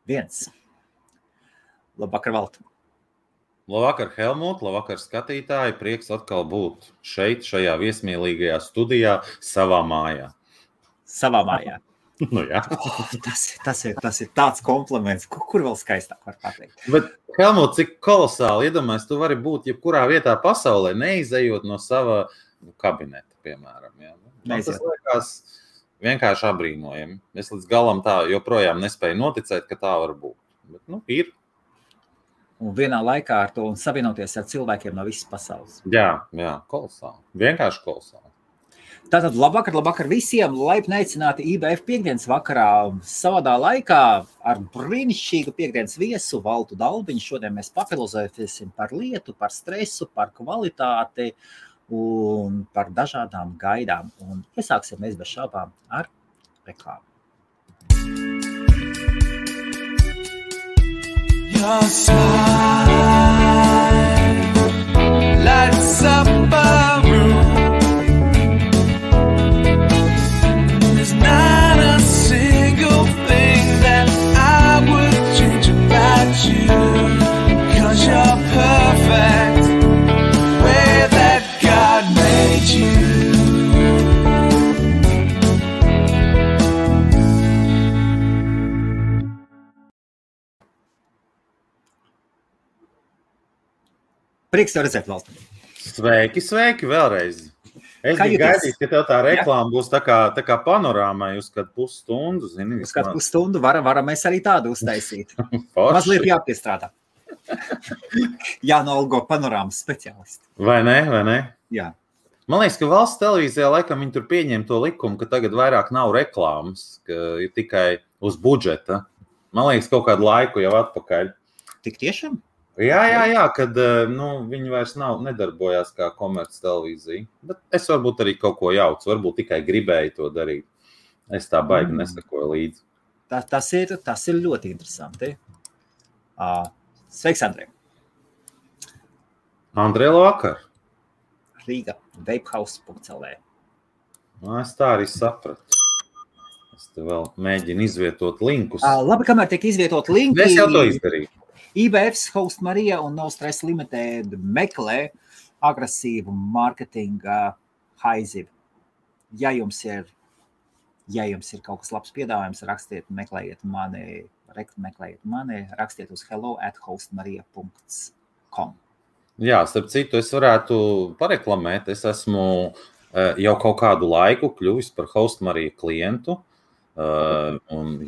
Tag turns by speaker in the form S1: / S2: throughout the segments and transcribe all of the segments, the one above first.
S1: 1. Labvakar, Valti.
S2: Labvakar, Helmut, labvakar, skatītāji. Prieks atkal būt šeit, šajā viesmīlīgajā studijā, savā mājā.
S1: Savā mājā.
S2: Nu, jā.
S1: Tas ir tāds kompliments, kur vēl skaistāk var pateikt.
S2: Bet, Helmut, cik kolosāli, iedomājies, tu vari būt jebkurā vietā pasaulē, neizejot no sava kabineta, piemēram. Jā. Man tas liekas vienkārši abrīnojami. Es līdz galam tā joprojām nespēju noticēt, ka tā var būt. Bet, ir.
S1: Un vienā laikā ar to un savienoties ar cilvēkiem no visas pasaules.
S2: Jā, kolosāli. Vienkārši kolosāli.
S1: Tātad labvakar visiem, laipni aicināti IBF piekdienas vakarā savadā laikā ar brīnišķīgu piekdienas viesu Valtu Dalbiņu. Šodien mēs papilozēsim par lietu, par stresu, par kvalitāti un par dažādām gaidām. Un iesāksim mēs bez šaubām ar reklāmu.
S3: Your smile lights up a room. There's not a single thing that I would change about you, 'cause you're perfect the way that God made you.
S1: Prieks tev redzēt, Valti.
S2: Sveiki vēlreiz. Es biju gaidījis, ka tev tā reklāma būs tā kā panorāmai uz kādu pusstundu, zini.
S1: Uz kādu pusstundu varam mēs arī tādu uztaisīt. Mazliet jāpiestrādā. Jānolgo panorāmas speciālisti.
S2: Vai ne?
S1: Jā.
S2: Man liekas, ka valsts televīzijā laikam viņi tur pieņem to likumu, ka tagad vairāk nav reklāmas, ka ir tikai uz budžeta. Man liekas, kaut kādu laiku jau atpakaļ.
S1: Tik tiešām?
S2: Jā, kad viņi vairs nedarbojās kā komerc televīzija. Bet es varbūt arī kaut ko jaucu, varbūt tikai gribēju to darīt. Es tā baigi nesakoju līdzi.
S1: Tas ir ļoti interesanti. Sveiks, Andrej.
S2: Andrej, labvakar.
S1: Rīga, vapehouse.lv.
S2: Es tā arī sapratu. Es te vēl mēģinu izvietot linkus.
S1: Labi, kamēr tiek izvietot linki.
S2: Es jau to izdarīju.
S1: IBF's Host Marija un No Stress Limited meklē agresīvu mārketinga haizivu. Ja jums ir kaut kas labs piedāvājums, meklējiet mani, rakstiet uz hello@hostmarija.com. Jā,
S2: starp citu, es varētu pareklamēt. Es esmu jau kaut kādu laiku kļuvis par Host Marija klientu. Jā. Un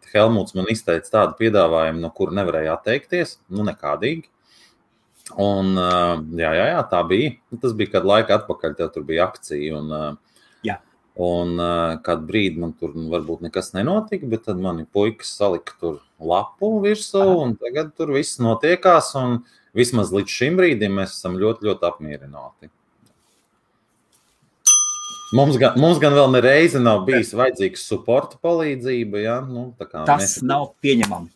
S2: Helmuts man izteica tādu piedāvājumu, no kura nevarēja atteikties, nekādīgi. Un jā, tā bija. Tas bija kādu laiku atpakaļ, tev tur bija akcija. Un kādu brīdi man tur varbūt nekas nenotika, bet tad mani puikas salika tur lapu virsū, un tagad tur viss notiekās, un vismaz līdz šim brīdim mēs esam ļoti, ļoti apmierināti. Mums gan vēl nereizi nav bijis vajadzīgs supporta palīdzība, ja?
S1: Tas nav pieņemami.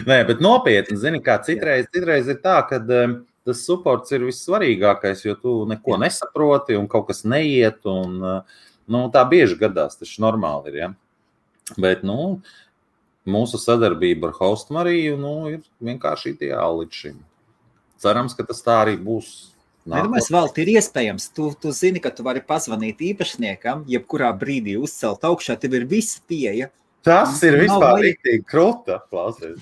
S2: Nē, bet nopietni, zini, kā citreiz ir tā, ka tas supports ir vissvarīgākais, jo tu neko nesaproti un kaut kas neiet, un tā bieži gadās, tas normāli ir, ja? Bet, mūsu sadarbība ar Host Mariju, ir vienkārši ideāli līdz šim. Cerams, ka tas tā arī būs.
S1: Nedomājies, Valti, ir iespējams. Tu zini, ka tu vari pazvanīt īpašniekam, jebkurā brīdī uzcelt augšā, tev ir visa pieeja.
S2: Tas ir vispār riktīgi kruta, klausies.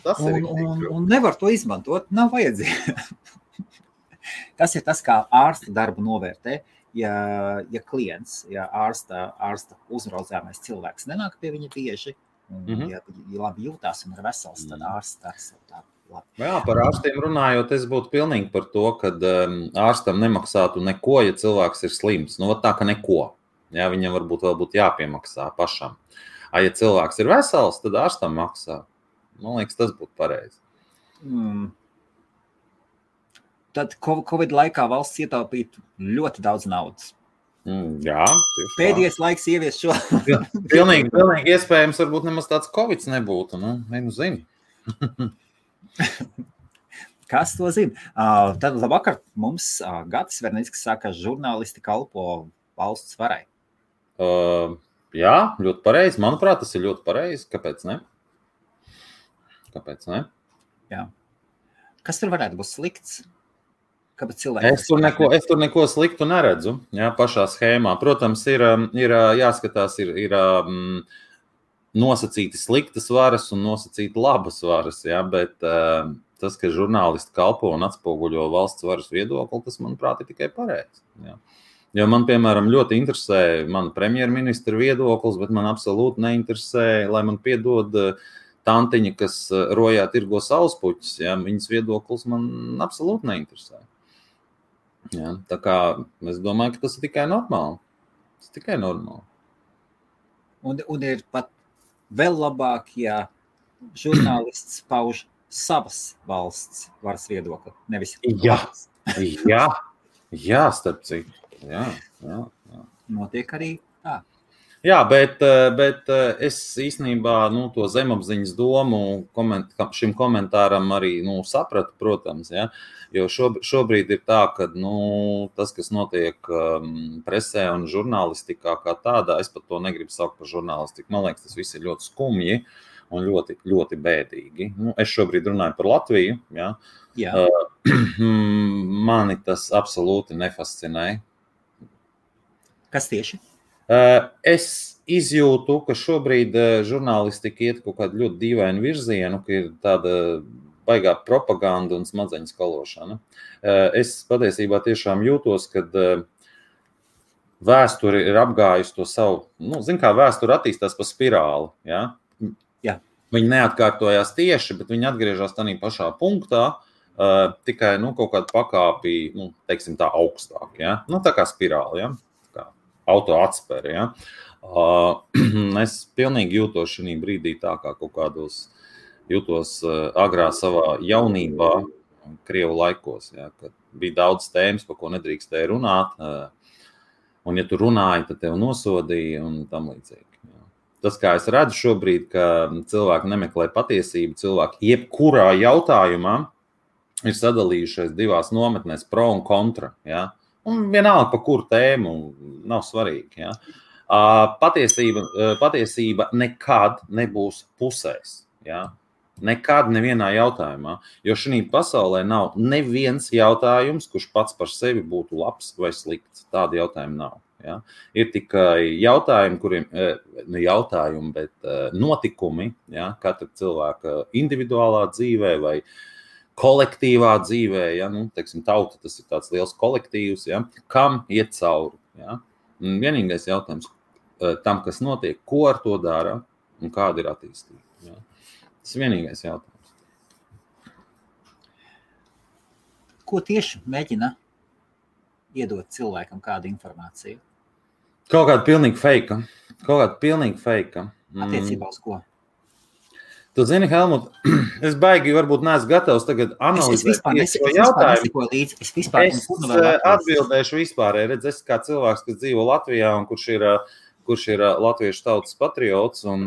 S1: Un nevar to izmantot, nav vajadzīgi. Tas ir tas, kā ārsta darbu novērtē. Ja klients, ārsta uzraudzāmais cilvēks nenāk pie viņa bieži, ja labi jūtās un ir vesels, tad ārsts dara savu darbu.
S2: Jā, par ārstiem runājot, es būtu pilnīgi par to, ka ārstam nemaksātu neko, ja cilvēks ir slims. Tā, ka neko. Jā, viņam varbūt vēl būtu jāpiemaksā pašam. Ja cilvēks ir vesels, tad ārstam maksā. Man liekas, tas būtu pareizi.
S1: Tad Covid laikā valsts ietaupītu ļoti daudz naudas.
S2: Jā,
S1: pēdējais laiks ievies šo.
S2: Pilnīgi iespējams, varbūt nemaz tāds Covid nebūtu. Zini.
S1: Kas to zina? Tad labvakar mums Gatis Vernickis saka, žurnālisti kalpo valsts varai.
S2: Jā, ļoti pareizi. Manuprāt, tas ir ļoti pareizi. Kāpēc ne?
S1: Jā. Kas tur varētu būt slikts? Kāpēc cilvēki?
S2: Es tur neko sliktu neredzu, jā, pašā schēmā. Protams, ir jāskatās, ir nosacīti sliktas varas un nosacīti labas varas, jā, bet tas, ka žurnālisti kalpo un atspoguļo valsts varas viedokli, tas, manuprāt, ir tikai pareizi. Jā. Jo man, piemēram, ļoti interesē mana premjerministra viedoklis, bet man absolūti neinteresē, lai man piedod tantiņa, kas rojā tirgo saulespuķus, jā, viņas viedoklis man absolūti neinteresē. Jā, tā kā es domāju, ka tas ir tikai normāli. Tas ir tikai normāli.
S1: Un ir pat vēl labāk, ja žurnālists pauž savas valsts varas viedokli, nevis valsts.
S2: Jā, starp citu. Jā.
S1: Notiek arī tā.
S2: Jā, bet es īstenībā to zemapziņas domu šim komentāram arī sapratu, protams, ja, jo šobrīd ir tā, ka tas, kas notiek presē un žurnālistikā kā tādā, es pat to negribu saukt par žurnālistiku. Man liekas, tas viss ir ļoti skumji un ļoti, ļoti bēdīgi. Es šobrīd runāju par Latviju. Ja.
S1: Jā.
S2: Mani tas absolūti nefascinē.
S1: Kas tieši?
S2: Es izjūtu, ka šobrīd žurnālistika iet kaut kādu ļoti dīvainu virzienu, ka ir tāda baigā propaganda un smadzeņu skalošana. Es patiesībā tiešām jūtos, kad vēsture ir apgājusi to savu, kā vēsture attīstās pa spirāli. Ja?
S1: Jā. Viņi
S2: neatkārtojās tieši, bet viņi atgriežas tādā pašā punktā, tikai kaut kādu pakāpi, teiksim tā, augstāk. Ja? Tā kā spirāli, ja? Auto atspēri, ja? Es pilnīgi jūtos šī brīdī tā, kā kaut kādos jūtos agrā savā jaunībā, Krievu laikos, ja? Kad bija daudz tēmas, par ko nedrīkstēja runāt, un ja tu runāji, tad tev nosodīja un tam līdzīgi. Ja? Tas, kā es redzu šobrīd, ka cilvēki nemeklē patiesību, cilvēki jebkurā jautājumā ir sadalījušies divās nometnēs, pro un kontra, ja? Un vienalga, par kuru tēmu, nav svarīgi. Ja? Patiesība nekad nebūs pusēs. Ja? Nekad nevienā jautājumā. Jo šī pasaulē nav neviens jautājums, kurš pats par sevi būtu labs vai slikts. Tāda jautājuma nav. Ja? Ir tikai jautājumi, bet notikumi, ja? Katra cilvēka individuālā dzīvē vai kolektīvā dzīvē, ja, teiksim, tauta, tas ir tāds liels kolektīvs, ja, kam iet cauri. Ja. Vienīgais jautājums tam, kas notiek, ko ar to dara un kāda ir attīstība. Ja. Tas ir vienīgais jautājums.
S1: Ko tieši mēģina iedot cilvēkam kādu informāciju?
S2: Kaut kāda pilnīgi feika.
S1: Attiecībā uz ko?
S2: Tu zini, Helmut, es baigi varbūt neesmu gatavs tagad analizēt šo jautājumu. Es atbildēšu vispārēji. Redz, es kā cilvēks, kas dzīvo Latvijā un kurš ir latviešu tautas patriots un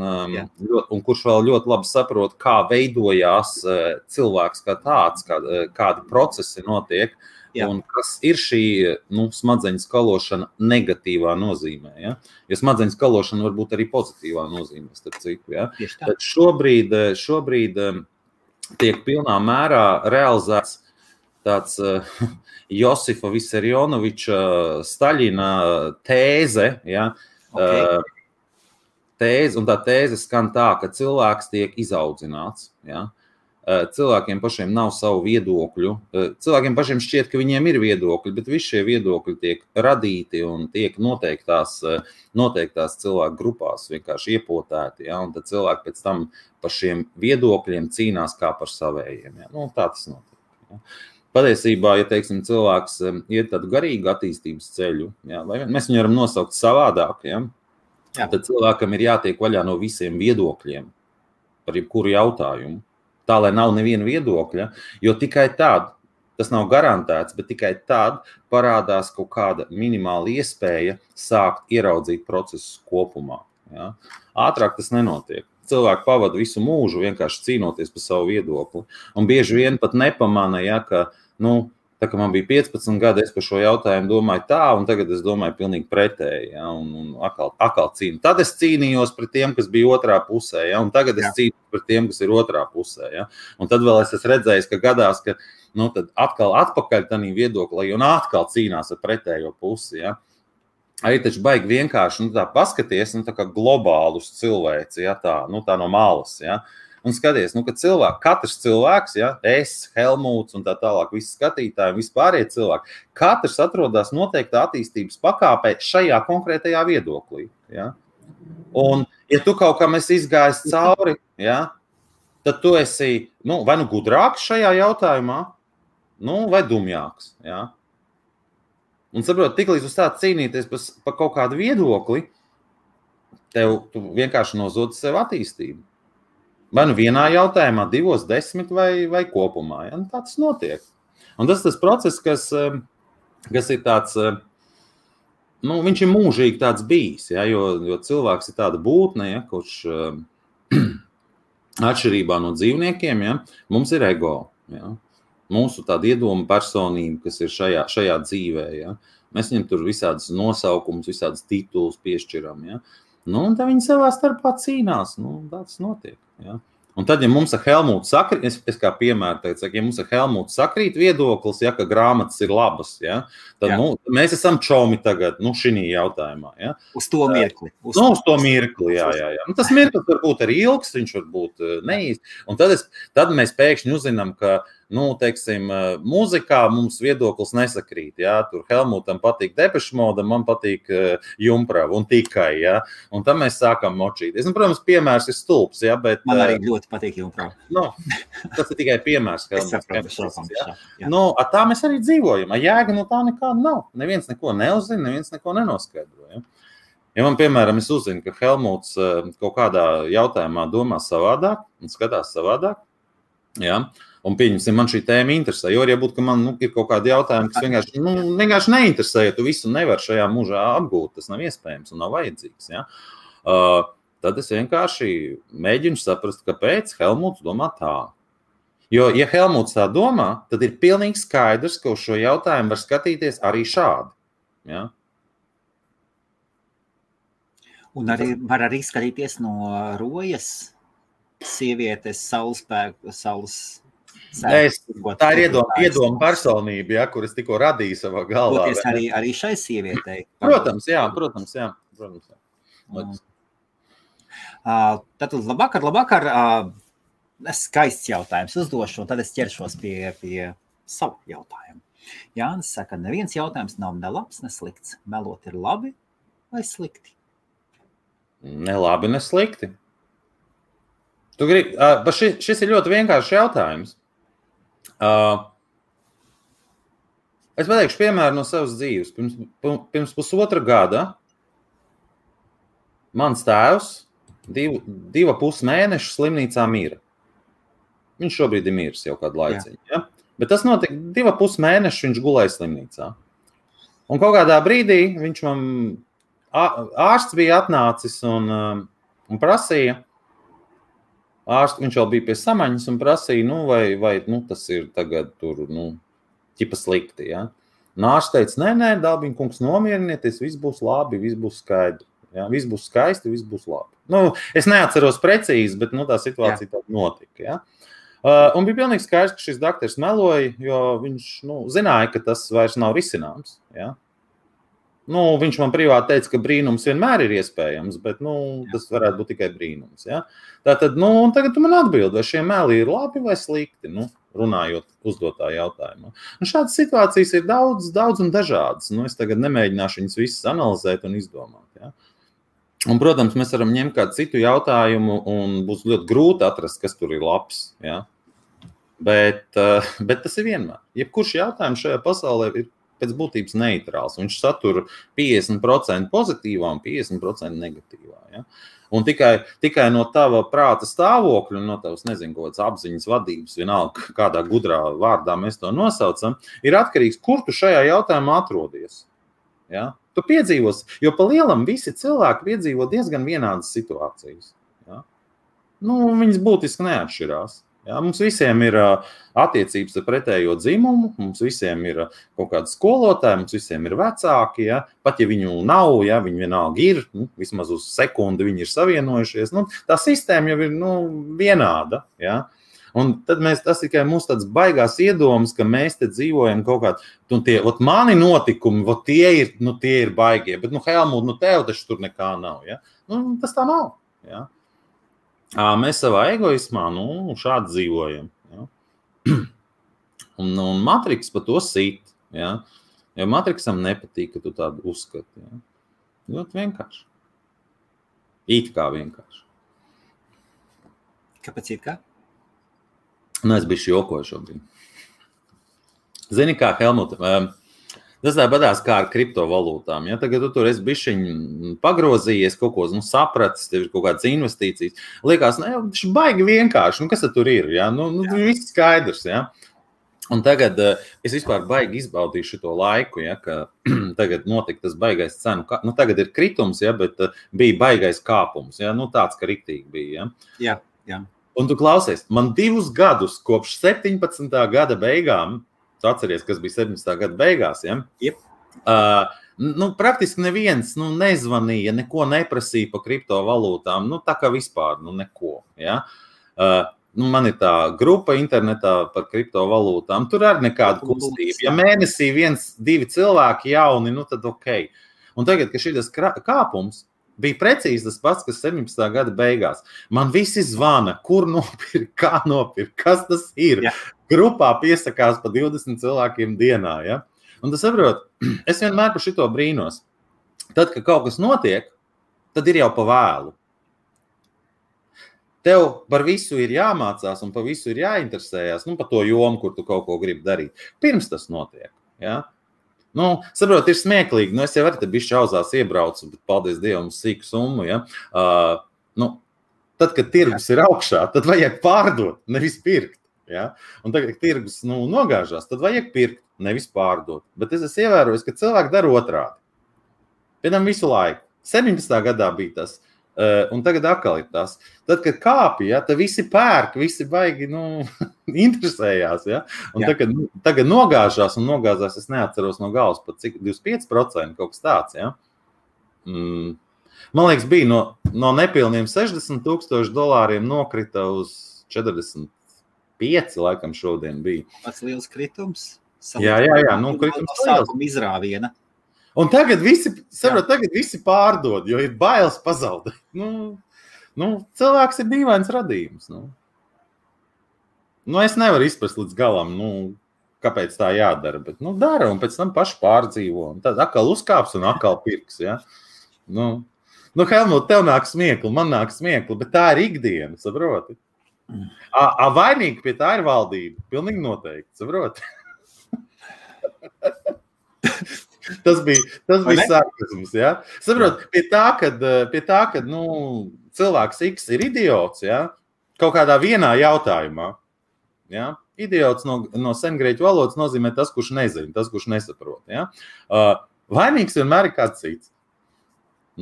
S2: kurš vēl ļoti labi saprot, kā veidojās cilvēks kā tāds, kādi procesi notiek. Jā. Un kas ir šī smadzeņu skalošana negatīvā nozīmē. Ja? Jo smadzeņu skalošana var būt arī pozitīvā nozīmē. Starp citu, ja? Tad šobrīd tiek pilnā mērā realizēts tāds Josifa Visarionoviča Staļina tēze. Ja? Okay. Tēze, un tā tēze skan tā, ka cilvēks tiek izaudzināts. Ja? Cilvēkiem pašiem nav savu viedokļu. Cilvēkiem pašiem šķiet, ka viņiem ir viedokļi, bet visi šie viedokļi tiek radīti un tiek noteiktās cilvēku grupās vienkārši iepotēti. Ja? Un tad cilvēki pēc tam par šiem viedokļiem cīnās kā par savējiem. Ja? Tā tas notiek. Ja? Patiesībā, ja teiksim, cilvēks iet tādu garīgu attīstības ceļu, ja? Vai mēs viņu varam nosaukt savādāk, ja? Tad cilvēkam ir jātiek vaļā no visiem viedokļiem par jebkuru jautājumu. Tā, lai nav neviena viedokļa, jo tikai tad, tas nav garantēts, bet tikai tad parādās kaut kāda minimāla iespēja sākt ieraudzīt procesus kopumā. Ja? Ātrāk tas nenotiek. Cilvēki pavada visu mūžu vienkārši cīnoties par savu viedokli. Un bieži vien pat nepamana, ja, ka Tā kā man bija 15 gadi, es par šo jautājumu domāju tā, un tagad es domāju pilnīgi pretēji, ja, un atkal cīnu. Tad es cīnījos pret tiem, kas bija otrā pusē, ja, un tagad es cīnījos pret tiem, kas ir otrā pusē, ja. Un tad vēl es esmu redzējis, ka gadās, ka, tad atkal atpakaļ tanī viedoklī, un atkal cīnās ar pretējo pusi, ja. Arī taču baigi vienkārši, tā paskaties, tā kā globālus cilvēci, ja, tā no malas, ja. Un skaties, ka katrs cilvēks, ja, es, Helmuts un tā tālāk, visi skatītāji, vispārējie cilvēki, katrs atrodas noteiktā attīstības pakāpē šajā konkrētajā viedoklī. Ja. Un, ja tu kaut kam esi izgājis cauri, ja, tad tu esi vai gudrāks šajā jautājumā, vai dumjāks. Ja. Un saprot, tiklīdz uz tā cīnīties par kaut kādu viedokli, tu vienkārši nozodi sev attīstību. Vai vienā jautājumā, 2, 10 vai kopumā. Ja? Tā tas notiek. Un tas process, kas ir tāds, viņš ir mūžīgi tāds bijis, ja? jo cilvēks ir tāda būtne, ja? Kurš atšķirībā no dzīvniekiem, ja? Mums ir ego. Ja? Mūsu tāda iedoma personība, kas ir šajā dzīvē. Ja? Mēs viņam tur visādas nosaukumus, visādas titulus piešķiram. Ja? Un tā viņi savā starpā cīnās. Tas notiek. Ja? Un tad, ja mums ar Helmutu sakrīt, es kā piemēru teicu, ja mums ar Helmutu sakrīt viedoklis, ja, ka grāmatas ir labas, ja, tad mēs esam čomi tagad, šinī jautājumā. Ja.
S1: Uz to mirkli.
S2: Uz to mirkli, jā. Tas mirklis var būt arī ilgs, viņš var būt neīsts. Un tad mēs pēkšņi uzzinām, ka teiksim, mūzikā mums viedoklis nesakrīt. Ja? Tur Helmutam patīk Depeche Mode, man patīk Jumprava un tikai. Ja? Un tad mēs sākam močīties. Protams, piemērs ir stulbs. Ja? Bet,
S1: man arī ļoti patīk Jumprava.
S2: Tas ir tikai piemērs. Tā mēs arī dzīvojam. Jēga no tā nekāda nav. Neviens neko neuzzina, neviens neko nenoskaidro. Ja? Ja man, piemēram, es uzzinu, ka Helmuts kaut kādā jautājumā domā savādāk un skatās savādāk, ja? Un pieņemsim, man šī tēma interesē, jo arī būtu, ka man ir kaut kādi jautājumi, kas vienkārši neinteresē, ja tu visu nevar šajā mūžā apgūt, tas nav iespējams un nav vajadzīgs. Ja? Tad es vienkārši mēģinu saprast, kāpēc Helmuts domā tā. Jo, ja Helmuts tā domā, tad ir pilnīgi skaidrs, ka uz šo jautājumu var skatīties arī šādi. Ja?
S1: Un var arī skatīties no rojas sievietes, saules
S2: Tā ir iedoma personība, ja, kuras tikko radīja savā galvā.
S1: Arī šai sievietei.
S2: Protams.
S1: Tātad labvakar. Skaists jautājums uzdošu, un tad es ķeršos pie savu jautājumu. Jānis saka, neviens jautājums nav ne labs, ne slikts. Melot ir labi vai slikti?
S2: Ne labi, ne slikti. Šis ir ļoti vienkāršs jautājums. Es pateikšu piemēru no savas dzīves. Pirms pusotra gada mans tēvs 2,5 mēnešu slimnīcā mira. Viņš šobrīd ir miris jau kādu laiciņu. Ja? Bet tas notika 2,5 mēnešu, viņš gulēja slimnīcā. Un kaut kādā brīdī ārsts bija atnācis un prasīja, viņš vēl bija pie samaņas un prasīja, vai tas ir tagad tur, ķipa slikti, ja? Un ārsts teica, nē, Dalbiņa kungs, nomierinieties, viss būs labi, viss būs skaidri, ja? Viss būs skaisti, viss būs labi. Es neatceros precīzi, bet tā situācija tāda notika, ja? Un bija pilnīgi skaidrs, ka šis daktars meloja, jo viņš, zināja, ka tas vairs nav risināms, ja? Viņš man privāti teica, ka brīnums vienmēr ir iespējams, bet tas varētu būt tikai brīnums. Ja? Tātad, un tagad tu man atbildi, vai šie meli ir labi vai slikti, runājot uzdotā jautājumā. Šādas situācijas ir daudz un dažādas. Es tagad nemēģināšu viņas visas analizēt un izdomāt. Ja? Un, protams, mēs varam ņemt kādu citu jautājumu un būs ļoti grūti atrast, kas tur ir labs. Ja? Bet tas ir vienmēr. Jebkurš jautājums šajā pasaulē ir pēc būtības neitrāls. Viņš satur 50% pozitīvā un 50% negatīvā. Ja? Un tikai no tava prāta stāvokļa, no tavas, kādas apziņas vadības, vienalga kādā gudrā vārdā mēs to nosaucam, ir atkarīgs, kur tu šajā jautājumā atrodies. Ja? Tu piedzīvos, jo pa lielam visi cilvēki piedzīvo diezgan vienādas situācijas. Ja? Viņas būtiski neatšķirās. Ja, mums visiem ir attiecības ar pretējo dzimumu, mums visiem ir kaut kādi skolotāji, mums visiem ir vecāki, ja? Pat ja viņu nav, ja? Viņi vienalga ir, vismaz uz sekundi viņi ir savienojušies. Tā sistēma jau ir vienāda. Ja? Un tad tas tikai mums tāds baigās iedomas, ka mēs te dzīvojam kaut kādā, mani notikumi, tie ir baigie, bet, Helmut, tev taču tur nekā nav. Ja? Tas tā nav. Ja? Mēs savā egoismā, šādi dzīvojam. Ja? Un Matriks par to sit. Ja? Jo Matriksam nepatīk, ka tu tādu uzskati. Ja? Ļoti vienkārši. It kā vienkārši.
S1: Kāpēc it kā?
S2: Es biju jokoju šobrīd. Zini kā, Helmut, tas tāpatās kā ar kriptovalūtām. Ja? Tagad tu tur esi bišķiņ pagrozījies, kaut ko sapratis, tev ir kaut kādas investīcijas. Liekas, tas ir baigi vienkārši. Kas tur ir? Ja? Viss skaidrs. Ja? Un tagad es vispār baigi izbaudīju šito laiku, ja? Ka tagad notika tas baigais cenu. Tagad ir kritums, ja? Bet bija baigais kāpums. Ja? Tāds, ka riktīgi bija. Ja?
S1: Jā.
S2: Un tu klausies, man 2 gadus kopš 17. gada beigām, tu atceries, kas bija 17. gada beigās, ja?
S1: Yep.
S2: Praktiski neviens nezvanīja, neko neprasīja par kriptovalūtām, tā kā vispār, neko, ja? Man ir tā grupa internetā par kriptovalūtām, tur arī nekāda kustība. Ja mēnesī 1-2 cilvēki jauni, tad ok. Un tagad, ka šitas kāpums bija precīzi tas pats, kas 17. gada beigās. Man visi zvana, kur nopirkt, kā nopirkt, kas tas ir.
S1: Ja.
S2: Grupā piesakās pa 20 cilvēkiem dienā. Ja? Un tu saprot, es vienmēr par šito brīnos. Tad, kad kaut kas notiek, tad ir jau pa vēlu. Tev par visu ir jāmācās un par visu ir jāinteresējās, par to jomu, kur tu kaut ko gribi darīt. Pirms tas notiek. Ja? Saprot, ir smieklīgi. Es jau arī te bišķi auzās iebraucu, bet paldies Dievam sīku summu. Ja? Tad, kad tirgus ir augšā, tad vajag pārdot, nevis pirkt. Ja? Un tagad, kad tirgus nogāžās, tad vajag pirkt, nevis pārdot. Bet es esmu ievērojis, ka cilvēki dara otrādi. Piemēram, visu laiku. 17. gadā bija tas. Un tagad atkal ir tas. Tad, kad kāpja, tad visi pērk, visi baigi interesējās. Ja? Un tagad nogāžās, es neatceros no galvas pat cik 25% kaut kas tāds. Ja? Man liekas, bija no nepilniem $60,000 nokrita uz 45, laikam šodien bija.
S1: Pats liels kritums.
S2: Jā, kritums
S1: sākuma izrāviena.
S2: Un tagad visi pārdod, jo ir bailes pazaudēt. Cilvēks ir dīvains radījums. Es nevaru izprast līdz galam, kāpēc tā jādara, bet dara un pēc tam paši pārdzīvo. Un tad atkal uzkāps un atkal pirks. Ja? Helmut, tev nāk smiekli, man nāk smiekli, bet tā ir ikdiena, saproti? Vainīgi pie tā ir valdība, pilnīgi noteikti, saproti? Tas bija sarkasms, ja? Saprot, pie tā, kad cilvēks X ir idiots, ja? Kaut kādā vienā jautājumā, ja? Idiots no sengrieķu valodas nozīmē tas, kurš nezina, tas, kurš nesaprot, ja? Vainīgs vienmēr ir kāds cits.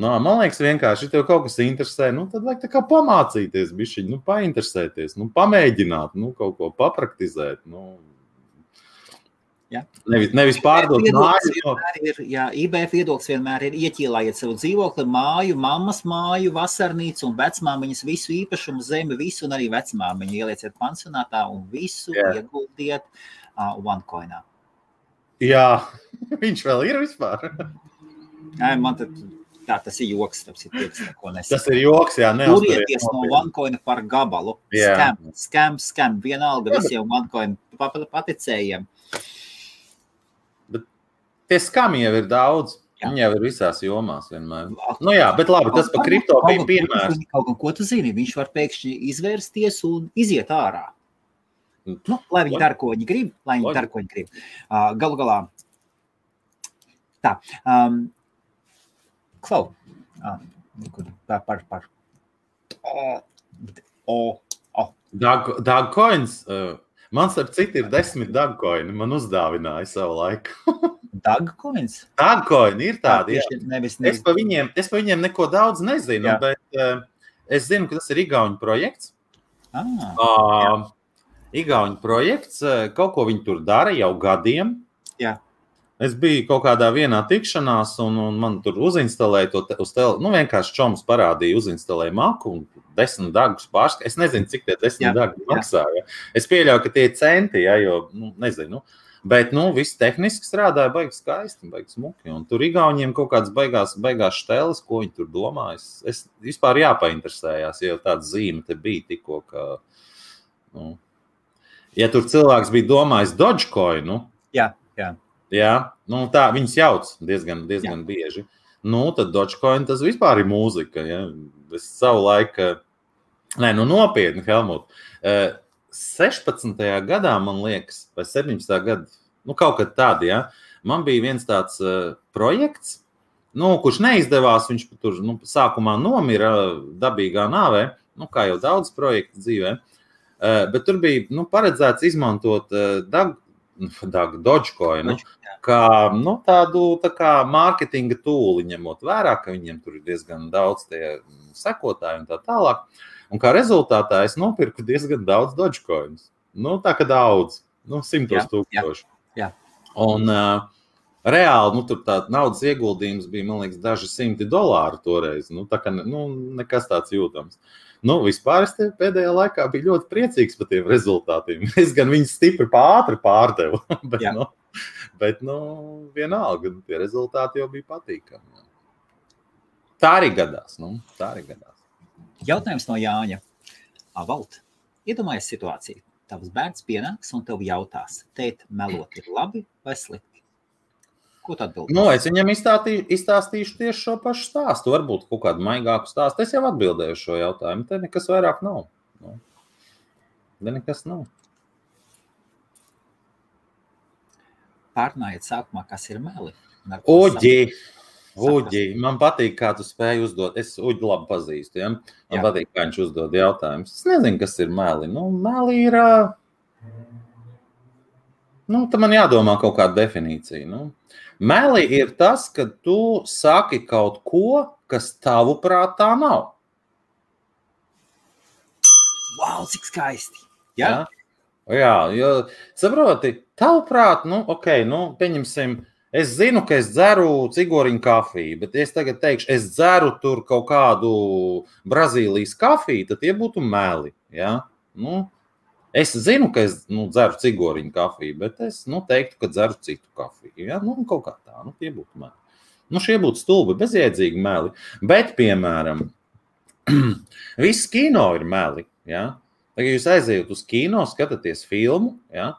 S2: Man liekas vienkārši, ja tev kaut kas interesē, tad vajag tā kā pamācīties bišķiņ, painteresēties, pamēģināt, kaut ko papraktizēt,
S1: Ja.
S2: Nevis pārdot māju.
S1: IBF viedoklis vienmēr ir ieķīlājiet savu dzīvokli, māju, mammas māju, vasarnīcu un vecmāmiņas visu īpašumu, zemi, visu un arī vecmāmiņu ielieciet pansionātā un visu ieguldiet OneCoinā. Jā,
S2: viņš vēl ir vispār.
S1: Man tas ir joks, tas
S2: ir joks, jā.
S1: Turieties no OneCoina par gabalu. Scam, vienalga visiem OneCoin paticējiem.
S2: Tie skami jau ir daudz. Viņi jau ir visās jomās vienmēr. Bet labi, tas par kripto bija piemērs.
S1: Ko tu zini? Viņš var pēkšņi izvērsties un iziet ārā. Lai viņi dara, ko viņi grib. Galu galā. Tā. Klau.
S2: Dogcoins. Man starp citu ir 10 dogcoini. Man uzdāvināja savu laiku.
S1: Dogcoins?
S2: Dogcoini ir tādi, jā. Es pa viņiem neko daudz nezinu, bet es zinu, ka tas ir igauņu projekts. Igauņu projekts, kaut ko viņi tur dara jau gadiem.
S1: Jā.
S2: Es biju kaut kādā vienā tikšanās, un man tur uzinstalēja to uz vienkārši čoms parādīja, uzinstalēja maku un 10 dagus pārskatu. Es nezinu, cik tie 10 dagi maksā. Ja? Es pieļauju, ka tie ir centi, ja, jo, nezinu. Bet, viss tehniski strādāja baigi skaisti, baigi smuki. Un tur Igauņiem kaut kādas baigās šteles, ko viņi tur domā. Es vispār jāpainteresējās, ja tāda zīme te bija tikko, ka, ja tur cilvēks bija domājis Dogecoin,
S1: Jā.
S2: Jā, tā viņas jauc diezgan bieži. Tad Dogecoin tas vispār ir mūzika. Ja? Es savu laiku, nopietni, Helmut. 16. gadā, man liekas, vai 17. gadā, kaut kad tādi, ja? Man bija viens tāds projekts, kurš neizdevās, viņš tur sākumā nomira dabīgā nāvē, kā jau daudz projektu dzīvē, bet tur bija paredzēts izmantot Dogecoin, kā tādu mārketinga tūli, ņemot vērā, ka viņiem tur ir diezgan daudz tie sekotāji un tā tālāk. Un kā rezultātā es nopirku diezgan daudz Dogecoinus. Tā kā daudz, 100,000.
S1: Jā.
S2: Un reāli, tur tā naudas ieguldījums bija, man liekas, daži $100 toreiz. Tā kā nekas tāds jūtams. Vispār es pēdējā laikā biju ļoti priecīgs par tiem rezultātiem. Es gan viņus stipri ātri pārdevu, bet vienalga, tie rezultāti jau bija patīkami. Tā arī gadās.
S1: Jautājums no Jāņa. Valt, iedomājies situāciju. Tavs bērns pienāks un tev jautās, tēt, melot ir labi vai slikti? Ko tu atbildi?
S2: Es viņam izstāstīšu tieši šo pašu stāstu, varbūt kaut kādu maigāku stāstu. Es jau atbildēju šo jautājumu, te nekas vairāk nav. Nekas nav.
S1: Pārnājiet sākumā, kas ir meli.
S2: Uģi, man patīk, kā tu spēji uzdot. Es Uģi labi pazīstu, ja? Man patīk, kā viņš uzdod jautājumus. Es nezinu, kas ir meli. Meli ir... Tad man jādomā kaut kāda definīcija. Meli ir tas, ka tu saki kaut ko, kas tavuprāt tā nav.
S1: Wow, cik skaisti! Jā,
S2: jo saproti, tavuprāt, pieņemsim, es zinu, ka es dzeru cigoriņu kafiju, bet es tagad teikšu, es dzeru tur kaut kādu Brazīlijas kafiju, tad tie būtu meli, ja? Es zinu, ka es dzeru cigoriņu kafiju, bet es teiktu, ka dzeru citu kafiju. Ja? Kaut kā tā, tie būtu meli. Šie būtu stulbi, bezjēdzīgi meli. Bet, piemēram, viss kino ir meli. Ja? Tagad jūs aizejat uz kino, skatāties filmu. Ja?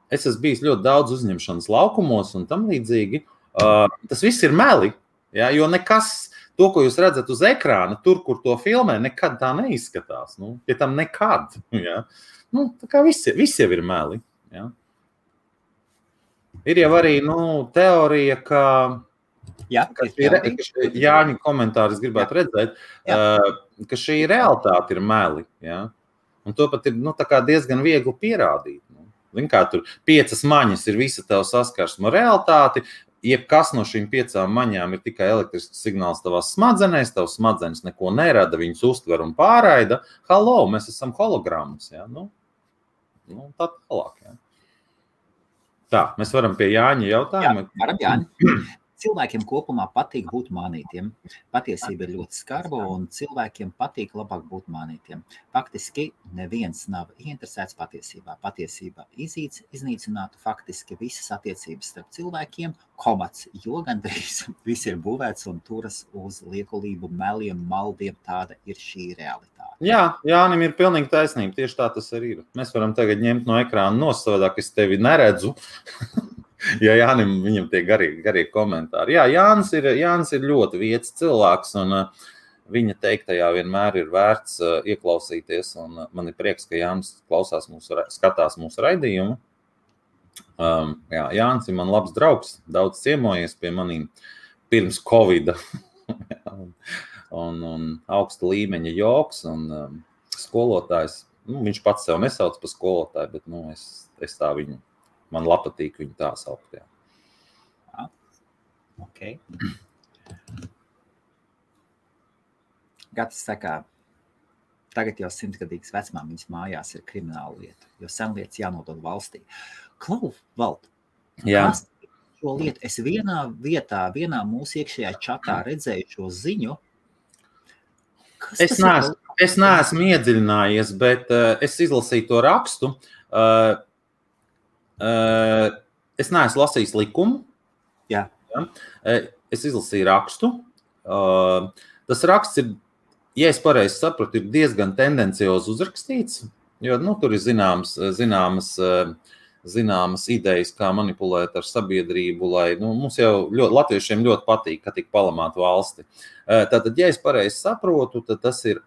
S2: Es esmu bijis ļoti daudz uzņemšanas laukumos un tam līdzīgi. Tas viss ir meli, ja? Jo nekas... To, ko jūs redzat uz ekrāna, tur, kur to filmē, nekad tā neizskatās. Ja tam nekad. Ja? Tā kā visi jau ir meli. Ja? Ir jau arī teorija, ka Jāņa komentāri es gribētu redzēt, ka šī realitāte ir meli. Ja? Un to pat ir tā kā diezgan viegli pierādīt. Kā tur 5 maņas ir visa tev saskarsma realitāti, jebkas no šīm 5 maņām ir tikai elektrisks signāls tavās smadzenēs, tavs smadzenes neko nerada, viņas uztver un pārraida. Halo, mēs esam hologrammas. Ja? Tā tālāk. Ja? Tā, mēs varam pie Jāņa jautājuma.
S1: Jā, varam, Jāņa. Cilvēkiem kopumā patīk būt mānītiem. Patiesība ir ļoti skarba un cilvēkiem patīk labāk būt mānītiem. Faktiski neviens nav ieinteresēts patiesībā. Patiesība iznīcinātu faktiski visas attiecības starp cilvēkiem, jo gandrīz viss ir būvēts un turas uz liekulību, meliem, maldiem. Tāda ir šī realitāte.
S2: Jā, Jānim ir pilnīgi taisnība. Tieši tā tas arī ir. Mēs varam tagad ņemt no ekrāna nosavādāk, es tevi neredzu. Ja Jānim, viņam tie garie komentāri. Jā, Jānis ir ļoti vietas cilvēks, un viņa teiktajā vienmēr ir vērts ieklausīties, un man ir prieks, ka Jānis skatās mūsu raidījumu. Jānis ir man labs draugs, daudz ciemojies pie manīm pirms Covida, un augsta līmeņa joks, un skolotājs, viņš pats sev nesauc par skolotāju, bet es tā viņu. Man patīk viņu tā saukt. Jā.
S1: Okay. Gatis saka, Tagad jau 100-gadīgas vecmāmiņas mājās ir krimināla lieta, jo senlietas jānodod valstī. Klau, Vald, kas šo lietu? Es vienā mūsu iekšējā čatā redzēju šo ziņu.
S2: Es neesmu iedziļinājies, bet es izlasīju to rakstu. Es neesmu lasījis likumu.
S1: Jā.
S2: Es izlasīju rakstu. Tas raksts ir, ja es pareizi sapratu, ir diezgan tendenciozi uzrakstīts, jo tur ir zināmas idejas, kā manipulēt ar sabiedrību, lai mums jau latviešiem ļoti patīk, ka tik palamāt valsti. Tātad, ja es pareizi saprotu, tad tas ir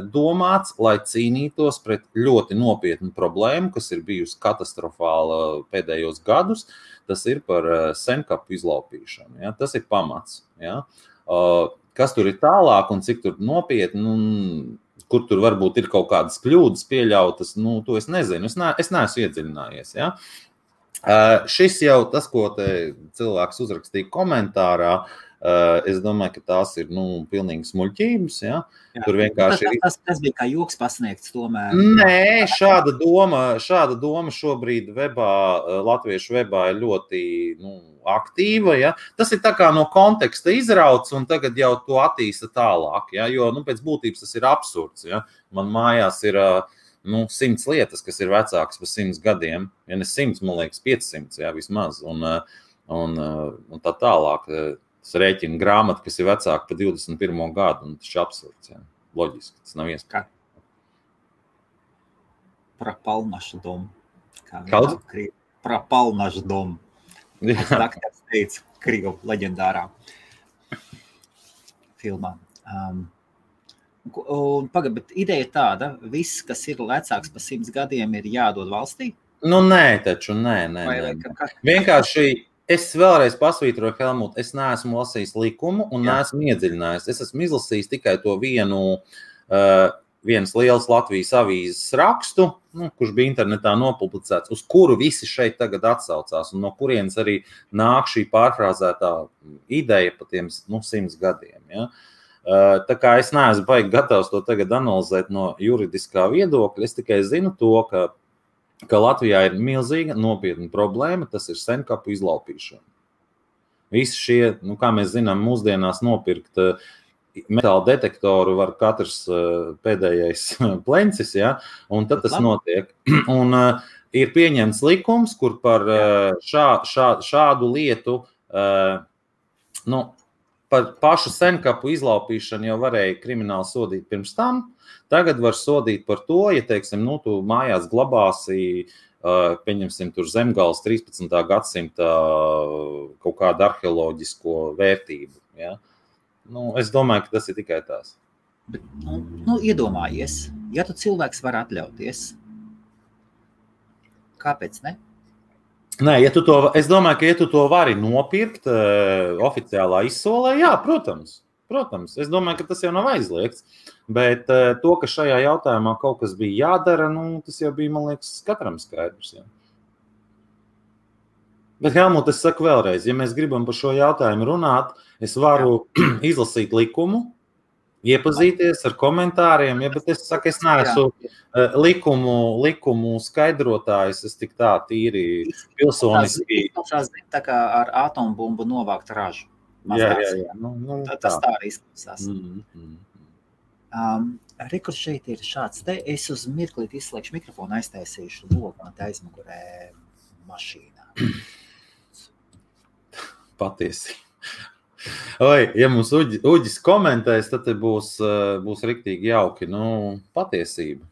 S2: domāts, lai cīnītos pret ļoti nopietnu problēmu, kas ir bijusi katastrofāla pēdējos gadus. Tas ir par senkapu izlaupīšanu. Ja? Tas ir pamats. Ja? Kas tur ir tālāk un cik tur nopietni, kur tur varbūt ir kaut kādas kļūdas pieļautas, to es nezinu. Es neesmu iedziļinājies. Ja? Šis jau tas, ko te cilvēks uzrakstīja komentārā, es domāju, ka tās ir pilnīgi smuļķības. Ja? Tur vienkārši
S1: tas bija kā joks pasniegts tomēr.
S2: Nē, šāda doma šobrīd latviešu webā ir ļoti aktīva. Ja? Tas ir tā kā no konteksta izrauts un tagad jau to attīsta tālāk. Ja? Jo pēc būtības tas ir absurds. Ja? Man mājās ir 100 lietas, kas ir vecākas par 100 gadiem. Ja ne 100, man liekas 500 ja, vismaz. Un tā tālāk. Tas rēķina grāmata, kas ir vecāka par 21. gadu, un tas ir absurds. Ja. Loģiski, tas nav iespējams.
S1: Пропал-наш дом.
S2: Kāds?
S1: Пропал-наш дом. Daktars teica Krievu leģendārā filmā. Bet ideja tāda, viss, kas ir vecāks par 100 gadiem, ir jādod valstī?
S2: Nē, taču, nē. Vienkārši es vēlreiz pasvītroju, Helmut, es neesmu lasījis likumu un neesmu iedziļinājies. Es esmu izlasījis tikai to vienas lielas Latvijas avīzes rakstu, kurš bija internetā nopublicēts, uz kuru visi šeit tagad atsaucās, un no kurienes arī nāk šī pārfrāzētā ideja par tiem 100 gadiem. Ja? Tā kā es neesmu baigi gatavs to tagad analizēt no juridiskā viedokļa, es tikai zinu to, ka Latvijā ir milzīga nopietna problēma, tas ir senkapu izlaupīšana. Visi šie, kā mēs zinām, mūsdienās nopirkt metāla detektoru var katrs pēdējais plencis, ja? Un tad tas notiek. Un ir pieņemts likums, kur par šādu lietu, par pašu senkapu izlaupīšanu jau varēja krimināli sodīt pirms tam. Tagad var sodīt par to, ja, teiksim, tu mājās glabāsi, pieņemsim, tur Zemgales 13. gadsimta kaut kādu arheoloģisko vērtību. Ja? Es domāju, ka tas ir tikai tās.
S1: Bet, iedomājies, ja tu cilvēks var atļauties, kāpēc ne?
S2: Nē, es domāju, ka ja tu to vari nopirkt oficiālā izsolē, jā, protams. Es domāju, ka tas jau nav aizliegts, bet to, ka šajā jautājumā kaut kas bija jādara, tas jau bija, man liekas, katram skaidrs. Ja. Bet, Helmut, es saku vēlreiz, ja mēs gribam par šo jautājumu runāt, es varu izlasīt likumu, iepazīties ar komentāriem, bet es saku, es neesmu likumu skaidrotājs, es tik tā tīri pilsoniski.
S1: Tā kā ar atombumbu novākt ražu.
S2: Jā.
S1: Tas tā arī izklausās. Rekurs šeit ir šāds. Te es uz mirklīt izslēgšu mikrofonu, aiztaisīšu logu man te aizmugurē mašīnā.
S2: Patiesi. Ja mums Uģis komentēs, tad būs riktīgi jauki. Patiesība.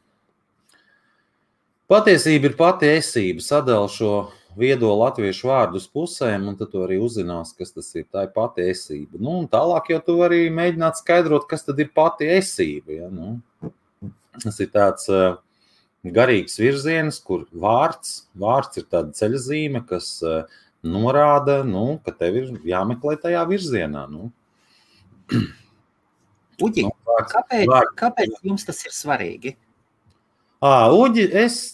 S2: Patiesība ir pati esība. Sadala šo viedo latviešu vārdu uz pusēm, un tad tu arī uzzinās, kas tas ir. Tā ir pati esība. Un tālāk jau tu vari mēģināt skaidrot, kas tad ir pati esība. Ja? Tas ir tāds garīgs virziens, kur vārds ir tāda ceļazīme, kas norāda, ka tev ir jāmeklē tajā virzienā.
S1: Uģi, kāpēc jums tas ir svarīgi?
S2: Uģis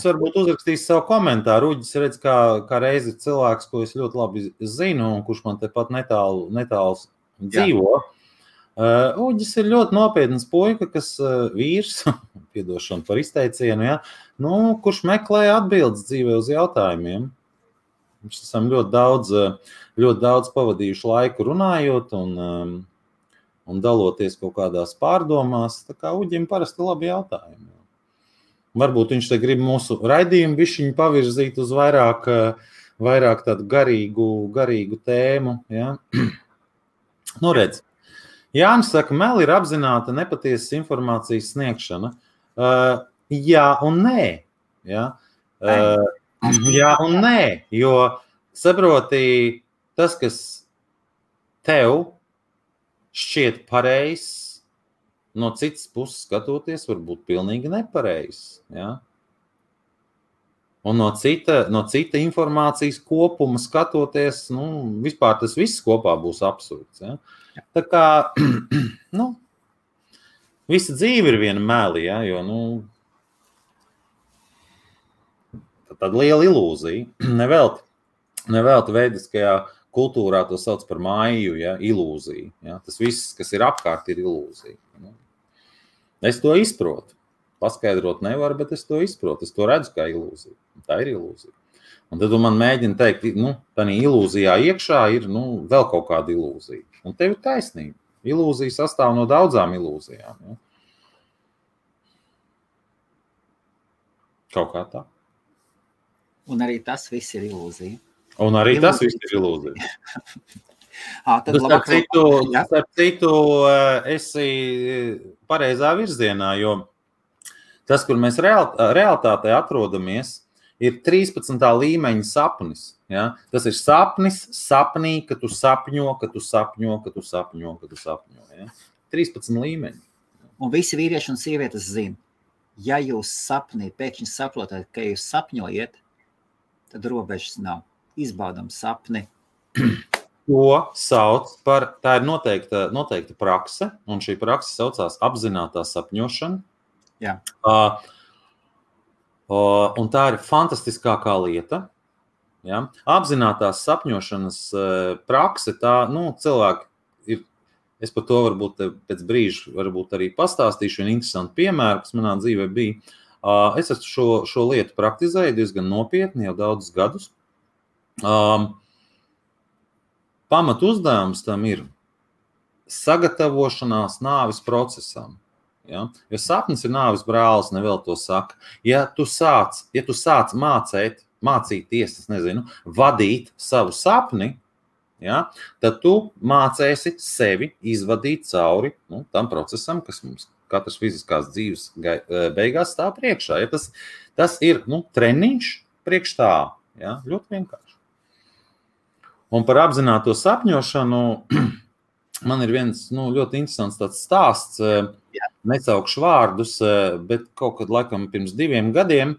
S2: varbūt uzrakstīs savu komentāru. Uģis redz, kā reizi cilvēks, ko es ļoti labi zinu, un kurš man tepat netālu dzīvo. Uģis ir ļoti nopietns puika, kas vīrs, piedošana par izteicienu, ja, kurš meklē atbildes dzīvē uz jautājumiem. Mēs esam ļoti daudz pavadījuši laiku runājot un daloties kaut kādās pārdomās. Tā kā Uģim parasti labi jautājumi. Varbūt viņš te grib mūsu raidījumu bišķiņu pavirzīt uz vairāk tādu garīgu tēmu. Ja? Redz. Jānis saka, meli ir apzināta nepatiesas informācijas sniegšana. Jā un nē. Ja? Jā un nē, jo saproti, tas, kas tev šķiet pareizs, no citas puses skatoties, var būt pilnīgi nepareizs. Ja? Un no cita informācijas kopuma skatoties, vispār tas viss kopā būs absurds. Ja? Tā kā, visa dzīve ir viena meli, ja? Jo, tāda liela ilūzija. Nevelti veidiskajā kultūrā to sauc par māju, ja? Ilūzija. Ja? Tas viss, kas ir apkārt, ir ilūzija. Es to izprotu. Paskaidrot nevaru, bet es to izprotu. Es to redzu kā ilūziju. Tā ir ilūzija. Un tad man mēģina teikt, tā ilūzijā iekšā ir vēl kaut kāda ilūzija. Un tev ir taisnība. Ilūzija sastāv no daudzām ilūzijām. Ja? Kaut kā tā.
S1: Un arī tas viss ir ilūzija.
S2: Tas viss ir ilūzija. Starp citu, esi pareizā virzienā, jo tas, kur mēs realitātē atrodamies, ir 13. līmeņa sapnis. Ja? Tas ir sapnī, ka tu sapņo. Ja? 13 līmeņi.
S1: Un visi vīrieši un sievietes zina, ja jūs sapnī pēkšņi saprotat, ka jūs sapņojat, tad robežas nav. Izbaudam sapni.
S2: To sauc par, tā ir noteikta prakse, un šī prakse saucās apzinātā sapņošana.
S1: Jā.
S2: Un tā ir fantastiskākā lieta. Ja? Apzinātās sapņošanas prakse, tā, cilvēki ir, es par to varbūt pēc brīža varbūt arī pastāstīšu vienu interesantu piemēru, kas manā dzīvē bija. Es esmu šo lietu praktizēju diezgan nopietni jau daudzus gadus. Pamat uzdevums tam ir sagatavošanās nāves procesam. Ja? Jo sapnis ir nāves brālis, nevēl to saka. Ja tu sāc mācīties, vadīt savu sapni, ja? Tad tu mācēsi sevi izvadīt cauri tam procesam, kas mums katras fiziskās dzīves beigās stāv priekšā. Ja? Tas ir treniņš priekš tā. Ja? Ļoti vienkārši. Un par apzināto sapņošanu man ir viens ļoti interesants tāds stāsts. Nesaukšu vārdus, bet kaut kad laikam pirms 2 gadiem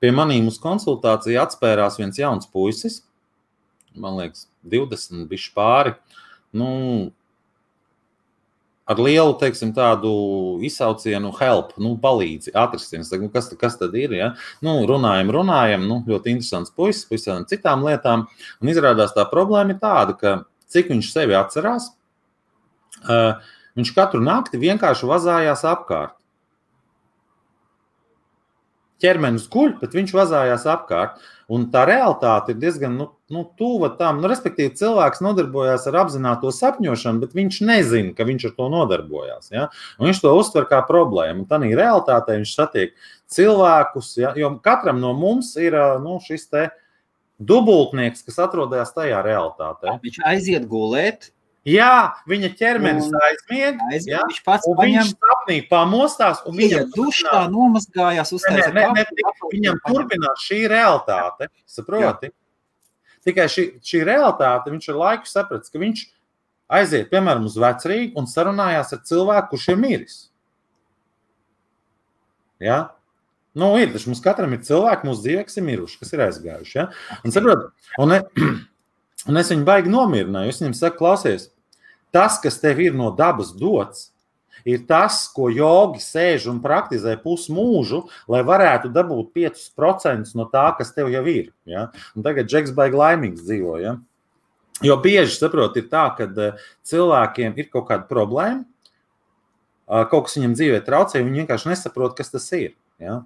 S2: pie manīm uz konsultāciju atspērās viens jauns puisis. Man liekas, 20 bišķi pāri. Ar lielu, tādu izsaucienu help, palīdzi, atrasties. Kas tad ir, ja? Runājam, ļoti interesants puisis, visām citām lietām. Un izrādās tā problēma ir tāda, ka cik viņš sevi atcerās, viņš katru nakti vienkārši vazājās apkārt. Ķermenis guļ, bet viņš vazājās apkārt. Un tā realitāte ir diezgan tuva tam. Respektīvi, cilvēks nodarbojās ar apzināto sapņošanu, bet viņš nezina, ka viņš ar to nodarbojās. Ja? Un viņš to uztver kā problēmu. Un tādā realitātē viņš satiek cilvēkus, ja? Jo katram no mums ir šis te dubultnieks, kas atrodas tajā realitātē.
S1: Viņš aiziet gulēt.
S2: Jā, viņa ķermenis aizmieg, ja? Un viņš sapnī pamostās, un viņam
S1: dušā nomazgājās,
S2: viņam turpinās šī realitāte, saproti? Jā. Tikai šī realitāte, viņš ar laiku saprats, ka viņš aiziet, piemēram, uz vecrīgu un sarunājās ar cilvēku, kurš ir miris. Ja? Ir, taču mums katram ir cilvēki, mūsu dzīvē, kas ir miruši, kas ir aizgājuši. Ja? Un saproti, un es viņu baigi nomierināju, es viņam saku, klausies, tas, kas tev ir no dabas dots, ir tas, ko jogi sēž un praktizē pusmūžu, lai varētu dabūt 5% no tā, kas tev jau ir. Ja? Un tagad Džeks baigi laimīgs dzīvo. Ja? Jo bieži, saprot, ir tā, ka cilvēkiem ir kaut kāda problēma, kaut kas viņam dzīvē traucē, viņi vienkārši nesaprot, kas tas ir. Ja?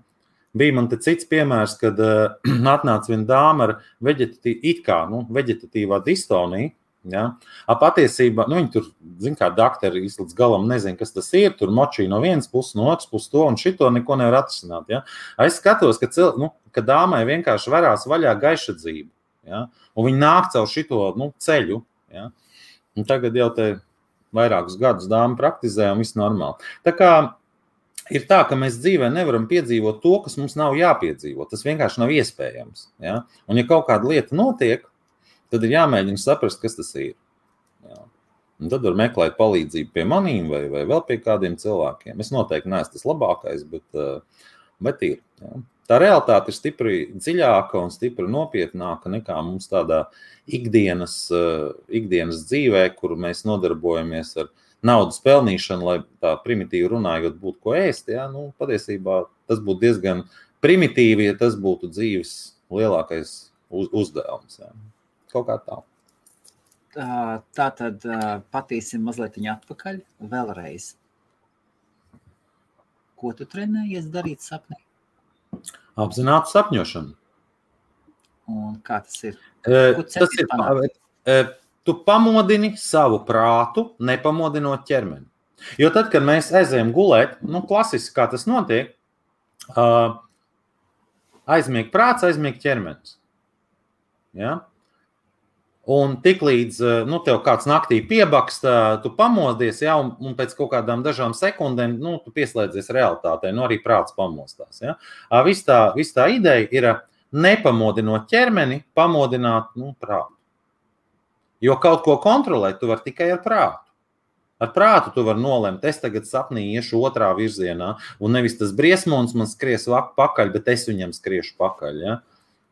S2: Bija man te cits piemērs, kad atnāca viena dāma ar veģetatīvā distoniju. Ja? Patiesībā, viņi tur, zin kā daktari līdz galam nezin, kas tas ir, tur močī no vienas puses, no otras puses to un šito neko nevar atrisināt. Ja? Es skatos, ka dāmai vienkārši varās vaļā gaiša dzīve. Ja? Un viņi nāk caur šito ceļu. Ja? Un tagad jau te vairākus gadus dāma praktizē un viss normāli. Tā kā ir tā, ka mēs dzīvē nevaram piedzīvot to, kas mums nav jāpiedzīvot. Tas vienkārši nav iespējams. Ja? Un ja kaut kāda lieta notiek, tad ir jāmēģina saprast, kas tas ir. Ja? Un tad var meklēt palīdzību pie manīm vai vēl pie kādiem cilvēkiem. Es noteikti neesmu tas labākais, bet ir. Ja? Tā realitāte ir stipri dziļāka un stipri nopietnāka nekā mums tādā ikdienas dzīvē, kur mēs nodarbojamies ar naudas pelnīšanu, lai tā primitīvi runājot būtu ko ēst. Ja? Patiesībā tas būtu diezgan primitīvi, ja tas būtu dzīves lielākais uzdevums. Ja? Kaut kā tā.
S1: Tā tad patīsim mazliet atpakaļ vēlreiz. Ko tu trenējies darīt sapnī?
S2: Apzinātu sapņošanu.
S1: Un kā tas ir?
S2: Tas ir, tu pamodini savu prātu, nepamodinot ķermeni. Jo tad, kad mēs aizējam gulēt, klasiski kā tas notiek, aizmieg prāts, aizmieg ķermenis. Ja? Un tiklīdz tev kāds naktī piebaksta, tu pamodies, ja, un pēc kaut kādām dažām sekundēm tu pieslēdzies realitātei, arī prāts pamostās. Ja. Viss tā ideja ir nepamodinot ķermeni, pamodināt prātu. Jo kaut ko kontrolēt tu vari tikai ar prātu. Ar prātu tu vari nolemt, es tagad sapnī iešu otrā virzienā, un nevis tas briesmons man skries pakaļ, bet es viņam skriešu pakaļ. Ja.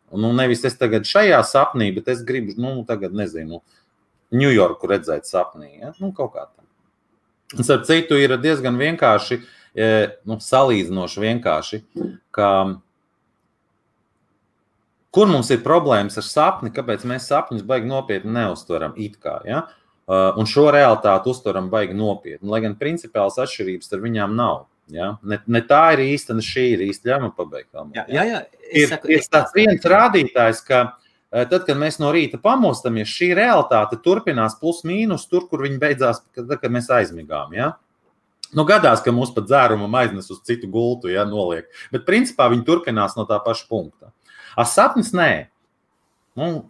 S2: Nevis es tagad šajā sapnī, bet es gribu, tagad nezinu, Ņujorku redzēt sapnī. Ja? Kaut kā tā. Un starp citu ir diezgan vienkārši, salīdzinoši vienkārši, ka kur mums ir problēmas ar sapni, kāpēc mēs sapņus baigi nopietni neuztveram it kā, ja? Un šo realitāti uztveram baigi nopietni, lai gan principiāls atšķirības ar viņām nav. Ja? Ne tā ir īsta, ne šī ir īsta. Ļauj man pabeigt.
S1: Jā.
S2: Ir tāds viens rādītājs, ka tad, kad mēs no rīta pamostamies, šī realitāte turpinās plus mīnus tur, kur viņi beidzās, kad mēs aizmigām. Ja? Gadās, ka mūs pat dzērumam aiznes uz citu gultu, ja, noliek. Bet principā viņi turpinās no tā paša punkta. Sapnis nē.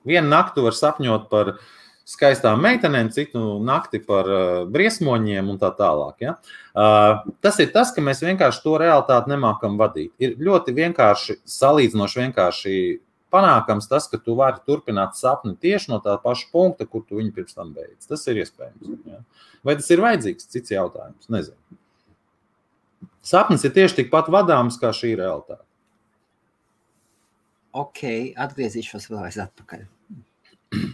S2: Vienu naktu var sapņot par skaistām meitenēm, citu nakti par briesmoņiem un tā tālāk. Ja? Tas ir tas, ka mēs vienkārši to realitāti nemākam vadīt. Ir ļoti vienkārši, salīdzinoši vienkārši panākams tas, ka tu vari turpināt sapni tieši no tā paša punkta, kur tu viņu pirms tam beidz. Tas ir iespējams. Ja? Vai tas ir vajadzīgs? Cits jautājums. Nezinu. Sapnis ir tieši tikpat vadāms kā šī realitāte.
S1: Ok, atgriezīšos vēlreiz atpakaļ.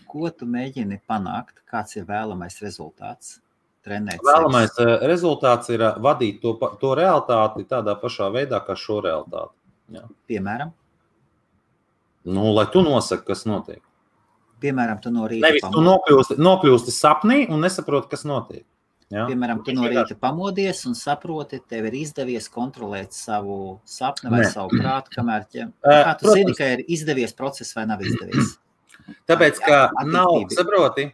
S1: Ko tu mēģini panākt? Kāds ir vēlamais rezultāts?
S2: Vēlamais rezultāts ir vadīt to realitāti tādā pašā veidā, kā šo realitāti. Jā.
S1: Piemēram?
S2: Lai tu nosaki, kas notiek.
S1: Piemēram, tu no rīta
S2: Nevis tu nokļūsti sapnī un nesaproti, kas notiek. Jā.
S1: Piemēram, tu no rīta pamodies un saproti, tev ir izdevies kontrolēt savu sapni vai savu prātu, kamēr kā tu zini, ka ir izdevies process vai nav izdevies?
S2: Tāpēc, ka saproti,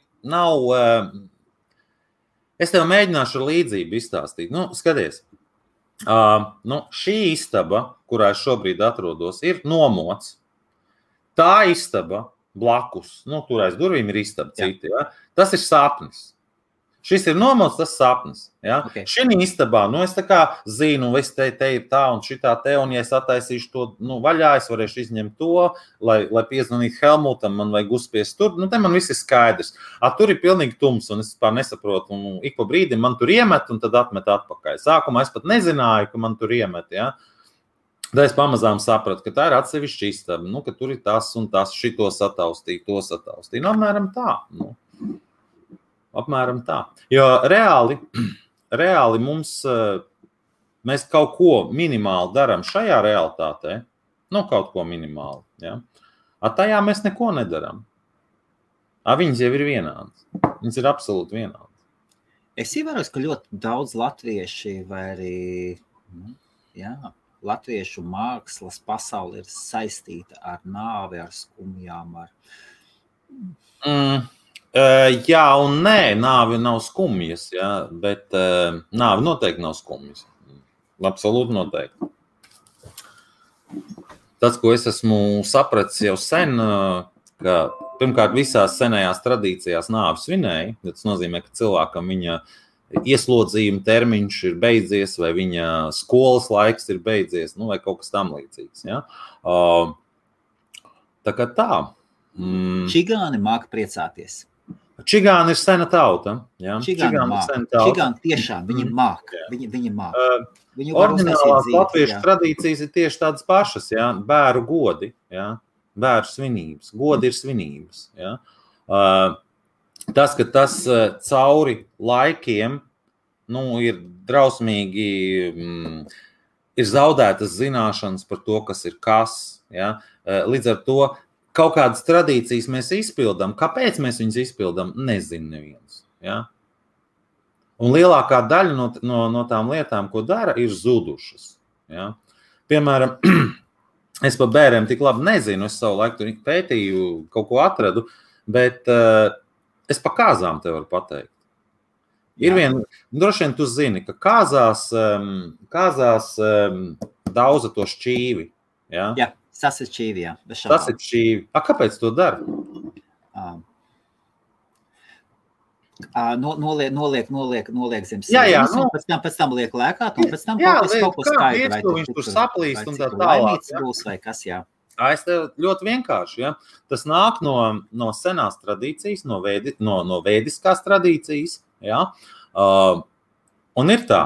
S2: es tev mēģināšu ar līdzību izstāstīt. Skaties, šī istaba, kurā es šobrīd atrodos, ir nomots. Tā istaba blakus, tur aiz durvīm ir istaba citi, ja? Tas ir sapnis. Šis ir nomots, tas sapnis. Ja?
S1: Okay.
S2: Šī istabā, es tā kā zinu, es te ir tā un šitā te, un ja es attaisīšu to vaļā, es varēšu izņemt to, lai piezvanītu Helmutam, man vajag uzspiest tur, te man viss ir skaidrs. Tur ir pilnīgi tums, un es pār nesaprotu, un ik pa brīdim man tur iemet, un tad atmet atpakaļ. Sākumā es pat nezināju, ka man tur iemet, ja? Tad es pamazām sapratu, ka tā ir atsevišķa istaba, ka tur ir tas un tas, šito sataustīja, to sataustīja. Apmēram tā. Apmēram tā. Jo reāli mēs kaut ko minimāli darām šajā realitātē, kaut ko minimāli. Ja? Tajā mēs neko nedarām. Viņas jau ir vienādas. Viņas ir absolūti vienādas.
S1: Es ievēros, ka ļoti daudz latvieši vai arī latviešu mākslas pasauli ir saistīta ar nāvi, ar skumjām,
S2: Jā un nē, nāvi nav skumjas, jā, bet nāvi noteikti nav skumjas. Absolūti noteikti. Tas, ko es esmu sapratis jau sen, ka pirmkārt visās senajās tradīcijās nāvi svinēja, tas nozīmē, ka cilvēkam viņa ieslodzījuma termiņš ir beidzies, vai viņa skolas laiks ir beidzies, vai kaut kas tam līdzīgs. Ja? Tā kā tā.
S1: Čigāni māka priecāties.
S2: Čigāni ir sena tauta. Ja?
S1: Čigāni tiešām, viņi māka. Viņi māka.
S2: Oriģinālās latviešu tradīcijas ir tieši tādas pašas. Ja? Bēru godi, ja? Bēru svinības. Godi ir svinības. Ja? Tas, ka tas cauri laikiem ir drausmīgi, ir zaudētas zināšanas par to, kas ir kas. Ja? Līdz ar to kaut kādas tradīcijas mēs izpildām. Kāpēc mēs viņas izpildām, nezinu neviens. Ja? Un lielākā daļa no tām lietām, ko dara, ir zudušas. Ja? Piemēram, es par bēriem tik labi nezinu, es savu laiku tur pētīju, kaut ko atradu, bet es pa kāzām te varu pateikt. Ir droši vien tu zini, ka kāzās daudza to šķīvi. Ja?
S1: Jā, tas ir šķīvi, jā.
S2: Tas ir šķīvi. Kāpēc to dara?
S1: Noliek zem sēnes, un pēc tam liek lēkāt, un pēc tam kaut ko skaidri.
S2: Viņš tur saplīst un tā tālāk.
S1: Būs vai kas, jā.
S2: Es tev ļoti vienkārši. Ja? Tas nāk no senās tradīcijas, no vēdiskās tradīcijas. Ja? Un ir tā,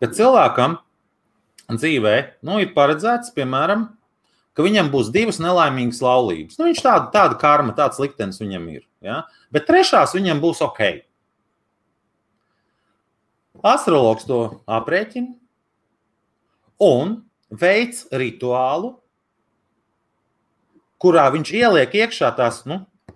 S2: ka cilvēkam dzīvē ir paredzēts, piemēram, ka viņam būs 2 nelaimīgas laulības. Viņš tāda karma, tāds liktenis viņam ir. Ja? Bet 3. viņam būs ok. Astrologs to aprēķina un veic rituālu, kurā viņš ieliek iekšā tās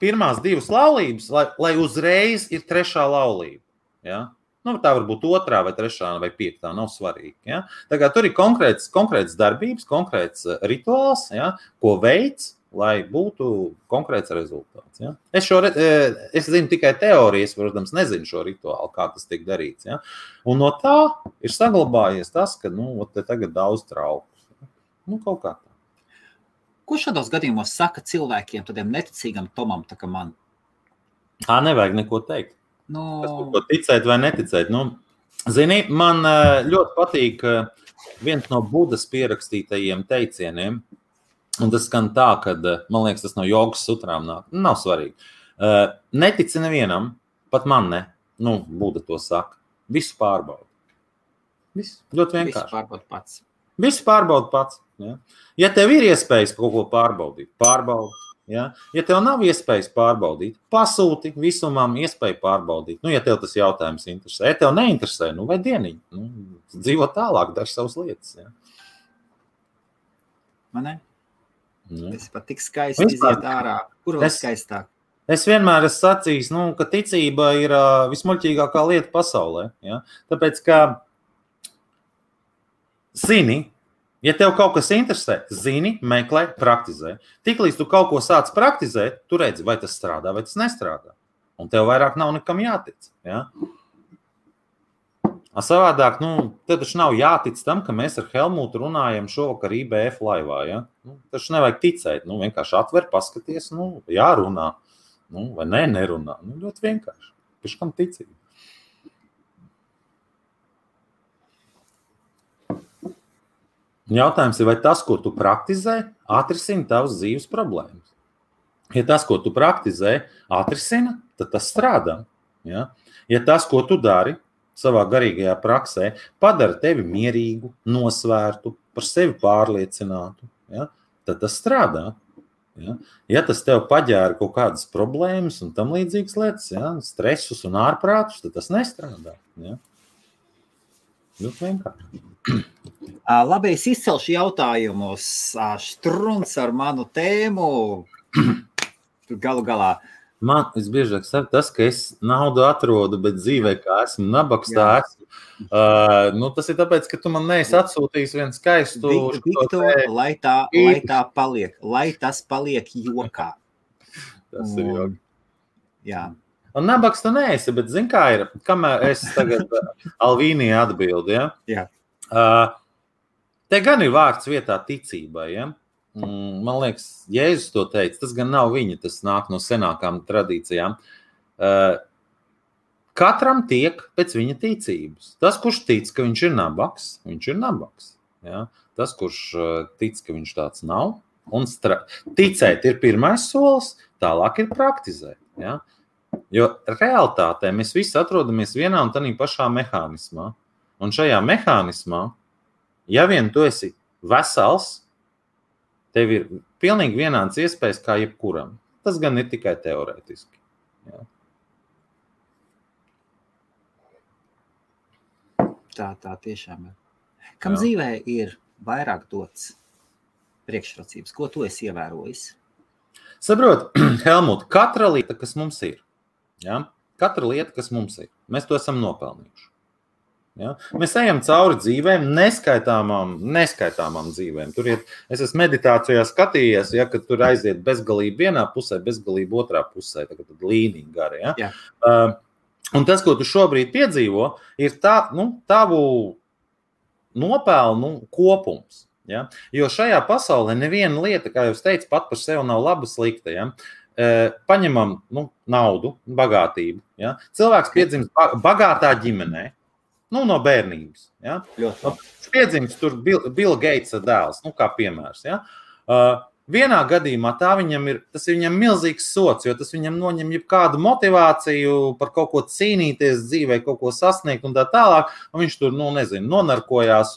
S2: pirmās 2 laulības, lai uzreiz ir 3. laulība. Ja? Tā var būt 2. vai 3. vai 5. nav svarīgi. Ja? Tā kā tur ir konkrēts darbības, konkrēts rituāls, ja? Ko veids, lai būtu konkrēts rezultāts. Ja? Es zinu tikai teorijas, protams, nezinu šo rituālu, kā tas tiek darīts. Ja? Un no tā ir saglabājies tas, ka te tagad daudz trauku. Kaut kā tā.
S1: Ko šādos gadījumos saka cilvēkiem, tādiem neticīgam Tomam, tā kā man?
S2: Nevajag neko teikt. Kas tur ko ticēt vai neticēt. Zini, man ļoti patīk viens no Budas pierakstītajiem teicieniem, un tas skan tā, kad, man liekas, tas no jogas sutrām nāk. Nav svarīgi. Netici nevienam, pat man ne. Buda to saka. Visu pārbauda. Visu. Ļoti vienkārši.
S1: Visu pārbauda pats.
S2: Visu pārbauda pats. Ja? Ja tev ir iespējas kaut ko pārbaudīt, pārbaudi. Ja? Ja tev nav iespējas pārbaudīt, pasūti visumam iespēju pārbaudīt. Ja tev tas jautājums interesē. Ja tev neinteresē, vai dieniņi. Dzīvo tālāk, dari savas lietas. Ja?
S1: Man ne? Es pat tik skaisti iziet ārā. Kur vēl skaistāk?
S2: Es vienmēr esmu sacījis, ka ticība ir vismuļķīgākā lieta pasaulē. Ja? Tāpēc, ka zini, ja tev kaut kas interesē, zini, meklē, praktizē. Tiklīdz tu kaut ko sāc praktizēt, tu redzi, vai tas strādā, vai tas nestrādā. Un tev vairāk nav nekam jātic. Ja? Savādāk, tev taču nav jātic tam, ka mēs ar Helmutu runājam šovakar IBF laivā. Ja? Taču nevajag ticēt. Vienkārši atver, paskaties, jārunā. Vai nerunā. Ļoti vienkārši. Pēc kam ticība? Jautājums ir, vai tas, ko tu praktizē, atrisina tavas dzīves problēmas. Ja tas, ko tu praktizē, atrisina, tad tas strādā. Ja? Ja tas, ko tu dari savā garīgajā praksē, padara tevi mierīgu, nosvērtu, par sevi pārliecinātu, ja? Tad tas strādā. Ja? Ja tas tev paģēra kaut kādas problēmas un tam līdzīgas lietas, ja? Stresus un ārprātus, tad tas nestrādā. Ja? Ļoti vienkārši.
S1: Labi, es izcelšu jautājumus. Štruns ar manu tēmu. Galu galā.
S2: Man visbiežāk saka tas, ka es naudu atrodu, bet dzīvē, kā esmu nabaks, tā esmu. Tas ir tāpēc, ka tu man neesi atsūtījis vienu skaistu...
S1: Viktor, lai tā paliek, lai tas paliek jokā.
S2: Tas ir joki.
S1: Jā.
S2: Un nabaks tu neesi, bet zini, kā ir, kamēr es tagad Alvīnija atbildi, ja?
S1: Jā.
S2: Te gan ir vārds vietā ticībai, ja? Man liekas, Jēzus to teica, tas gan nav viņa, tas nāk no senākām tradīcijām. Katram tiek pēc viņa ticības. Tas, kurš tic, ka viņš ir nabaks, viņš ir nabaks. Ja? Tas, kurš tic, ka viņš tāds nav, un ticēt ir pirmais solis, tālāk ir praktizēt. Ja? Jo realitātē mēs visi atrodamies vienā un tādā pašā mehānismā. Un šajā mehānismā, ja vien tu esi vesels, tev ir pilnīgi vienāds iespējas kā jebkuram. Tas gan ir tikai teorētiski. Ja?
S1: Tā tiešām ir. Kam dzīvē ir vairāk dots priekšrocības? Ko tu esi ievērojis?
S2: Saprot, Helmut, katra lieta, kas mums ir, ja? Katra lieta, kas mums ir, mēs to esam nopelnījuši. Ja? Mēs ejam cauri dzīvēm, neskaitāmām dzīvēm. Tur es esmu meditācijā skatījies, ja, ka tur aiziet bezgalība vienā pusē, bezgalība otrā pusē, tad līnija gara. Ja?
S1: Jā.
S2: Un tas, ko tu šobrīd piedzīvo, ir tavu nopelnu kopums. Ja? Jo šajā pasaulē neviena lieta, kā jau es teicu, pat par sevi nav laba slikta. Ja? Paņemam naudu, bagātību. Ja? Cilvēks piedzimst bagātā ģimenē. No bērnības. Ja? Piedzimst tur Bill Gatesa dēls, kā piemērs. Ja? Vienā gadījumā tas ir viņam milzīgs sots, jo tas viņam noņem jebkādu motivāciju par kaut ko cīnīties dzīvē, kaut ko sasniegt un tā tālāk, un viņš tur, nonarkojās,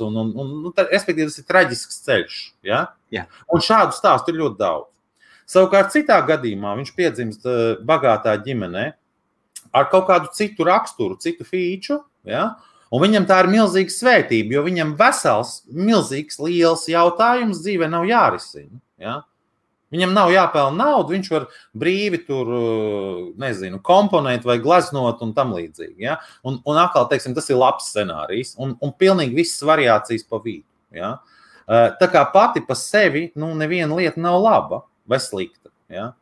S2: respektīvi tas ir traģisks ceļš. Ja?
S1: Jā.
S2: Un šādu stāstu ir ļoti daudz. Savukārt citā gadījumā viņš piedzimst bagātā ģimenē ar kaut kādu citu raksturu, citu fīču, ja? Un viņam tā ir milzīga svētība, jo viņam vesels, milzīgs, liels jautājums dzīvē nav jārisina. Ja? Viņam nav jāpelna naudu, viņš var brīvi tur, komponēt vai gleznot un tam līdzīgi. Ja? Un atkal, teiksim, tas ir labs scenārijs un pilnīgi visas variācijas pa vidu. Ja? Tā kā pati pa sevi, neviena lieta nav laba vai slikta. Ja?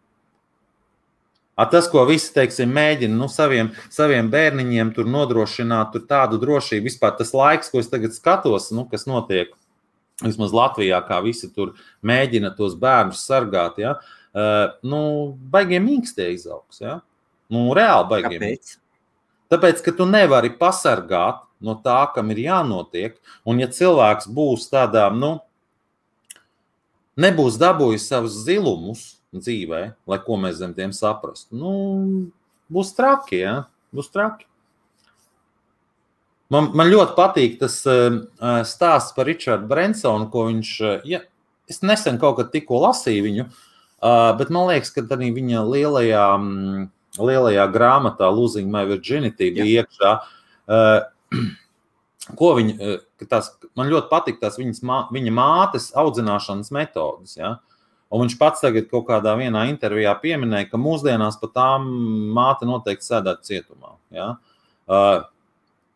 S2: Tas, ko visi, teiksim, mēģina saviem bērniņiem tur nodrošināt tur tādu drošību, vispār tas laiks, ko es tagad skatos, kas notiek vismaz Latvijā, kā visi tur mēģina tos bērnus sargāt, ja? Baigiem mīkstie izaugs, ja? Reāli baigiem.
S1: Kāpēc?
S2: Tāpēc, ka tu nevari pasargāt no tā, kam ir jānotiek, un ja cilvēks būs tādā, nebūs dabūjis savus zilumus dzīvē, lai ko mēs zem tiem saprastu, būs traki, ja? Būs traki. Man ļoti patīk tas stāsts par Richardu Bransonu, ko viņš, es nesen kaut kad tikko lasīju viņu, bet man liekas, ka tādā viņa lielajā grāmatā Losing My Virginity bija iekšā, man ļoti patīk tās viņa mātes audzināšanas metodas, ja? Un viņš pats tagad kaut kādā vienā intervijā pieminēja, ka mūsdienās pat tām māte noteikti sēdētu cietumā, ja?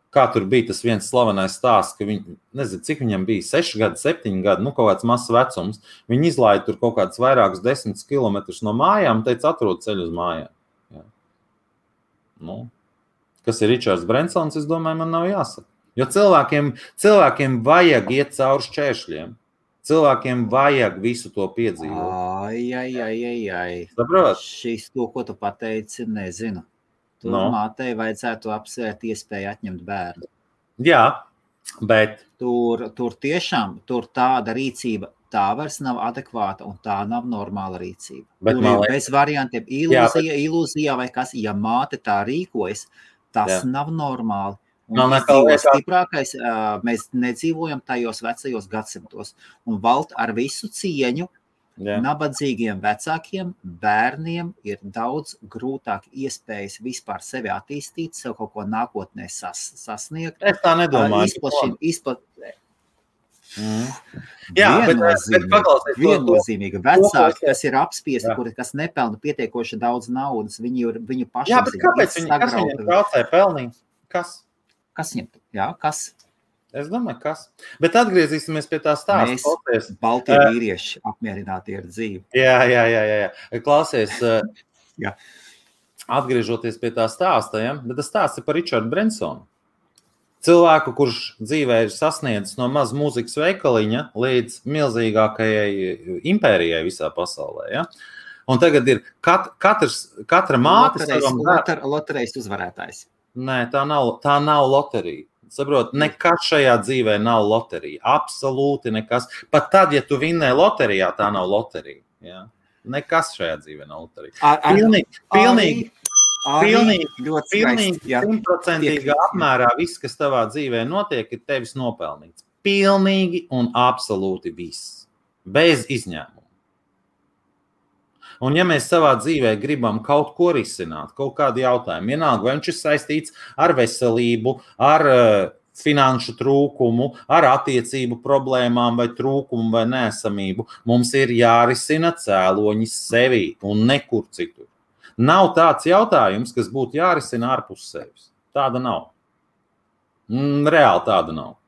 S2: Kā tur bija tas viens slavenais stāsts, ka viņi, nezinu, cik viņam bija, 6 gadi, 7 gadi, kaut kāds mazs vecums, viņi izlaida tur kaut kāds vairākus 10 kilometrus no mājām un teica, atrod ceļu uz mājām. Ja. Kas ir Richards Bransons, es domāju, man nav jāsaka. Jo cilvēkiem vajag iet cauri šķēršļiem. Cilvēkiem vajag visu to piedzīvot.
S1: Ai.
S2: Saprot?
S1: Šis to, ko tu pateici, nezinu. Tur mātei vajadzētu apsvērt iespēju atņemt bērnu.
S2: Jā, bet...
S1: Tur tiešām, tāda rīcība, tā vairs nav adekvāta un tā nav normāla rīcība. Tur ir bez variantiem ilūzija vai kas, ja māte tā rīkojas, tas nav normāli. Un stiprākais, mēs nedzīvojam tajos vecajos gadsimtos. Un valt ar visu cieņu, nabadzīgiem vecākiem bērniem ir daudz grūtāk iespējas vispār sevi attīstīt, sev kaut ko nākotnē sasniegt.
S2: Es tā nedomāju.
S1: Viennozīmīgi vecāki, kas ir apspiesti, kas nepelna pietiekoši daudz naudas, viņu pašapziņa.
S2: Jā, bet kāpēc kas viņiem traucē pelnīt? Kas?
S1: Kas viņiem? Jā, kas?
S2: Es domāju, kas. Bet atgriezīsimies pie tā stāsta.
S1: Mēs, baltie vīrieši, apmierināti ar dzīvi.
S2: Jā. Klausies,
S1: Jā.
S2: Atgriežoties pie tā stāsta, ja? Bet tas stāsts ir par Richardu Bransonu. Cilvēku, kurš dzīvē ir sasniedzis no maz mūzikas veikaliņa līdz milzīgākajai impērijai visā pasaulē. Ja? Un tagad ir katra māte savam
S1: loterijas uzvarētājs.
S2: Nē, tā nav loterija. Saprot, nekas šajā dzīvē nav loterija. Absolūti nekas. Pat tad, ja tu vinnē loterijā, tā nav loterija. Ja? Nekas šajā dzīvē nav loterija. Pilnīgi 100% apmērā viss, kas tavā dzīvē notiek, ir tevis nopelnīts. Pilnīgi un absolūti viss. Bez izņēmuma. Un ja mēs savā dzīvē gribam kaut ko risināt, kaut kādu jautājumu, vienalga, vai viņš ir saistīts ar veselību, ar finanšu trūkumu, ar attiecību problēmām vai trūkumu vai neesamību, mums ir jārisina cēloņi sevī un nekur citur. Nav tāds jautājums, kas būtu jārisina ārpus sevis. Tāda nav. Reāli tāda nav.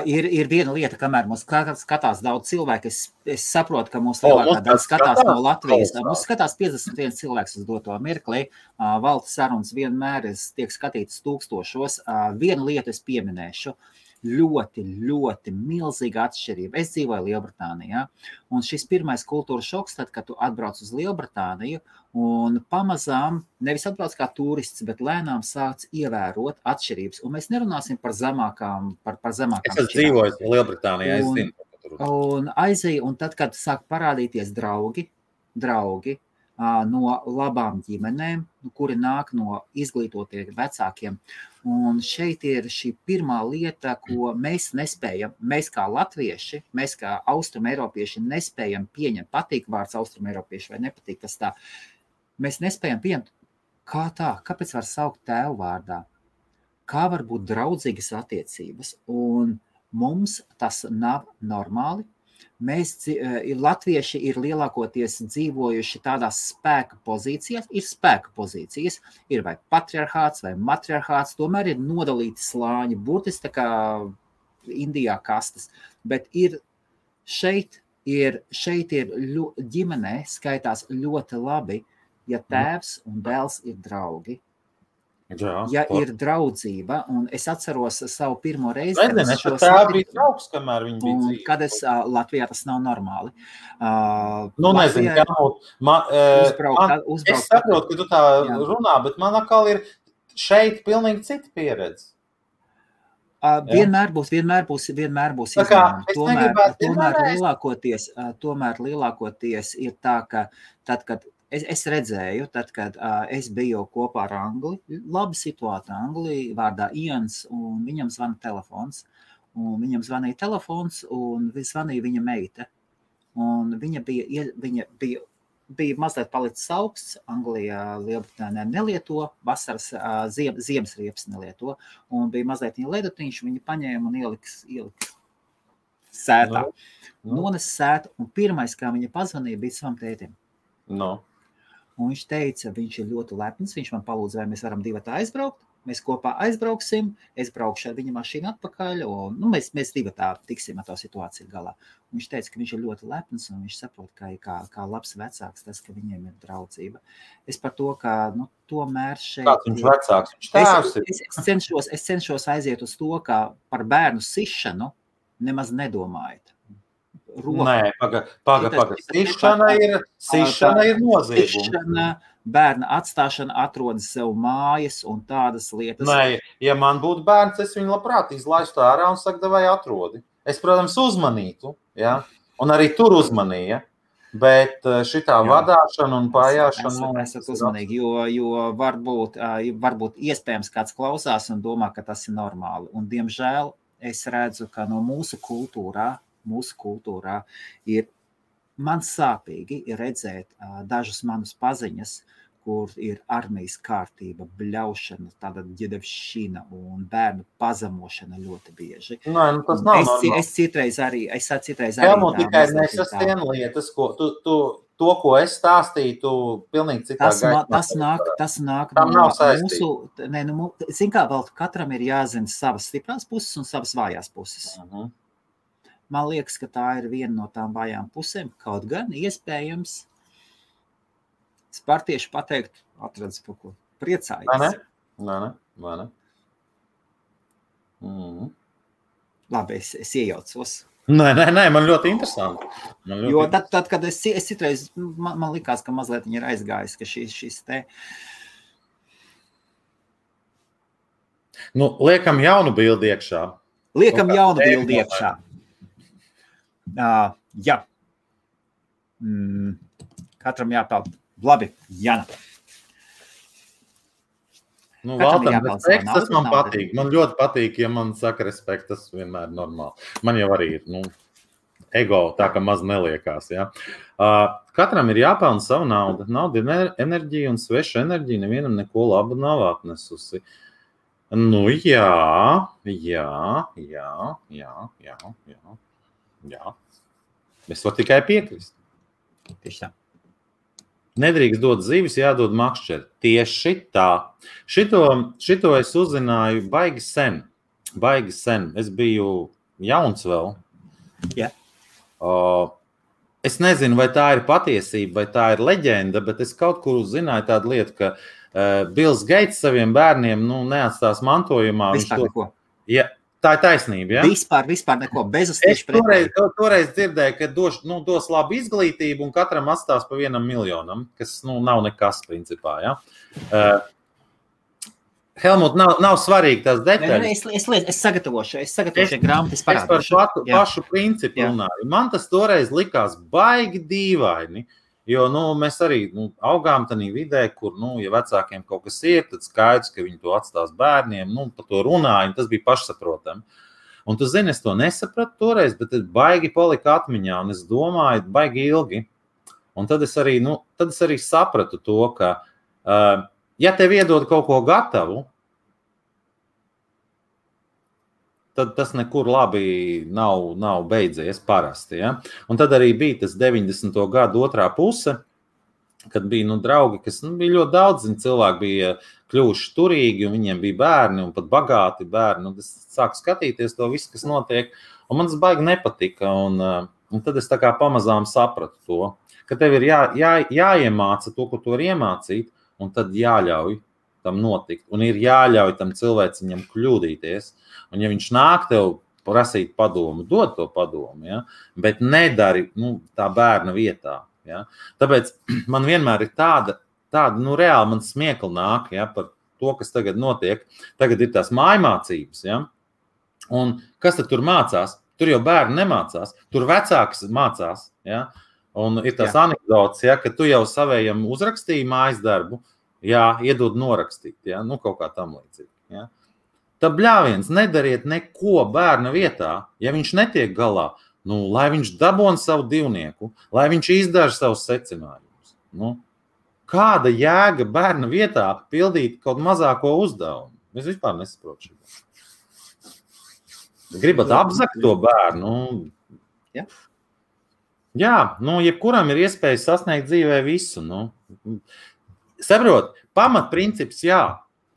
S1: Ir viena lieta, kamēr mums skatās daudz cilvēku, es saprotu, ka mums lielākā daļa skatās no Latvijas. Mums skatās 51 cilvēks uz doto mirklī. Valta sarunas vienmēr tiek skatītas tūkstošos. Vienu lietu es pieminēšu. Ļoti milzīga atšķirība. Es dzīvoju Lielbritānijā, un šis pirmais kultūras šoks, tad, kad tu atbrauc uz Lielbritāniju, un pamazām, nevis atbrauc kā turists, bet lēnām sāc ievērot atšķirības. Un mēs nerunāsim par zemākām
S2: Es dzīvoju Lielbritānijā, es zinu.
S1: Un aizēju, un tad, kad sāk parādīties draugi no labām ģimenēm, kuri nāk no izglītotiem vecākiem. Un šeit ir šī pirmā lieta, ko mēs nespējam, mēs kā latvieši, mēs kā austrumeiropieši nespējam pieņemt, patīk vārds austrumeiropieši vai nepatīk tas tā, mēs nespējam pieņemt, kā tā, kāpēc var saukt tēvu vārdā, kā var būt draudzīgas attiecības, un mums tas nav normāli. Mēs, latvieši ir lielākoties dzīvojuši tādās spēka pozīcijās, ir spēka pozīcijas, ir vai patriarchāts vai matriarchāts, tomēr ir nodalīti slāņi, burtiski tā kā Indijā kastes, bet šeit ir ģimenē skaitās ļoti labi, ja tēvs un dēls ir draugi. Ja ir draudzība, un es atceros savu pirmo reizi, kad es Latvijā tas nav normāli.
S2: Nezinu, es saprotu, ka tu tā runā, bet man atkal ir šeit pilnīgi cita pieredze.
S1: Vienmēr būs izņēmumi. Tomēr lielākoties ir tā, ka tad, kad es redzēju, tad, kad es biju kopā ar Angli, labi situāta Angli, vārdā Ians, un viņam zvana telefons. Un viņam zvanīja telefons, un zvanīja viņa meita. Un viņa bija mazliet palicis augsts, Anglijā, Lielbritānijā nelieto, vasaras ziemas riepas nelieto, un bija mazliet viņa ledutiņš, viņa paņēma un ielika sētā. Nones sētu, un pirmais, kā viņa pazvanīja, bija savam tētim. Un viņš teica, viņš ir ļoti lepns, viņš man palūdza, vai mēs varam divi aizbraukt. Mēs kopā aizbrauksim, es braukšu ar viņa mašīnu atpakaļ, un mēs divi tiksim ar to situāciju galā. Un viņš teica, ka viņš ir ļoti lepns, un viņš saprot, kā labs vecāks tas, ka viņiem ir draudzība. Es par to, ka tomēr šeit...
S2: Kāds viņš vecāks? Viņš tēvs ir?
S1: Es cenšos aiziet uz to, ka par bērnu sišanu nemaz nedomājat.
S2: Nē, paga. Sišana ir nozieguma.
S1: Sišana, bērna atstāšana, atrodas sev mājas un tādas lietas.
S2: Nē, ja man būtu bērns, es viņu labprāt izlaistu ārā un saku, vai atrodi. Es, protams, uzmanītu, ja? Un arī tur uzmanīja, bet šitā vadāšana un pājāšana...
S1: Esat uzmanīgi, jo varbūt iespējams kāds klausās un domā, ka tas ir normāli. Un, diemžēl, es redzu, ka no mūsu kultūrā ir man sāpīgi redzēt dažus manus paziņas, kur ir armijas kārtība, bļaušana, tāda ģedevšana un bērnu pazemošana ļoti bieži.
S2: Nē, nu tas nav normāli.
S1: Es citreiz arī
S2: Helmut, tikai nesasien lietas, ko to, ko es stāstīju, tu pilnīgi citā
S1: Tas nāk
S2: Tam
S1: no
S2: nav saistība.
S1: mūsu, zin kā, vēl katram ir jāzina savas stiprās puses un savas vājās puses. Man liekas, ka tā ir viena no tām vājām pusēm, kaut gan iespējams es par tieši pateikt, atradz par ko priecājies.
S2: Vai ne?
S1: Labi, es iejaucos.
S2: Nē, man ļoti interesanti.
S1: Jo tad kad es citreiz, man likās, ka mazliet viņi ir aizgājis, ka šis te...
S2: Nu, liekam jaunu bildi iekšā.
S1: Jaunu bildi iekšā. Jā. Katram jāpeld. Labi, Jana.
S2: Nu, Valtam, respekts, tas man patīk. Man ļoti patīk, ja man saka respekts, tas vienmēr ir normāli. Man jau arī ir, ego tā, ka maz neliekās, ja. Katram ir jāpelna savu naudu. Nauda ir enerģija un sveša enerģija nevienam neko labu nav atnesusi. Nu, jā. Es varu tikai piekrist.
S1: Tieši tā.
S2: Nedrīkst dot zivis, jādod makšķeri. Tieši tā. Šito es uzzināju baigi sen. Es biju jauns vēl.
S1: Jā.
S2: Es nezinu, vai tā ir patiesība, vai tā ir leģenda, bet es kaut kur zināju tādu lietu, ka Bills Gates saviem bērniem neatstās mantojumā.
S1: Vispār neko.
S2: Ja, tā ir taisnība, ja?
S1: Vispār neko, bez tieši pretēji.
S2: Toreiz dzirdēju, ka dos labu izglītību un katram atstās pa 1 miljonam, kas nav nekas principā, ja? Helmut, nav svarīgi tās detaļas.
S1: Es sagatavošu grāmatu, es parādīšu.
S2: Es par pašu principu runāju. Man tas toreiz likās baigi dīvaini, jo mēs arī augām tādā vidē, kur, ja vecākiem kaut kas ir, tad skaidrs, ka viņi to atstās bērniem, par to runāju, tas bija pašsaprotami. Un tu zini, es to nesapratu toreiz, bet es baigi palika atmiņā, un es domāju, baigi ilgi. Un tad es arī sapratu to, ka ja tev iedod kaut ko gatavu, tad tas nekur labi nav beidzies parasti. Ja? Un tad arī bija tas 90. gadu otrā puse, kad bija draugi, kas bija ļoti daudz, cilvēki bija kļuvuši turīgi, un viņiem bija bērni, un pat bagāti bērni. Un es sāku skatīties to visu, kas notiek, un man tas baigi nepatika. Un tad es tā kā pamazām sapratu to, ka tev ir jāiemāca to, ko tu vari iemācīt, un tad jāļauj tam notikt. Un ir jāļauj tam cilvēciņam kļūdīties. Un ja viņš nāk tev prasīt padomu, dod to padomu, ja? Bet nedari tā bērna vietā. Ja? Tāpēc man vienmēr ir tāda reāli man smiekli nāk, ja, par to, kas tagad notiek. Tagad ir tās mājmācības. Ja? Un kas tad tur mācās? Tur jau bērni nemācās. Tur vecāks mācās. Ja? Un ir tās anekdotas, ja, ka tu jau savējam uzrakstīji mājas darbu, iedod norakstīt, kaut kā tam līdzīgi. Ja. Tad bļāviens, nedariet neko bērna vietā, ja viņš netiek galā, lai viņš dabon savu divnieku, lai viņš izdara savus secinājumus. Kāda jēga bērna vietā pildīt kaut mazāko uzdevumu? Es vispār nesaprotu šo. Gribat apzakt to bērnu? Jā, jebkuram ir iespēja sasniegt dzīvē visu. Saprot, pamatprincips,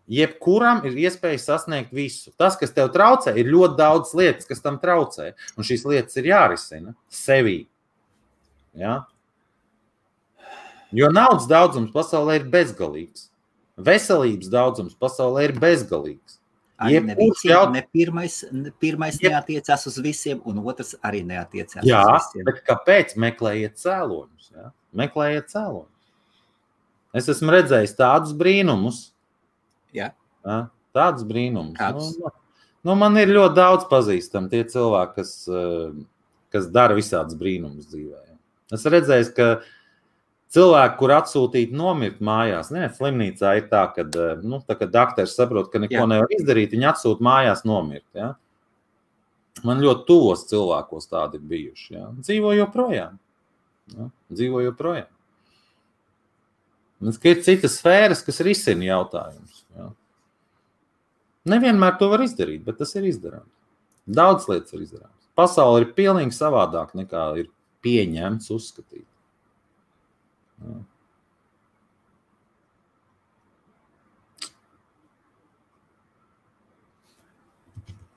S2: jebkuram ir iespēja sasniegt visu. Tas, kas tev traucē, ir ļoti daudz lietas, kas tam traucē. Un šīs lietas ir jārisina sevī. Ja? Jo naudas daudzums pasaulē ir bezgalīgs. Veselības daudzums pasaulē ir bezgalīgs.
S1: Arī pirmais neatiecās uz visiem, un otrs arī neatiecās uz visiem.
S2: Jā, bet kāpēc? Meklējiet cēloņus. Ja? Meklējiet cēloņus. Es esmu redzējis tādus brīnumus.
S1: Jā.
S2: Tādus brīnumus. Man ir ļoti daudz pazīstami tie cilvēki, kas dara visādus brīnumus dzīvē. Es redzēju, ka cilvēki, kur atsūtīt nomirt mājās, slimnīcā ir tā, ka dakteris saprot, ka neko nevar izdarīt, viņi atsūt mājās nomirt. Ja? Man ļoti tuvos cilvēkos tādi ir bijuši. Ja? Dzīvo joprojām. Ir citas sfēras, kas risina jautājumus. Ja? Nevienmēr to var izdarīt, bet tas ir izdarāms. Daudz lietas ir izdarāms. Pasaule ir pilnīgi savādāk nekā ir pieņemts uzskatīt. Ja.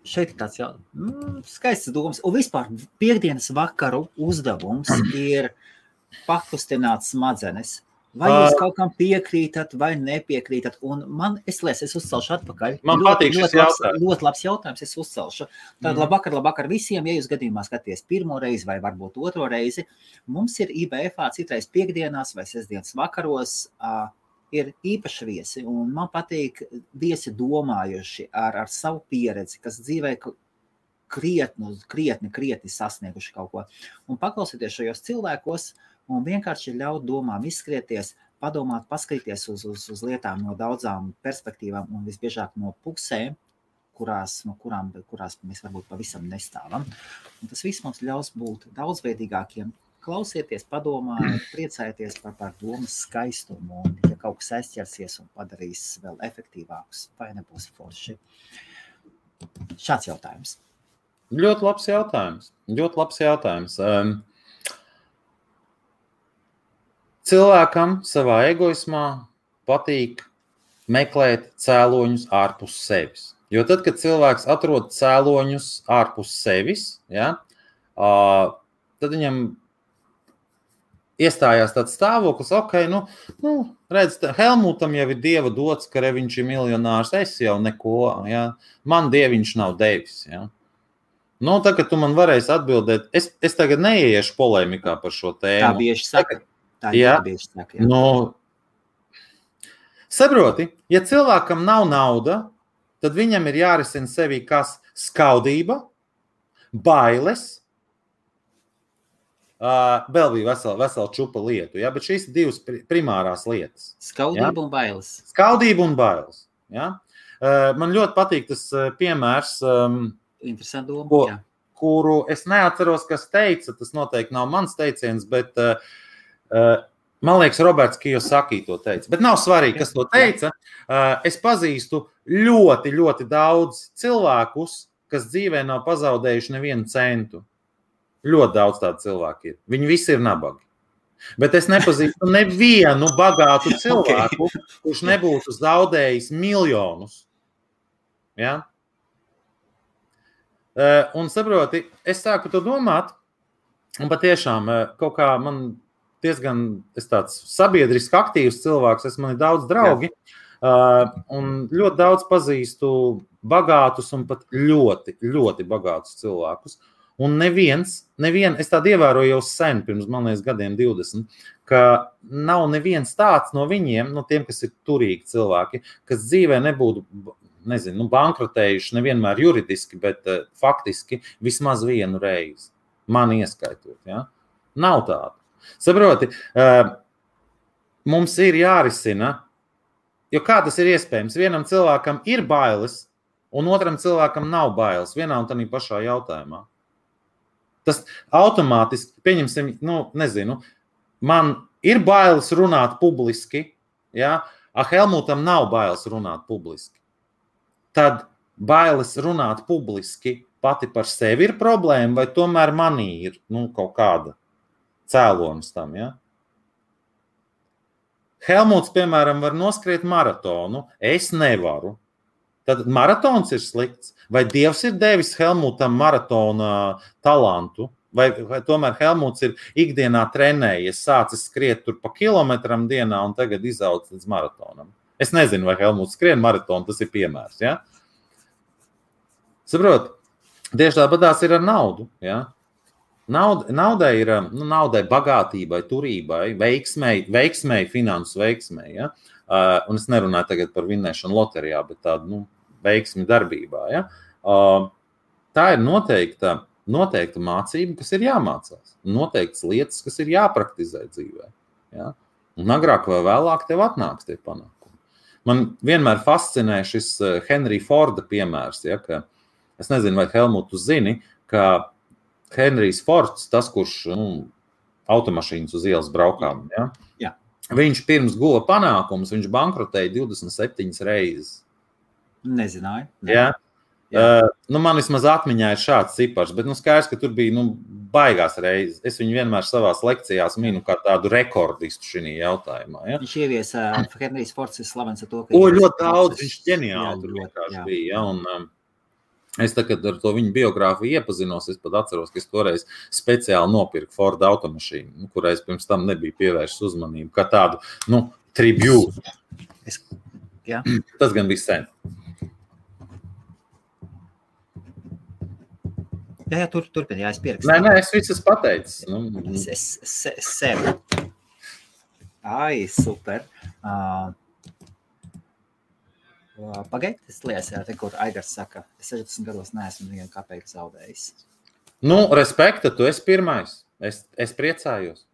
S1: Šeit ir tāds skaists domas. Un vispār piekdienas vakaru uzdevums ir pakustināt smadzenes. Vai jūs kaut kam piekrītat vai nepiekrītat? Un es uzcelšu atpakaļ.
S2: Man patīk šis jautājums.
S1: Ļoti labs jautājums, es uzcelšu. Tad labvakar visiem, ja jūs gadījumā skaties pirmo reizi vai varbūt otro reizi, mums ir IBF-ā citreiz piekdienās vai sestdienas vakaros ir īpaši viesi, un man patīk viesi domājuši ar savu pieredzi, kas dzīvē krietni sasnieguši kaut ko. Un paklausieties šajos cilvēkos, un vienkārši ļaut domām izskrieties, padomāt, paskatīties uz lietām no daudzām perspektīvām, un visbiežāk no pusēm, kurās mēs varbūt pavisam nestāvam. Un tas viss mums ļaus būt daudzveidīgākiem. Klausieties, padomājiet, priecājieties par domas skaistumu, un ja kaut kas aizķersies un padarīs vēl efektīvākus, vai nebūs forši. Šāds jautājums.
S2: Ļoti labs jautājums. Cilvēkam savā egoismā patīk meklēt cēloņus ārpus sevis. Jo tad, kad cilvēks atrod cēloņus ārpus sevis, ja, tad viņam iestājās tāds stāvoklis, redz, Helmutam jau ir dieva dots, ka viņš ir miljonārs, es jau neko, ja? Man dieviņš nav devis. Ja? Tā, ka tu man varēsi atbildēt, es tagad neieiešu polēmikā par šo tēmu.
S1: Tā bieži saka.
S2: Saproti, ja cilvēkam nav nauda, tad viņam ir jārisina sevī kas skaudība, bailes, vēl bija vesela čupa lietu, ja? Bet šīs ir divas primārās lietas.
S1: Skaudība, ja? Un bailes.
S2: Skaudība un bailes. Ja? Man ļoti patīk tas piemērs,
S1: interesanti doma,
S2: kuru es neatceros, kas teica, tas noteikti nav mans teiciens, bet man liekas, Roberts Kiyosaki to teica. Bet nav svarīgi, kas to teica. Es pazīstu ļoti, ļoti daudz cilvēkus, kas dzīvē nav pazaudējuši nevienu centu. Ļoti daudz tādu cilvēku ir. Viņi visi ir nabagi. Bet es nepazīstu nevienu bagātu cilvēku, kurš nebūtu zaudējis miljonus. Ja? Un saproti, es sāku to domāt, un patiešām kaut kā man diezgan, es tāds sabiedriski aktīvs cilvēks, man ir daudz draugi, un ļoti daudz pazīstu bagātus un pat ļoti, ļoti bagātus cilvēkus. Un neviens, es tādu ievēroju jau sen, pirms, man liekas, gadiem 20, ka nav neviens tāds no viņiem, no tiem, kas ir turīgi cilvēki, kas dzīvē nebūtu, bankrotējuši nevienmēr juridiski, bet faktiski vismaz vienu reizi. Man ieskaitot, ja? Nav tāda. Saproti, mums ir jārisina, jo kā tas ir iespējams? Vienam cilvēkam ir bailes, un otram cilvēkam nav bailes, vienā un tādā pašā jautājumā. Tas automātiski, pieņemsim, man ir bailes runāt publiski, ja? Helmutam nav bailes runāt publiski. Tad bailes runāt publiski pati par sevi ir problēma, vai tomēr manī ir kaut kāda cēlonis tam, ja? Helmuts, piemēram, var noskriet maratonu, es nevaru. Tad maratons ir slikts. Vai Dievs ir devis Helmutam maratona talantu? Vai tomēr Helmuts ir ikdienā trenējies, sācis skriet tur pa kilometram dienā un tagad izaugs līdz maratonam? Es nezinu, vai Helmuts skrien maratonu, tas ir piemērs. Ja? Saprot, tieši tāpatās ir ar naudu. Ja? Naudai ir bagātībai, turībai, veiksmei, finansu veiksmei. Ja? Un es nerunāju tagad par vinnēšanu loterijā, bet tādu veiksmi darbībā. Ja? Tā ir noteikta mācība, kas ir jāmācās. Noteiktas lietas, kas ir jāpraktizē dzīvē. Ja? Un agrāk vai vēlāk tev atnāks tie panākumi. Man vienmēr fascinē šis Henry Forda piemērs. Ja? Ka, es nezinu, vai Helmut, tu zini, ka Henrijs Fords, tas, kurš automašīnas uz ielas braukām, ja?
S1: Jā.
S2: viņš pirms guva panākums, viņš bankrotēja 27 reizes.
S1: Nezināju.
S2: Jā. Man vismaz atmiņā ir šāds cipars, bet skaidrs, ka tur bija baigās reizes. Es viņu vienmēr savās lekcijās minu kā tādu rekordistu šī jautājumā. Ja?
S1: Viņš ieviesa, Henrijs Fords ir slavens ar to, ka...
S2: ļoti daudz, viņš ģeniāli tur vienkārši bija. Ja? Un, es tagad ar to viņu biogrāfiju iepazinos, es pat atceros, ka es toreiz speciāli nopirku Ford automašīnu, kurai es pirms tam nebiju pievērsis uzmanību, kā tādu, tribute. Tas gan bija sen.
S1: Jā, turpini, es pierakstīju.
S2: Nē, es visu pateicis.
S1: Es sevi. Ai, super. Pagaid, es liekas, te, kur Aigars saka, es 60 gados neesmu nevienu kapeiku zaudējis.
S2: Respekta, tu esi pirmais. Es priecājos.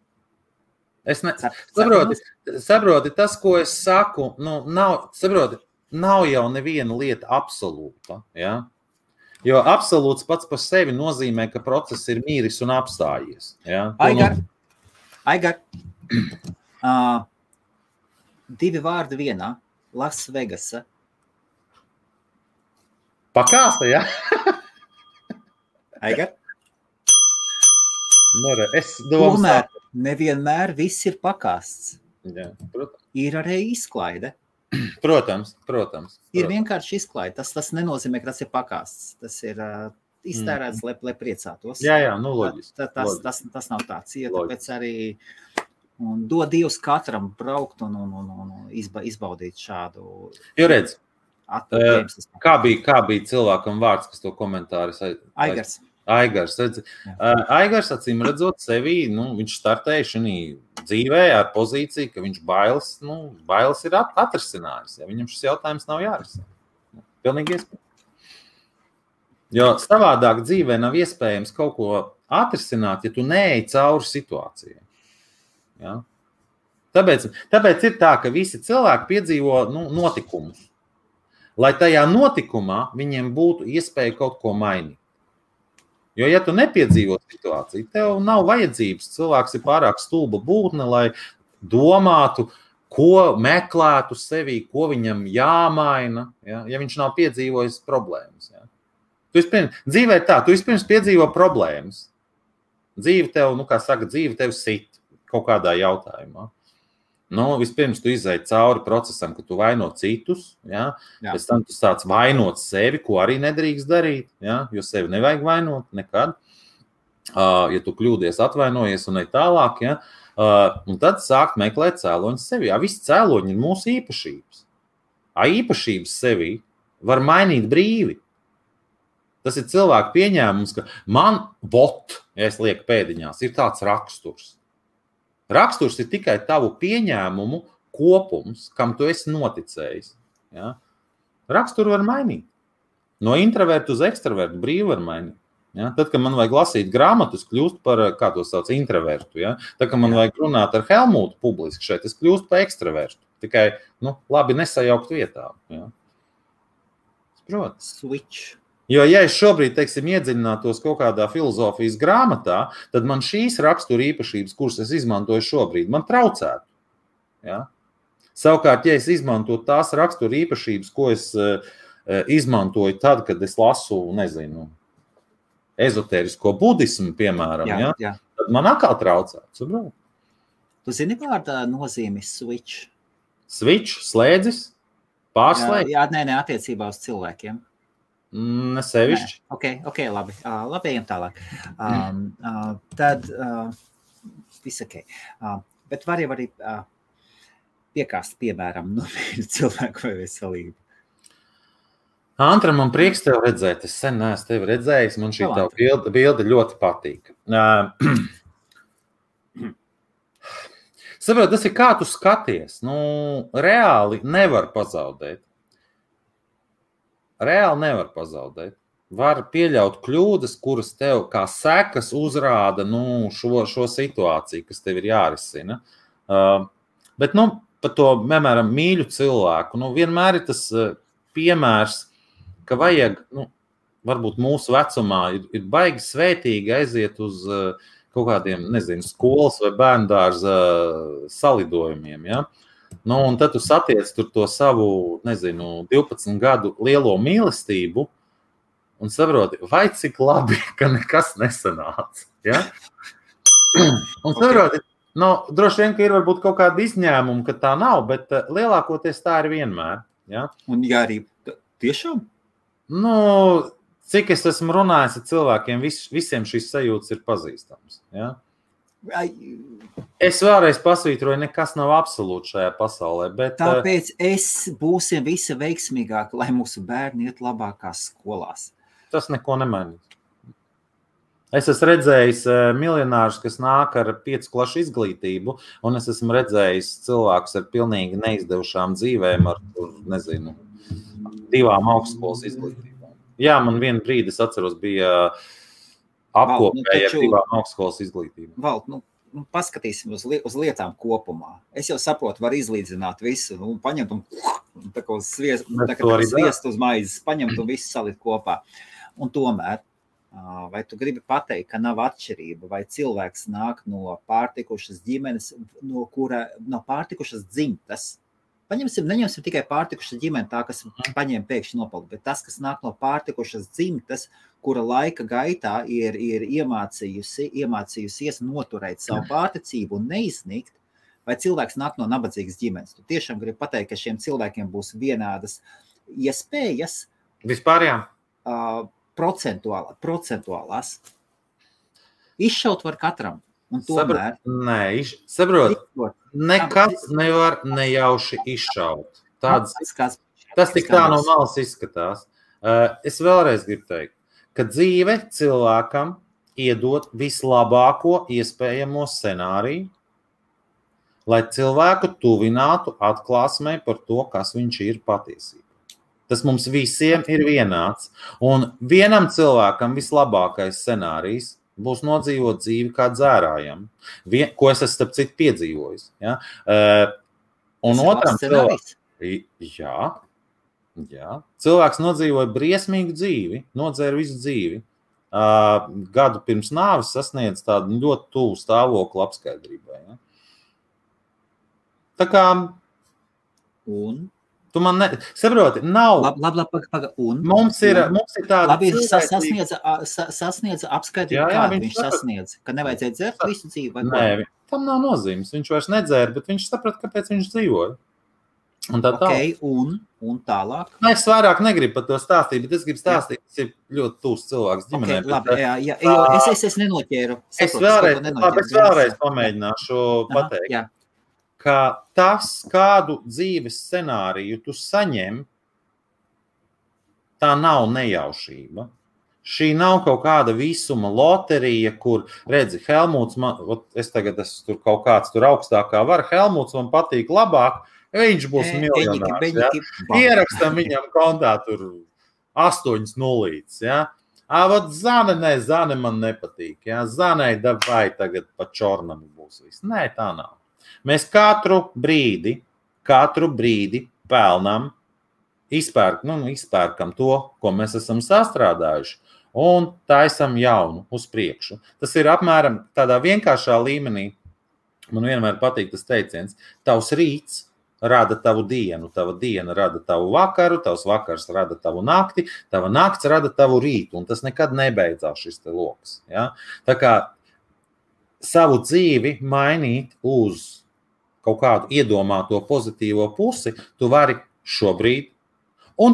S2: Saproti, tas, ko es saku, nav jau neviena lieta absolūta, ja? Jo absolūts pats par sevi nozīmē, ka process ir mīris un apstājies. Ja?
S1: Aigar. 2 vārdi vienā. Las Vegasa.
S2: Pakāsta, ja?
S1: Aigar.
S2: Es domāju.
S1: Tomēr nevienmēr viss ir pakāsts.
S2: Jā, protams.
S1: Ir arī izklaide.
S2: Protams.
S1: Ir vienkārši izklaide. Tas nenozīmē, ka tas ir pakāsts. Tas ir iztērēts, lai priecātos.
S2: Jā, loģiski.
S1: Tas nav tāds. Ja, tāpēc arī dod Dievs katram braukt un izbaudīt šādu...
S2: Jo redz, kā bija cilvēkam vārds, kas to komentāris... Aigars, redz. Aigars, acīm redzot sevi, viņš startēja šī dzīvē ar pozīciju, ka viņš bailes ir atrisinājis. Ja? Viņam šis jautājums nav jārisina. Pilnīgi iespējams. Jo savādāk dzīvē nav iespējams kaut ko atrisināt, ja tu neej cauri situācijai. Ja? Tāpēc ir tā, ka visi cilvēki piedzīvo notikumus. Lai tajā notikumā viņiem būtu iespēja kaut ko mainīt. Jo, ja tu nepiedzīvo situāciju, tev nav vajadzības. Cilvēks ir pārāk stulba būtne, lai domātu, ko meklētu sevī, ko viņam jāmaina, ja viņš nav piedzīvojis problēmas. Ja. Dzīvē ir tā, tu vispirms piedzīvo problēmas. Dzīve tev, dzīve tev sit kaut kādā jautājumā. Vispirms tu izēji cauri procesam, ka tu vaino citus, ja? Pēc tam tu sāc vainot sevi, ko arī nedrīkst darīt, ja? Jo sevi nevajag vainot nekad. Ja tu kļūdies, atvainojies un ne tālāk, ja? Un tad sākt meklēt cēloņus sevi. Ja? Visi cēloņi ir mūsu īpašības. Īpašības sevi var mainīt brīvi. Tas ir cilvēku pieņēmums, ka man ja es lieku pēdiņās, ir tāds raksturs. Raksturs ir tikai tavu pieņēmumu kopums, kam tu esi noticējis. Ja? Raksturu var mainīt. No introvertu uz ekstravertu brīvi var mainīt. Ja? Tad, kad man vajag lasīt grāmatus, kļūst par, kā to sauc, introvertu. Ja? Tad, kad man vajag runāt ar Helmutu publiski šeit, es kļūstu par ekstravertu. Tikai, labi nesajaukt vietā. Ja? Protams.
S1: Switch.
S2: Jo, ja es šobrīd, iedziļinātos kaut kādā filozofijas grāmatā, tad man šīs rakstura īpašības, kuras es izmantoju šobrīd, man traucētu. Ja? Savukārt, ja es izmantotu tās rakstura īpašības, ko es izmantoju tad, kad es lasu, ezotērisko budismu, piemēram, ja? Tad man atkal traucētu.
S1: Tu zini vārda nozīmi switch?
S2: Switch, slēdzis, pārslēdz?
S1: Jā, nē, attiecībā uz cilvēkiem.
S2: Nesevišķi.
S1: Ok, labi. Labi, ejam tālāk. Tad viss ok. Bet var jau arī piekāst, piemēram, cilvēku vai veselību.
S2: Antra, man prieks tev redzēt. Es sen neesmu tevi redzējis. Man šī tā bilde ļoti patīk. Saprot, tas ir kā tu skaties. Reāli nevar pazaudēt. Var pieļaut kļūdas, kuras tev kā sekas uzrāda šo situāciju, kas tev ir jārisina. Bet par to, piemēram, mīļu cilvēku, vienmēr ir tas piemērs, ka vajag, varbūt mūsu vecumā ir baigi svētīgi aiziet uz kaut kādiem, nezinu, skolas vai bērndārza salidojumiem, ja? Nu, un tad tu satiec tur to savu, nezinu, 12 gadu lielo mīlestību un saproti, vai cik labi, ka nekas nesanāca, ja? Un saproti, droši vien, ka ir varbūt kaut kāda izņēmuma, ka tā nav, bet lielākoties tā ir vienmēr, ja?
S1: Un jā, arī tiešām?
S2: Cik es esmu runājis ar cilvēkiem, visiem šīs sajūtas ir pazīstams. Ja? Es vēlreiz pasvītroju, nekas nav absolūti šajā pasaulē. Bet,
S1: tāpēc būsim visi veiksmīgāki, lai mūsu bērni iet labākās skolās.
S2: Tas neko nemainīs. Es esmu redzējis miljonārus, kas nāk ar 5 klašu izglītību, un es esmu redzējis cilvēkus ar pilnīgi neizdevušām dzīvēm, ar, nezinu, 2 augstskolas izglītībām. Jā, man vienu brīdi, es atceros, bija apkopēji ar 2 augstskolas izglītībām.
S1: Valt, paskatīsim uz lietām kopumā. Es jau saprotu, var izlīdzināt visu, paņemt un tā kā sviestu uz maizes, paņemt un visu salikt kopā. Un tomēr, vai tu gribi pateikt, ka nav atšķirība, vai cilvēks nāk no pārtikušas ģimenes, no pārtikušas dzimtas? Neņemsim tikai pārtikušas ģimeni, tā, kas paņēma pēkšņi nopaldu, bet tas, kas nāk no pārtikušas dzimtas, kura laika gaitā ir iemācījusies noturēt savu pārticību un neizsniegt, vai cilvēks nāk no nabadzīgas ģimenes. Tu tiešām gribi pateikt, ka šiem cilvēkiem būs vienādas iespējas?
S2: Vispār, jā.
S1: Procentuālās. Izšaut var katram. Un tomēr...
S2: Saprot, nekas nevar nejauši izšaut. Tas tik tā no malas izskatās. Es vēlreiz gribu teikt, ka dzīve cilvēkam iedod vislabāko iespējamo scenāriju, lai cilvēku tuvinātu atklāsmē par to, kas viņš ir patiesībā. Tas mums visiem ir vienāds. Un vienam cilvēkam vislabākais scenārijs būs nodzīvot dzīvi kā dzērājam, ko es esmu starp citu piedzīvojis. Ja? Un otram cilvēks nodzīvoja briesmīgu dzīvi, nodzēra visu dzīvi. Gadu pirms nāves sasniedz tādu ļoti tuvu stāvokli apskaidrībai. Ja? Tā kā...
S1: Un?
S2: Tu man saproti, nav...
S1: Un?
S2: Mums ir tāda...
S1: Labi, sasniedza apskaidrību, kādu viņš sasniedza. Ka nevajadzēja dzert visu dzīvi vai ko?
S2: Nē, tam nav nozīmes. Viņš vairs nedzēra, bet viņš saprata, kāpēc viņš dzīvoja. Un tā
S1: tālāk. Un tālāk?
S2: Es vairāk negribu par to stāstīt, bet es gribu stāstīt, kas ir ļoti tūs cilvēks ģimenē.
S1: Labi, jā, es nenoķēru.
S2: Es vēlreiz pamēģināšu pateikt.
S1: Jā.
S2: Ka tas, kādu dzīves scenāriju tu saņem, tā nav nejaušība. Šī nav kaut kāda visuma loterija, kur, redzi, Helmuts, es tagad esmu tur kaut kāds tur augstākā vara, Helmuts man patīk labāk, viņš būs miljonārs. Ja? Ierakstam viņam kontā tur 8 nulītes. Ja? Zane man nepatīk. Ja? Zanei vai tagad pa čornam būs viss. Nē, tā nav. Mēs katru brīdi pelnām, izpērkam to, ko mēs esam sastrādājuši, un taisam jaunu uz priekšu. Tas ir apmēram tādā vienkāršā līmenī. Man vienmēr patīk tas teiciens. Tavs rīts rada tavu dienu, tava diena rada tavu vakaru, tavs vakars rada tavu nakti, tava nakts rada tavu rītu, un tas nekad nebeidzās šis te loks. Ja? Tā kā savu dzīvi mainīt uz kaut kādu iedomāto pozitīvo pusi, tu vari šobrīd, un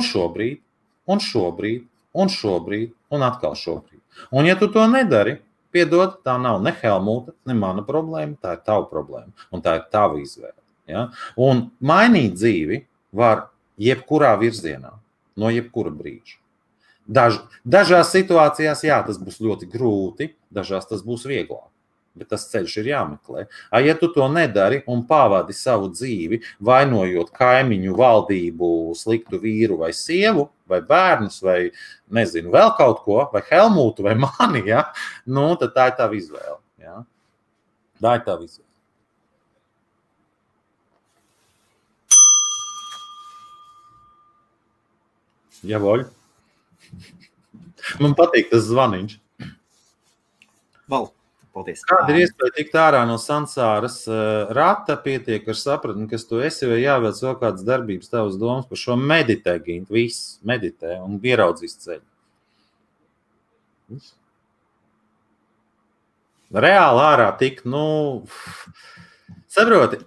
S2: atkal šobrīd. Un ja tu to nedari, piedod, tā nav ne Helmuta, ne mana problēma, tā ir tava problēma, un tā ir tava izvēle. Ja? Un mainīt dzīvi var jebkurā virzienā, no jebkura brīža. Dažās situācijās, jā, tas būs ļoti grūti, dažās tas būs vieglāk. Bet tas ceļš ir jāmeklē. Ja tu to nedari un pavadi savu dzīvi, vainojot kaimiņu, valdību, sliktu vīru vai sievu, vai bērnus, vai nezinu, vēl kaut ko, vai Helmutu, vai mani, ja? Tad tā ir tava izvēle. Ja? Tā ir tava izvēle. Javoļ. Man patīk tas zvaniņš.
S1: Val. Paldies.
S2: Kāda ir iespēja tikt ārā no sansāras rata, pietiek ar sapratni, kas tu esi, vai jāveic vēl kādas darbības tavas domas par šo meditē, Gint, viss meditē un ieraudzīs ceļu. Reāli ārā tikt, saproti,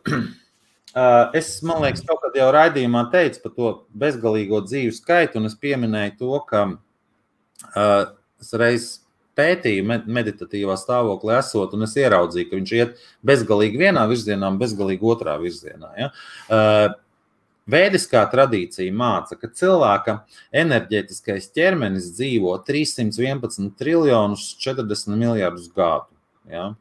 S2: man liekas, kaut kad jau raidījumā teicu par to bezgalīgo dzīvu skaitu, un es pieminēju to, ka es reiz pētīju meditatīvā stāvoklī esot, un es ieraudzīju, ka viņš iet bezgalīgi vienā virzienā un bezgalīgi otrā virzienā. Ja? Vēdiskā tradīcija māca, ka cilvēka enerģētiskais ķermenis dzīvo 311 triljonus 40 miljardus gadu. Ja?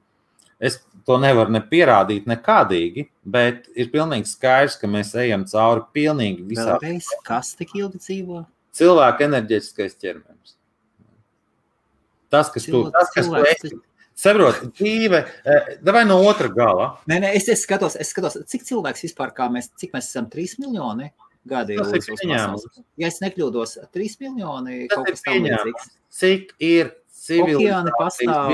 S2: Es to nevaru ne pierādīt nekādīgi, bet ir pilnīgi skaidrs, ka mēs ejam cauri pilnīgi visā.
S1: Vēlreiz, kas tik ilgi dzīvo?
S2: Cilvēka enerģētiskais ķermenis. Tas, kas tu esi. Saproti, dzīve, vai no otra gala.
S1: Nē, es skatos, cik cilvēks vispār, cik mēs esam 3 miljoni gadi uz pasaules. Ja es nekļūdos, 3 miljoni kaut kas tam līdzīgs.
S2: Cik ir
S1: Okeāni pastāv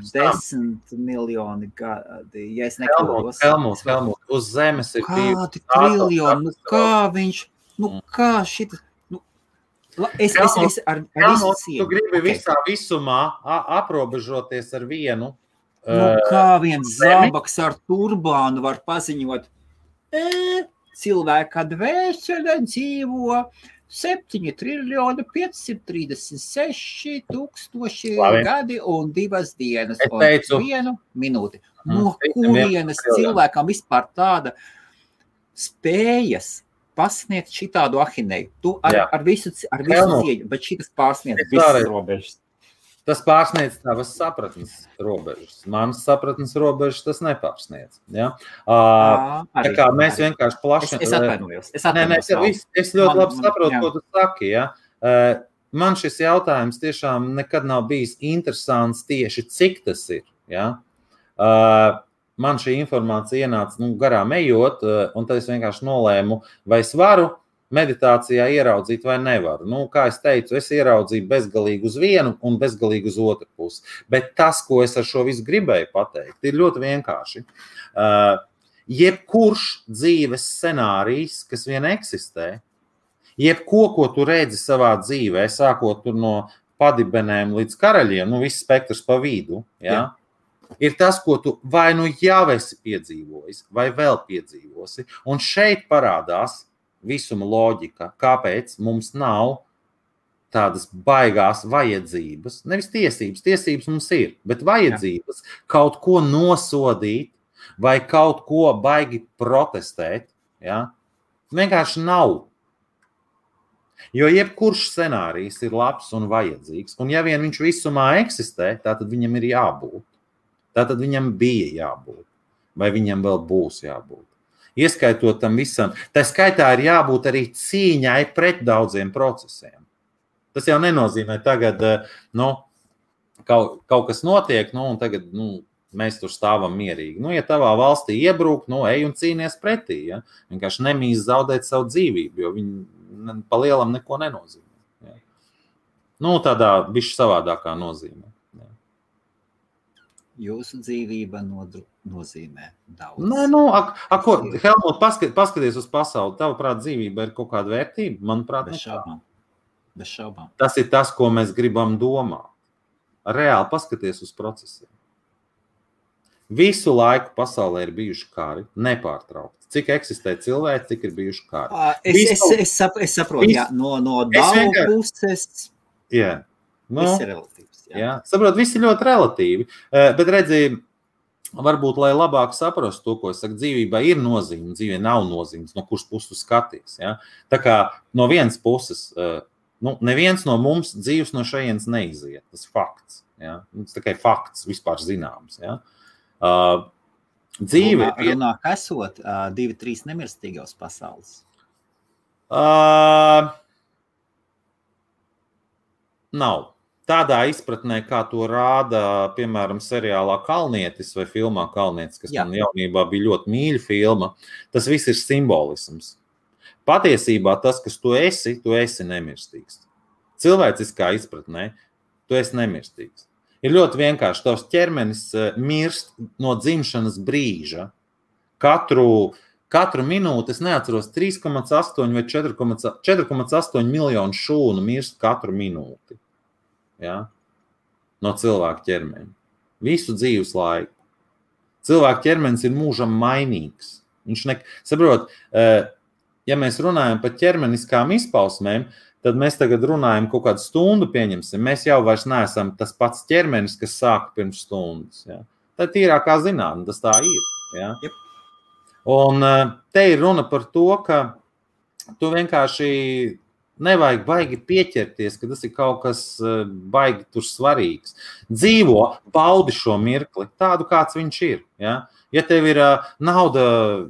S1: 10 miljoni gadi, ja es nekļūdos.
S2: Helmut, uz zemes ir
S1: kādi triljoni, kā viņš, kā šita... Es ar visu cieņu.
S2: Tu gribi visā visumā aprobežoties ar vienu.
S1: Kā viens zābaks ar turbānu var paziņot, cilvēka dvēsele dzīvo 7 triljoni 536 tūkstoši gadi un 2 dienas un 1 minūti. No kurienes cilvēkam vispār tāda spējas pasniegt šitādu ahineju. Tu ar visu cieņu, bet šitas pārsniedz visas robežas.
S2: Tas pārsniedz tavas sapratnes robežas. Manas sapratnes robežas tas nepārsniedz. Ja? Tā kā mēs vienkārši plaši...
S1: Es atvainojos.
S2: Es ļoti labi saprotu, ko tu saki. Ja? Man šis jautājums tiešām nekad nav bijis interesants tieši, cik tas ir. Ja? Man šī informācija ienāca garām ejot, un tad es vienkārši nolēmu, vai es varu meditācijā ieraudzīt vai nevaru. Kā es teicu, es ieraudzīju bezgalīgi uz vienu un bezgalīgi uz otru pusi. Bet tas, ko es ar šo visu gribēju pateikt, ir ļoti vienkārši. Jebkurš dzīves scenārijs, kas vien eksistē, ko tu redzi savā dzīvē, sākot tur no padibenēm līdz karaļiem, viss spektrs pa vidu, ja? Ir tas, ko tu vai jau esi piedzīvojis, vai vēl piedzīvosi. Un šeit parādās visuma loģika, kāpēc mums nav tādas baigās vajadzības, nevis tiesības mums ir, bet vajadzības kaut ko nosodīt vai kaut ko baigi protestēt. Ja? Vienkārši nav. Jo jebkurš scenārijs ir labs un vajadzīgs, un ja vien viņš visumā eksistē, tātad viņam ir jābūt. Tātad viņam bija jābūt, vai viņam vēl būs jābūt. Ieskaitot tam visam, tā skaitā ir jābūt arī cīņai pret daudziem procesiem. Tas jau nenozīmē tagad, kaut kas notiek, un tagad mēs tur stāvam mierīgi. Ja tavā valstī iebrūk, ej un cīnies pretī. Ja? Vienkārši nemīst zaudēt savu dzīvību, jo viņi pa lielam neko nenozīmē. Ja? Tādā bišķi savādākā nozīmē.
S1: Jūsu dzīvība nozīmē daudz.
S2: Helmut, paskaties uz pasauli. Tavuprāt, dzīvība ir kaut kāda vērtība? Manuprāt,
S1: bez šaubām.
S2: Tas ir tas, ko mēs gribam domāt. Reāli paskaties uz procesiem. Visu laiku pasaulē ir bijuši kari, nepārtraukti. Cik eksistē cilvēki, cik ir bijuši kari.
S1: Es saprotu, no daudz puses.
S2: Jā.
S1: Viss ir relatīvs.
S2: Jā, saprot, viss ir ļoti relatīvi, bet redzi, varbūt, lai labāk saprastu to, ko es saku, dzīvībā ir nozīme, dzīvē nav nozīmes, no kuras puses tu skaties. Ja? Tā kā no vienas puses, neviens no mums dzīves no šajienes neiziet, tas fakts. Ja? Tas tikai fakts, vispār zināms. Ja? Dzīve
S1: runāk esot 2-3 nemirstīgos pasaules.
S2: Nav. Tādā izpratnē, kā to rāda, piemēram, seriālā Kalnietis vai filmā Kalnietis, kas man jaunībā bija ļoti mīļa filma, tas viss ir simbolisms. Patiesībā tas, kas tu esi nemirstīgs. Cilvēciskā izpratnē, tu esi nemirstīgs. Ir ļoti vienkārši. Tavs ķermenis mirst no dzimšanas brīža. Katru minūti, es neatceros, 3,8 vai 4,8 miljonu šūnu mirst katru minūti. Ja? No cilvēka ķermeņa. Visu dzīves laiku. Cilvēka ķermenis ir mūžam mainīgs. Saprot, ja mēs runājam par ķermeniskām izpausmēm, tad mēs tagad runājam kaut kādu stundu pieņemsim. Mēs jau vairs neesam tas pats ķermenis, kas sāka pirms stundas. Ja? Tā tīrākā zinātne, tas tā ir. Ja?
S1: Yep.
S2: Un te ir runa par to, ka tu vienkārši nevajag baigi pieķerties, ka tas ir kaut kas baigi tur svarīgs. Dzīvo, baudi šo mirkli, tādu kāds viņš ir. Ja, ja tev ir nauda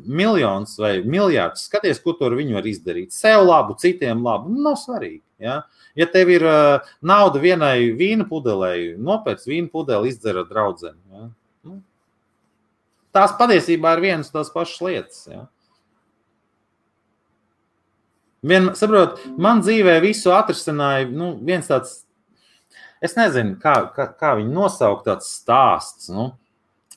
S2: miljons vai miljards, skaties, ko tu ar viņu var izdarīt. Sev labu, citiem labu, nav svarīgi. Ja, ja tev ir nauda vienai vīna pudelei, nopērc vīna pudeli, izdzer ar draudzeni. Ja. Tās patiesībā ir vienas tās pašas lietas. Ja. Saprot, man dzīvē visu atrisināja viens tāds, es nezinu, kā viņu nosaukt, tāds stāsts.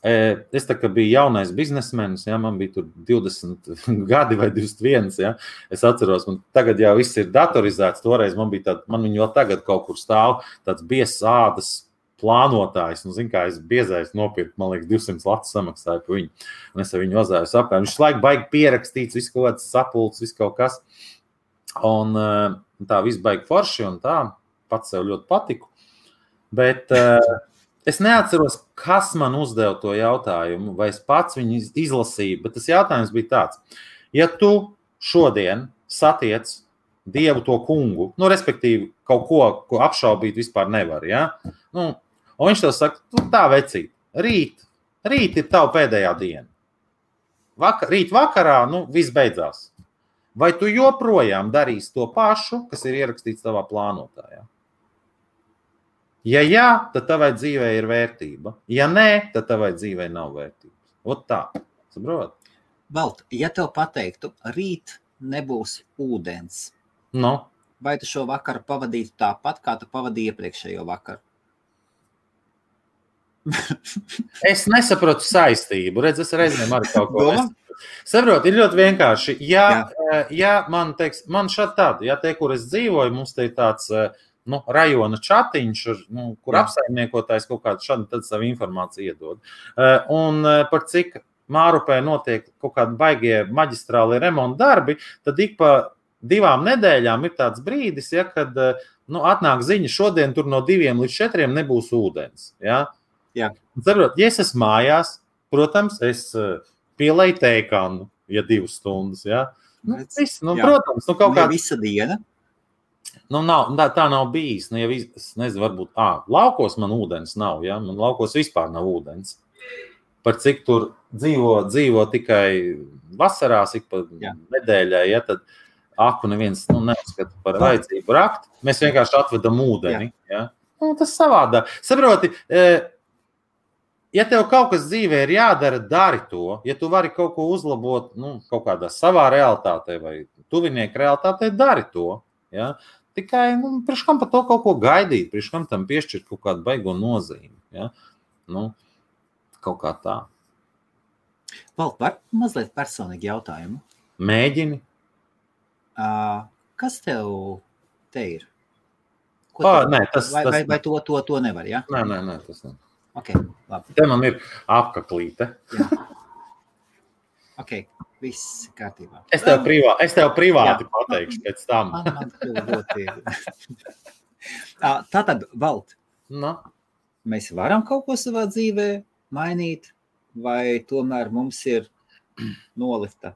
S2: Es tā kā biju jaunais biznesmenis, ja, man bija tur 20 gadi vai 21. Ja. Es atceros, man tagad jau viss ir datorizēts. Toreiz man viņu vēl tagad kaut kur stāv tāds biezs ādas plānotājs. Zin kā, es biezais nopirku, man liekas, 200 latu samaksāju par viņu. Un es ar viņu vazāju sapēm. Viņš laiku baigi pierakstīts, viss kaut kāds sapulcs, viss kaut kas. Un tā viss baigi forši un tā, pats sev ļoti patiku. Bet es neatceros, kas man uzdeva to jautājumu, vai es pats viņu izlasīju, bet tas jautājums bija tāds. Ja tu šodien satiec Dievu to kungu, respektīvi kaut ko apšaubīt vispār nevar, ja? Un viņš tev saka, tā vecīt, rīt ir tava pēdējā diena. Rīt vakarā, viss beidzās. Vai tu joprojām darīsi to pašu, kas ir ierakstīts tavā plānotājā? Ja jā, tad tavai dzīvē ir vērtība. Ja nē, tad tavai dzīvē nav vērtības. Ot tā, saprot?
S1: Valt, ja tev pateiktu, rīt nebūs ūdens, vai tu šo vakaru pavadītu tāpat, kā tu pavadīji iepriekšējo vakaru?
S2: Es nesaprotu saistību. Redz, es reizēm arī kaut ko saprotu, ir ļoti vienkārši. Ja man šādi tādi, ja te, kur es dzīvoju, mums te ir tāds rajona čatiņš, kur apsaimniekotājs kaut kādu šādu tad savu informāciju iedod. Un par cik Mārupē notiek kaut kādi baigie maģistrāli remonta darbi, tad ik pa 2 nedēļām ir tāds brīdis, ja, kad atnāk ziņa, šodien tur no 2 līdz 4 nebūs ūdens. Ja?
S1: Jā.
S2: Saprot, ja es esmu mājās, protams, es pielēju teikanu, ja 2 stundas. Ja? Protams, kaut kā
S1: visa diena.
S2: Tā nav bijis. Ja es nezinu, varbūt, laukos man ūdens nav, ja? Man laukos vispār nav ūdens. Par cik tur dzīvo tikai vasarās, ik pa nedēļai, ja, tad aku neviens neuzskata par vajadzību rakt. Mēs vienkārši atvedam ūdeni. Ja? Tas savādāk. Saproti, ja tev kaut kas dzīvē ir jādara, dari to. Ja tu vari kaut ko uzlabot kaut kādā savā realitātē vai tuvinieku realitātē, dari to. Ja? Tikai priekš kam par to kaut ko gaidīt, priekš kam tam piešķirt kaut kādu baigo nozīmi. Ja? Kaut kā tā.
S1: Valt, var mazliet personīgi jautājumu?
S2: Mēģini.
S1: Kas tev te ir?
S2: Nē,
S1: vai to nevar, ja?
S2: Nē, tas nav.
S1: Ok, labi.
S2: Te man ir apaklīte.
S1: Jā. Ok, viss kārtībā.
S2: Es tev privāti pateikšu pēc tam.
S1: Man ļoti Tātad, Valt, mēs varam kaut ko savā dzīvē mainīt, vai tomēr mums ir nolifta?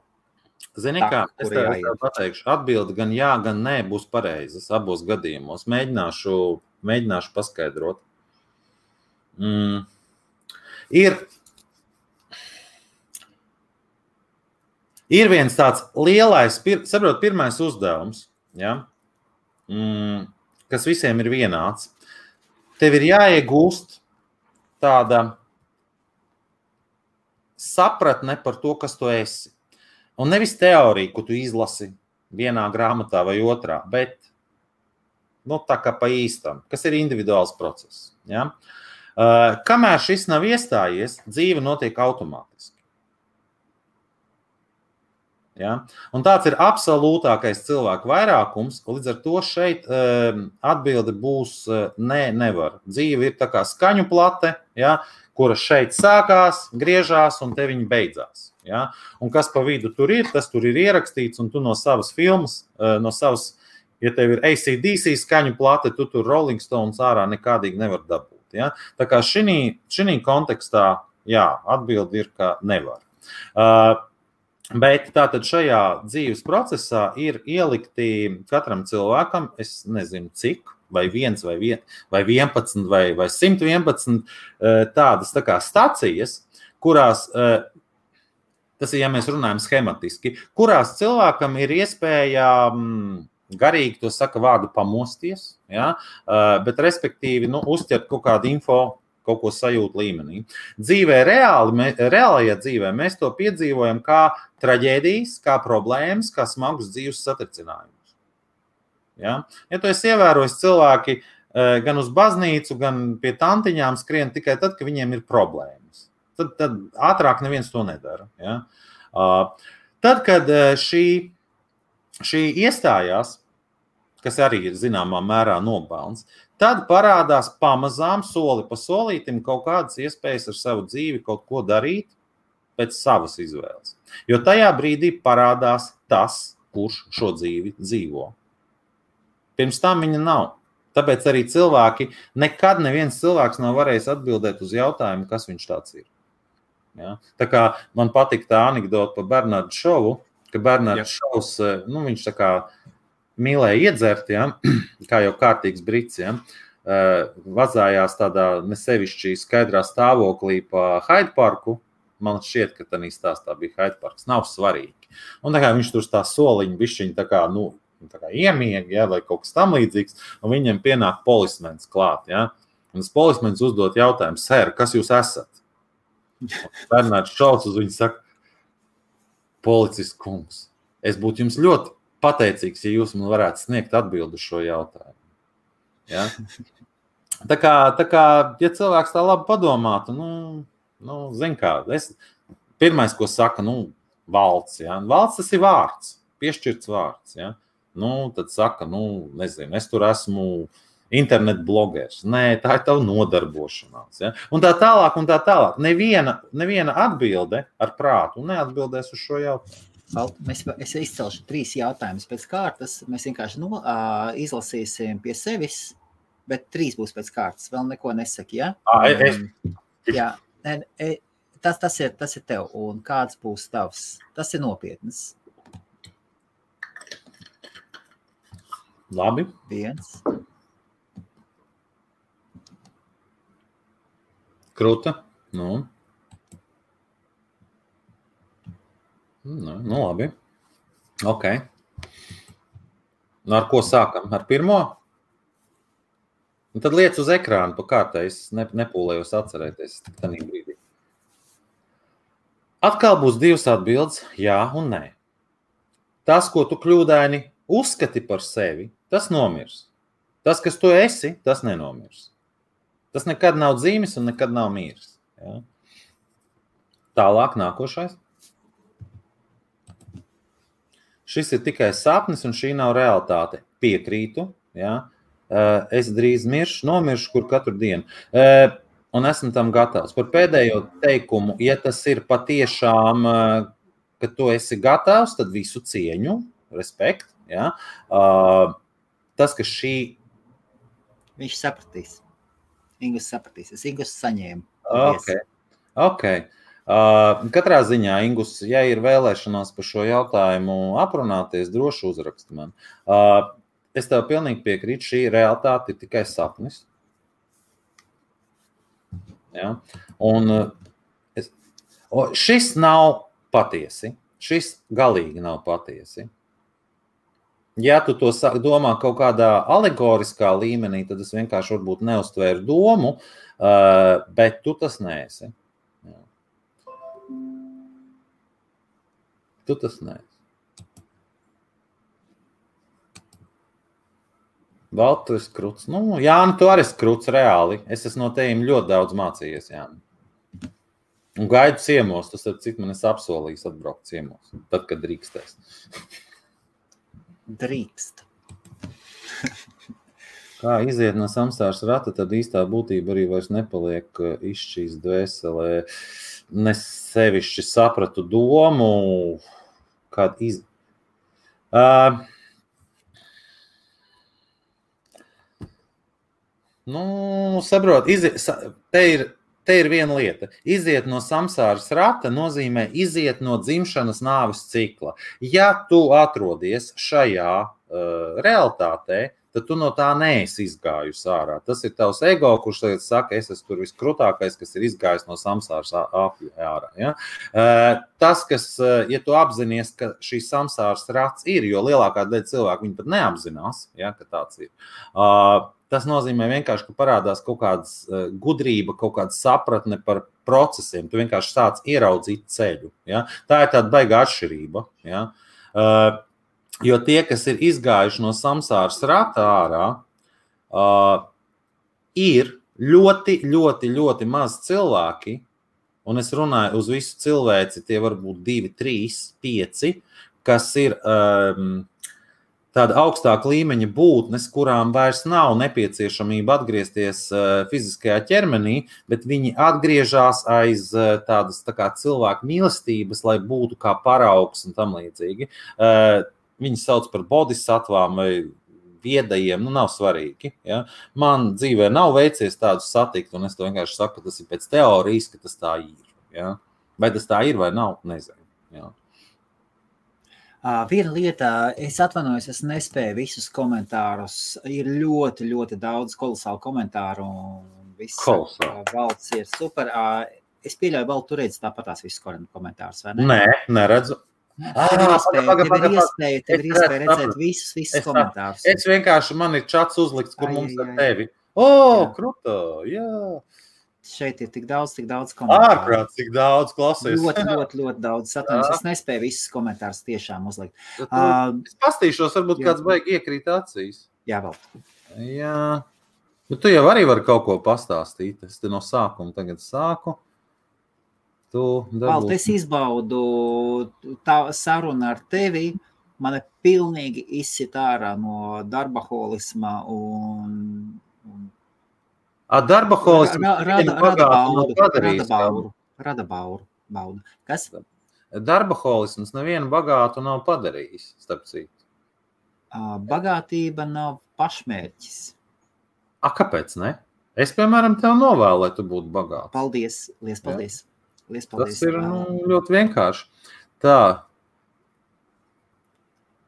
S2: Zini kā, es tev pateikšu, atbildi gan jā, gan nē būs pareizas abos gadījumos. Mēģināšu paskaidrot. Ir viens tāds lielais, saprot, pirmais uzdevums, ja, kas visiem ir vienāds. Tev ir jāiegūst tāda sapratne par to, kas tu esi. Un nevis teorija, ko tu izlasi vienā grāmatā vai otrā, bet tā kā pa īstam, kas ir individuāls process. Ja? Kamēr šis nav iestājies, dzīve notiek automātiski. Ja? Un tāds ir absolūtākais cilvēku vairākums, līdz ar to šeit atbilde būs nevar. Dzīve ir tā kā skaņu plate, ja, kura šeit sākās, griežās un te viņa beidzās. Ja? Un kas pa vidu tur ir, tas tur ir ierakstīts, un tu no savas filmas, ja tev ir AC/DC skaņu plate, tu tur Rolling Stones ārā nekādīgi nevar dabūt. Ja? Tā kā šī kontekstā, jā, atbilde ir, ka nevar. Bet tātad šajā dzīves procesā ir ielikti katram cilvēkam, es nezinu cik, vai 1, vai 11, vai 111 tādas tā kā stacijas, kurās, tas ir, ja mēs runājam schematiski, kurās cilvēkam ir iespēja garīgi, to saka vārdu pamosties, ja? Bet respektīvi uzķert kaut kādu info, kaut ko sajūt līmenī. Reālajā dzīvē mēs to piedzīvojam kā traģēdijas, kā problēmas, kā smagus dzīves satricinājumus. Ja tu esi ievērojis cilvēki gan uz baznīcu, gan pie tantiņām skrien tikai tad, kad viņiem ir problēmas. Tad ātrāk neviens to nedara. Ja? Tad, kad šī iestājās, kas arī ir zināmā mērā nopelns, tad parādās pamazām soli pa solītim kaut kādas iespējas ar savu dzīvi kaut ko darīt pēc savas izvēles. Jo tajā brīdī parādās tas, kurš šo dzīvi dzīvo. Pirms tam viņa nav. Tāpēc arī nekad neviens cilvēks nav varējis atbildēt uz jautājumu, kas viņš tāds ir. Ja? Tā kā man patīk tā anekdota par Bernardu Šovu, ka Bernards Šovs, viņš tā kā mīlēja iedzert, ja, kā jau kārtīgs brits, ja, vazājās tādā nesevišķi skaidrā stāvoklī pa Hyde Parku. Man šķiet, ka tādā stāstā bija Hyde Parks. Nav svarīgi. Un tā kā viņš tur tā soliņa bišķiņa tā kā iemiega, ja, vai kaut kas tam līdzīgs, un viņam pienāk polismens klāt. Ja. Un tas polismens uzdot jautājumu, sēr, kas jūs esat? Bernards Šovs uz viņu saka, policists kungs, es būtu jums ļoti pateicīgs, ja jūs man varētu sniegt atbildi uz šo jautājumu. Ja? Tā kā, ja cilvēks tā labi padomātu, zin kā, pirmais, ko saka, valds. Ja? Valds tas ir vārds, piešķirts vārds. Ja? Tad saka, nezinu, es tur esmu internet blogers. Nē, tā ir tava nodarbošanās. Ja? Un tā tālāk. Neviena atbilde ar prātu neatbildēs uz šo jautājumu.
S1: Es izcelšu 3 jautājumus pēc kārtas. Mēs vienkārši izlasīsim pie sevis, bet 3 būs pēc kārtas. Vēl neko nesaki, ja? Jā, tas ir tev. Un kāds būs tavs? Tas ir nopietnas.
S2: Labi.
S1: 1.
S2: Kruta. Labi. Ok. Ar ko sākam? Ar pirmo? Un tad liec uz ekrānu pa kārtai. Es nepūlējos atcerēties tādā brīdī. Atkal būs 2 atbildes, jā un nē. Tas, ko tu kļūdaini uzskati par sevi, tas nomirs. Tas, kas tu esi, tas nenomirs. Tas nekad nav dzīvis un nekad nav miris. Ja? Tālāk nākošais. Šis ir tikai sapnis, un šī nav realitāte. Piekrītu, ja? Es drīz nomiršu, kur katru dienu. Un esmu tam gatavs. Par pēdējo teikumu, ja tas ir patiešām, ka tu esi gatavs, tad visu cieņu, respekt. Ja? Tas, ka šī...
S1: Viņš sapratīs. Ingus sapratīs. Es Ingus saņēmu.
S2: Ok. Katrā ziņā, Ingus, ja ir vēlēšanās par šo jautājumu aprunāties, droši uzraksti man. Es tev pilnīgi piekrītu, šī realitāte ir tikai sapnis. Ja? Un šis nav patiesi. Šis galīgi nav patiesi. Ja tu to domā kaut kādā alegoriskā līmenī, tad es vienkārši varbūt neuztvēru domu, bet tu tas neesi. Tu tas neesi. Valdu, tu esi kruts. Nu, Jāni, tu arī esi kruts reāli. Es esmu no tevim ļoti daudz mācījies, Jāni. Un gaidu ciemos, tas ar cik man esi apsolījis atbraukt ciemos, tad, kad drīkstēs.
S1: Drīkst.
S2: Kā iziet no samsāras rata, tad īstā būtība arī vairs nepaliek izšķīs dvēselē. Nesevišķi sapratu domu, kad saprot, te ir viena lieta. Iziet no samsāras rata nozīmē iziet no dzimšanas nāves cikla. Ja tu atrodies šajā realitātē, tad tu no tā neesi izgājusi ārā. Tas ir tavs ego, kurš tagad saka, es esmu tur viskrutākais, kas ir izgājis no samsāras ārā. Ja? Tas, kas, ja tu apzinies, ka šī samsāras rats ir, jo lielākā daļa cilvēku viņi pat neapzinās, ja, ka tāds ir. Tas nozīmē vienkārši, ka parādās kaut kādas gudrība, kaut kāda sapratne par procesiem. Tu vienkārši sāc ieraudzīt ceļu. Ja? Tā ir tāda baigā atšķirība. Ja? Jo tie, kas ir izgājuši no samsāras rata ārā, ir ļoti, ļoti, ļoti maz cilvēki, un es runāju uz visu cilvēci, tie var būt 2, 3, 5, kas ir tāda augstāka līmeņa būtnes, kurām vairs nav nepieciešamība atgriezties fiziskajā ķermenī, bet viņi atgriežas aiz tādas tā kā cilvēku mīlestības, lai būtu kā paraugs un tam līdzīgi. Viņi sauc par bodhisattvām vai viedajiem, nav svarīgi. Ja? Man dzīvē nav veicies tādus satikt, un es to vienkārši saku, ka tas ir pēc teorijas, ka tas tā ir. Ja? Vai tas tā ir vai nav, nezinu. Ja?
S1: Viena lieta, es atvainojos, es nespēju visus komentārus. Ir ļoti, ļoti daudz kolosālu komentāru. Valds ir super. Es pieļauju, Valds, tu redzi tāpatās visus komentārus, vai ne?
S2: Nē, neredzu.
S1: Tev ir iespēja redzēt visus komentārus.
S2: Es vienkārši, man ir čats uzlikts, kur mums ar tevi. Kruta, jā.
S1: Šeit ir tik daudz komentāru.
S2: Ārprāt, cik daudz klausies.
S1: Ļoti daudz. Atvainojos, es nespēju visus komentārus tiešām uzlikt.
S2: Es pastīšos, varbūt kāds baigi iekrīt acīs.
S1: Jā, vēl.
S2: Jā. Bet tu jau arī vari kaut ko pastāstīt. Es te no sākuma tagad sāku.
S1: Valt, es izbaudu tā saruna ar tevi. Mani pilnīgi izsit ārā no darbaholisma un
S2: darbaholisms
S1: rada baudu. Kas?
S2: Darbaholisms nevienu bagātu nav padarījis, starp citu.
S1: Bagātība nav pašmērķis.
S2: Kāpēc ne? Es, piemēram, tev novēlu, lai tu būtu bagāts.
S1: Paldies, liels paldies.
S2: Tas ir ļoti vienkārši. Tā.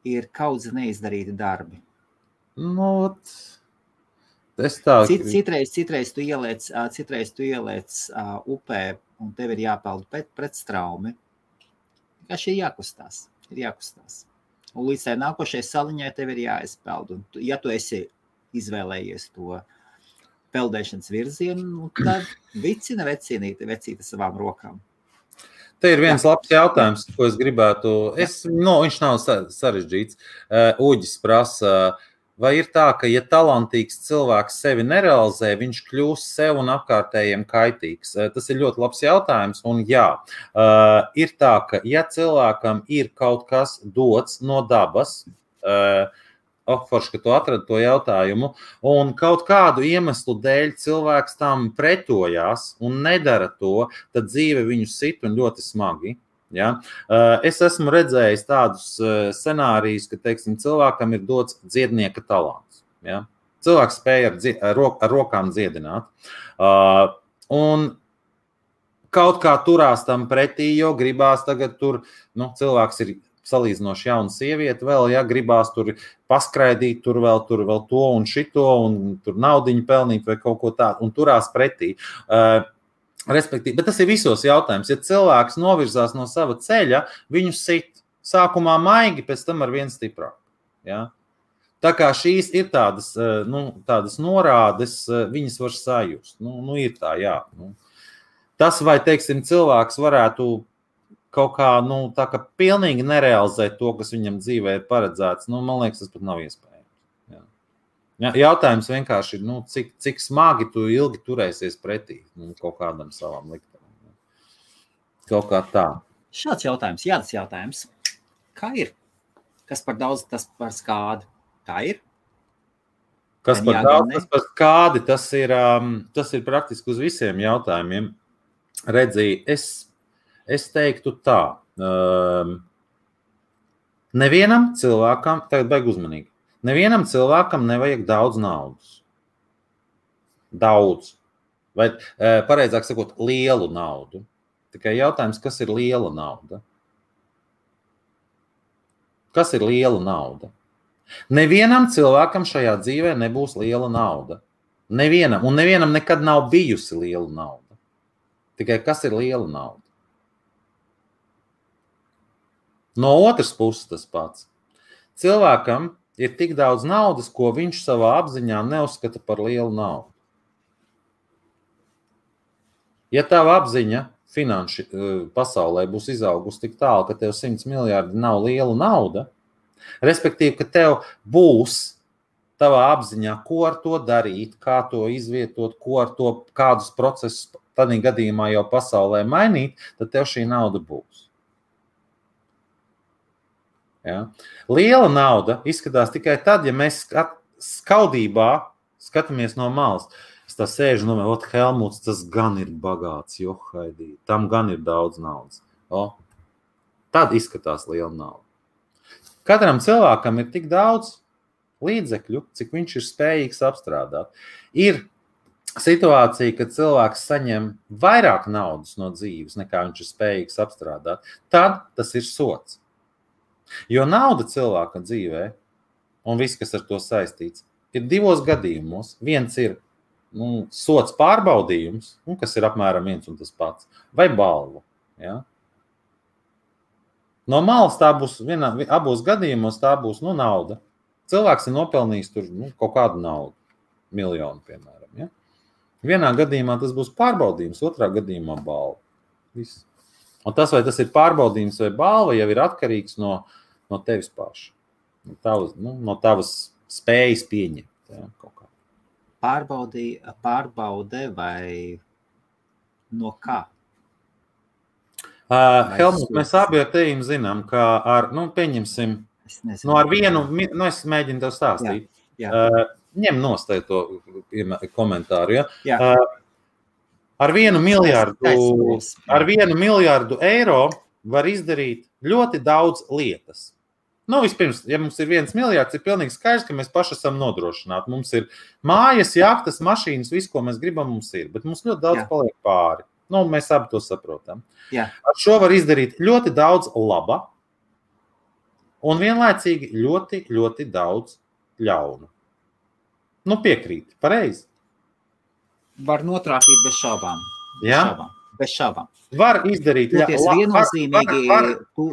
S1: Ir kaudzi neizdarīti darbi. Citreiz tu ieliec upē un tev ir jāpeld pret straumi. Vienkārši ir jākustās. Un līdz tai nākošajai saliņai tev ir jāizpeld. Un ja tu esi izvēlējies to peldēšanas virzienu, tad vicina vecīta savām rokām.
S2: Te ir viens labs jautājums, ko es gribētu. Viņš nav sarežģīts. Uģis prasa, vai ir tā, ka, ja talantīgs cilvēks sevi nerealizē, viņš kļūst sev un apkārtējiem kaitīgs? Tas ir ļoti labs jautājums, un jā, ir tā, ka, ja cilvēkam ir kaut kas dots no dabas, forši, ka tu atradi to jautājumu, un kaut kādu iemeslu dēļ cilvēks tam pretojās un nedara to, tad dzīve viņu sit un ļoti smagi. Ja? Es esmu redzējis tādus scenārijus, ka, teiksim, cilvēkam ir dots dziednieka talants. Ja? Cilvēks spēja ar rokām dziedināt. Un kaut kā turās tam pretī, jo gribās tagad tur, cilvēks ir salīdzinoši jauna sieviete vēl, ja gribās tur paskraidīt, tur vēl to un šito, un tur naudiņu pelnīt vai kaut ko tādu, un turās pretī. Respektīvi, bet tas ir visos jautājums. Ja cilvēks novirzās no sava ceļa, viņu sit sākumā maigi, pēc tam ar vien stiprāk. Ja? Tā kā šīs ir tādas norādes, viņas var sajust. Ir tā, jā. Tas, vai, teiksim, cilvēks varētu kaut kā, tā kā pilnīgi nerealizēt to, kas viņam dzīvē ir paredzēts, man liekas, tas pat nav iespējams. Jā. Ja, jautājums vienkārši ir, cik smagi tu ilgi turēsies pretī kaut kādam savam liktenam. Kaut kā tā.
S1: Šāds jautājums, jādas jautājums. Kā ir? Kas par daudz, tas par skādi? Tā ir?
S2: Kas par daudz, tas par skādi, tas ir praktiski uz visiem jautājumiem. Redzī, es teiktu tā. Nevienam cilvēkam, tagad baigi uzmanīgi, nevienam cilvēkam nevajag daudz naudas. Daudz. Vai, pareizāk sakot, lielu naudu. Tikai jautājums, kas ir liela nauda? Kas ir liela nauda? Nevienam cilvēkam šajā dzīvē nebūs liela nauda. Nevienam. Un nevienam nekad nav bijusi liela nauda. Tikai kas ir liela nauda? No otras puses tas pats. Cilvēkam ir tik daudz naudas, ko viņš savā apziņā neuzskata par lielu naudu. Ja tava apziņa finanšu pasaulē būs izaugusi tik tālu, ka tev 100 miljardi nav liela nauda, respektīvi, ka tev būs tavā apziņā, ko ar to darīt, kā to izvietot, ko ar to, kādus procesus tādā gadījumā jau pasaulē mainīt, tad tev šī nauda būs. Ja? Liela nauda izskatās tikai tad, ja mēs skaudībā skatāmies no malas. Es tā sēžu, Helmuts, tas gan ir bagāts, johaidī, tam gan ir daudz naudas. Tad izskatās liela nauda. Katram cilvēkam ir tik daudz līdzekļu, cik viņš ir spējīgs apstrādāt. Ir situācija, kad cilvēks saņem vairāk naudas no dzīves, nekā viņš ir spējīgs apstrādāt. Tad tas ir sots. Jo nauda cilvēka dzīvē, un viss, kas ar to saistīts, ir divos gadījumos. Viens ir sots pārbaudījums, kas ir apmēram viens un tas pats, vai balva. Ja? No malas tā būs, abos gadījumos tā būs nauda. Cilvēks ir nopelnījis tur kaut kādu naudu, miljonu, piemēram. Ja? Vienā gadījumā tas būs pārbaudījums, otrā gadījumā balva. Viss. Un tas, vai tas ir pārbaudījums vai balva, jau ir atkarīgs no tevis paša. No tavas spējas pieņemt. Ja, kaut kā.
S1: Pārbaude vai no kā?
S2: Helmut, mēs abi ar tevi zinām, ka pieņemsim, ar vienu, es mēģinu tev stāstīt. Jā. Ņem nostāj to komentāru. Ja? Jā. Ar 1 miljardu eiro var izdarīt ļoti daudz lietas. Vispirms, ja mums ir 1 miljards, ir pilnīgi skaidrs, ka mēs paši esam nodrošināti. Mums ir mājas, jahtas, mašīnas, viss, ko mēs gribam, mums ir. Bet mums ļoti daudz paliek pāri. Mēs abi to saprotam. Jā. Ar šo var izdarīt ļoti daudz laba un vienlaicīgi ļoti, ļoti daudz ļaunu. Piekrīt, pareizi.
S1: Var notrāpīt bez šaubām.
S2: Jā?
S1: Bez šaubām.
S2: Var izdarīt
S1: viennozīmīgi, tu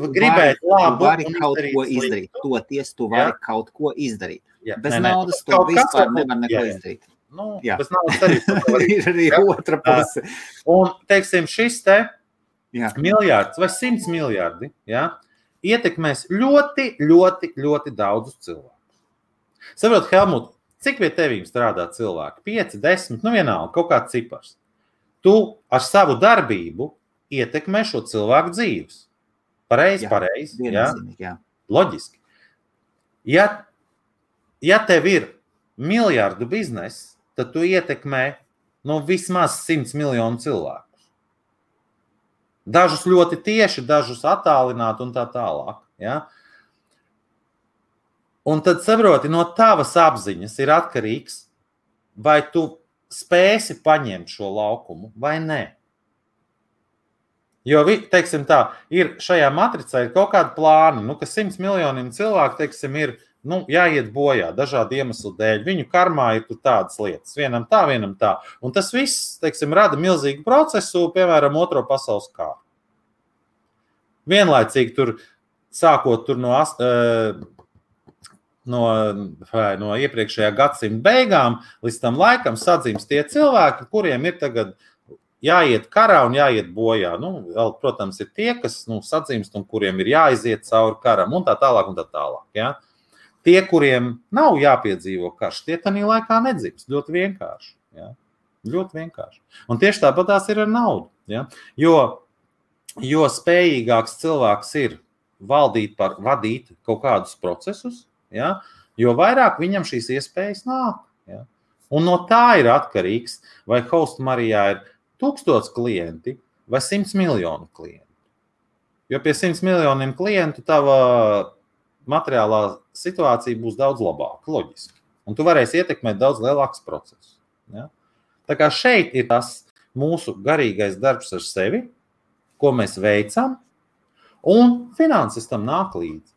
S1: vari kaut ko izdarīt. Toties tu vari kaut ko izdarīt. Bez naudas tu vispār nevar neko izdarīt.
S2: Bez naudas arī
S1: ir arī otra puse.
S2: Un, teiksim, šis miljards vai 100 miljardi ietekmēs ļoti, ļoti, ļoti daudzus cilvēkus. Saprot, Helmut, cik pie tevīm strādā cilvēki? 5, 10, vienalga, kaut kāds cipars. Tu ar savu darbību ietekmē šo cilvēku dzīves. Pareizi.
S1: Jā.
S2: Loģiski. Ja tev ir miljardu bizness, tad tu ietekmē vismaz 100 miljonu cilvēkus. Dažus ļoti tieši, dažus attālināt un tā tālāk. Ja? Un tad saproti, no tavas apziņas ir atkarīgs, vai tu spēsi paņemt šo laukumu vai nē. Jo, teiksim tā, ir šajā matricā ir kaut kādi plāni, ka 100 miljoniem cilvēku, teiksim, ir jāiet bojā dažādu iemeslu dēļ. Viņu karmā ir tādas lietas, vienam tā. Un tas viss, teiksim, rada milzīgu procesu, piemēram, Otro pasaules kāru. Vienlaicīgi tur, sākot tur no iepriekšējā gadsimta beigām, līdz tam laikam sadzimst tie cilvēki, kuriem ir tagad jāiet karā un jāiet bojā. Vēl, protams, ir tie, kas sadzimst un kuriem ir jāiziet cauri karam un tā tālāk. Ja? tie, kuriem nav jāpiedzīvo karš, tie tanī laikā nedzims. Ļoti vienkārši. Ja? Ļoti vienkārši. Un tieši tāpat tās ir ar naudu. Ja? Jo spējīgāks cilvēks ir vadīt kaut kādus procesus, ja? Jo vairāk viņam šīs iespējas nāk. Ja? Un no tā ir atkarīgs, vai Host Marijā ir 1000 klienti vai 100 miljonu klientu. Jo pie 100 miljoniem klientu tava materiālā situācija būs daudz labāka, loģiski. Un tu varēsi ietekmēt daudz lielākus procesus. Ja? Tā kā šeit ir tas mūsu garīgais darbs ar sevi, ko mēs veicam, un finanses tam nāk līdzi.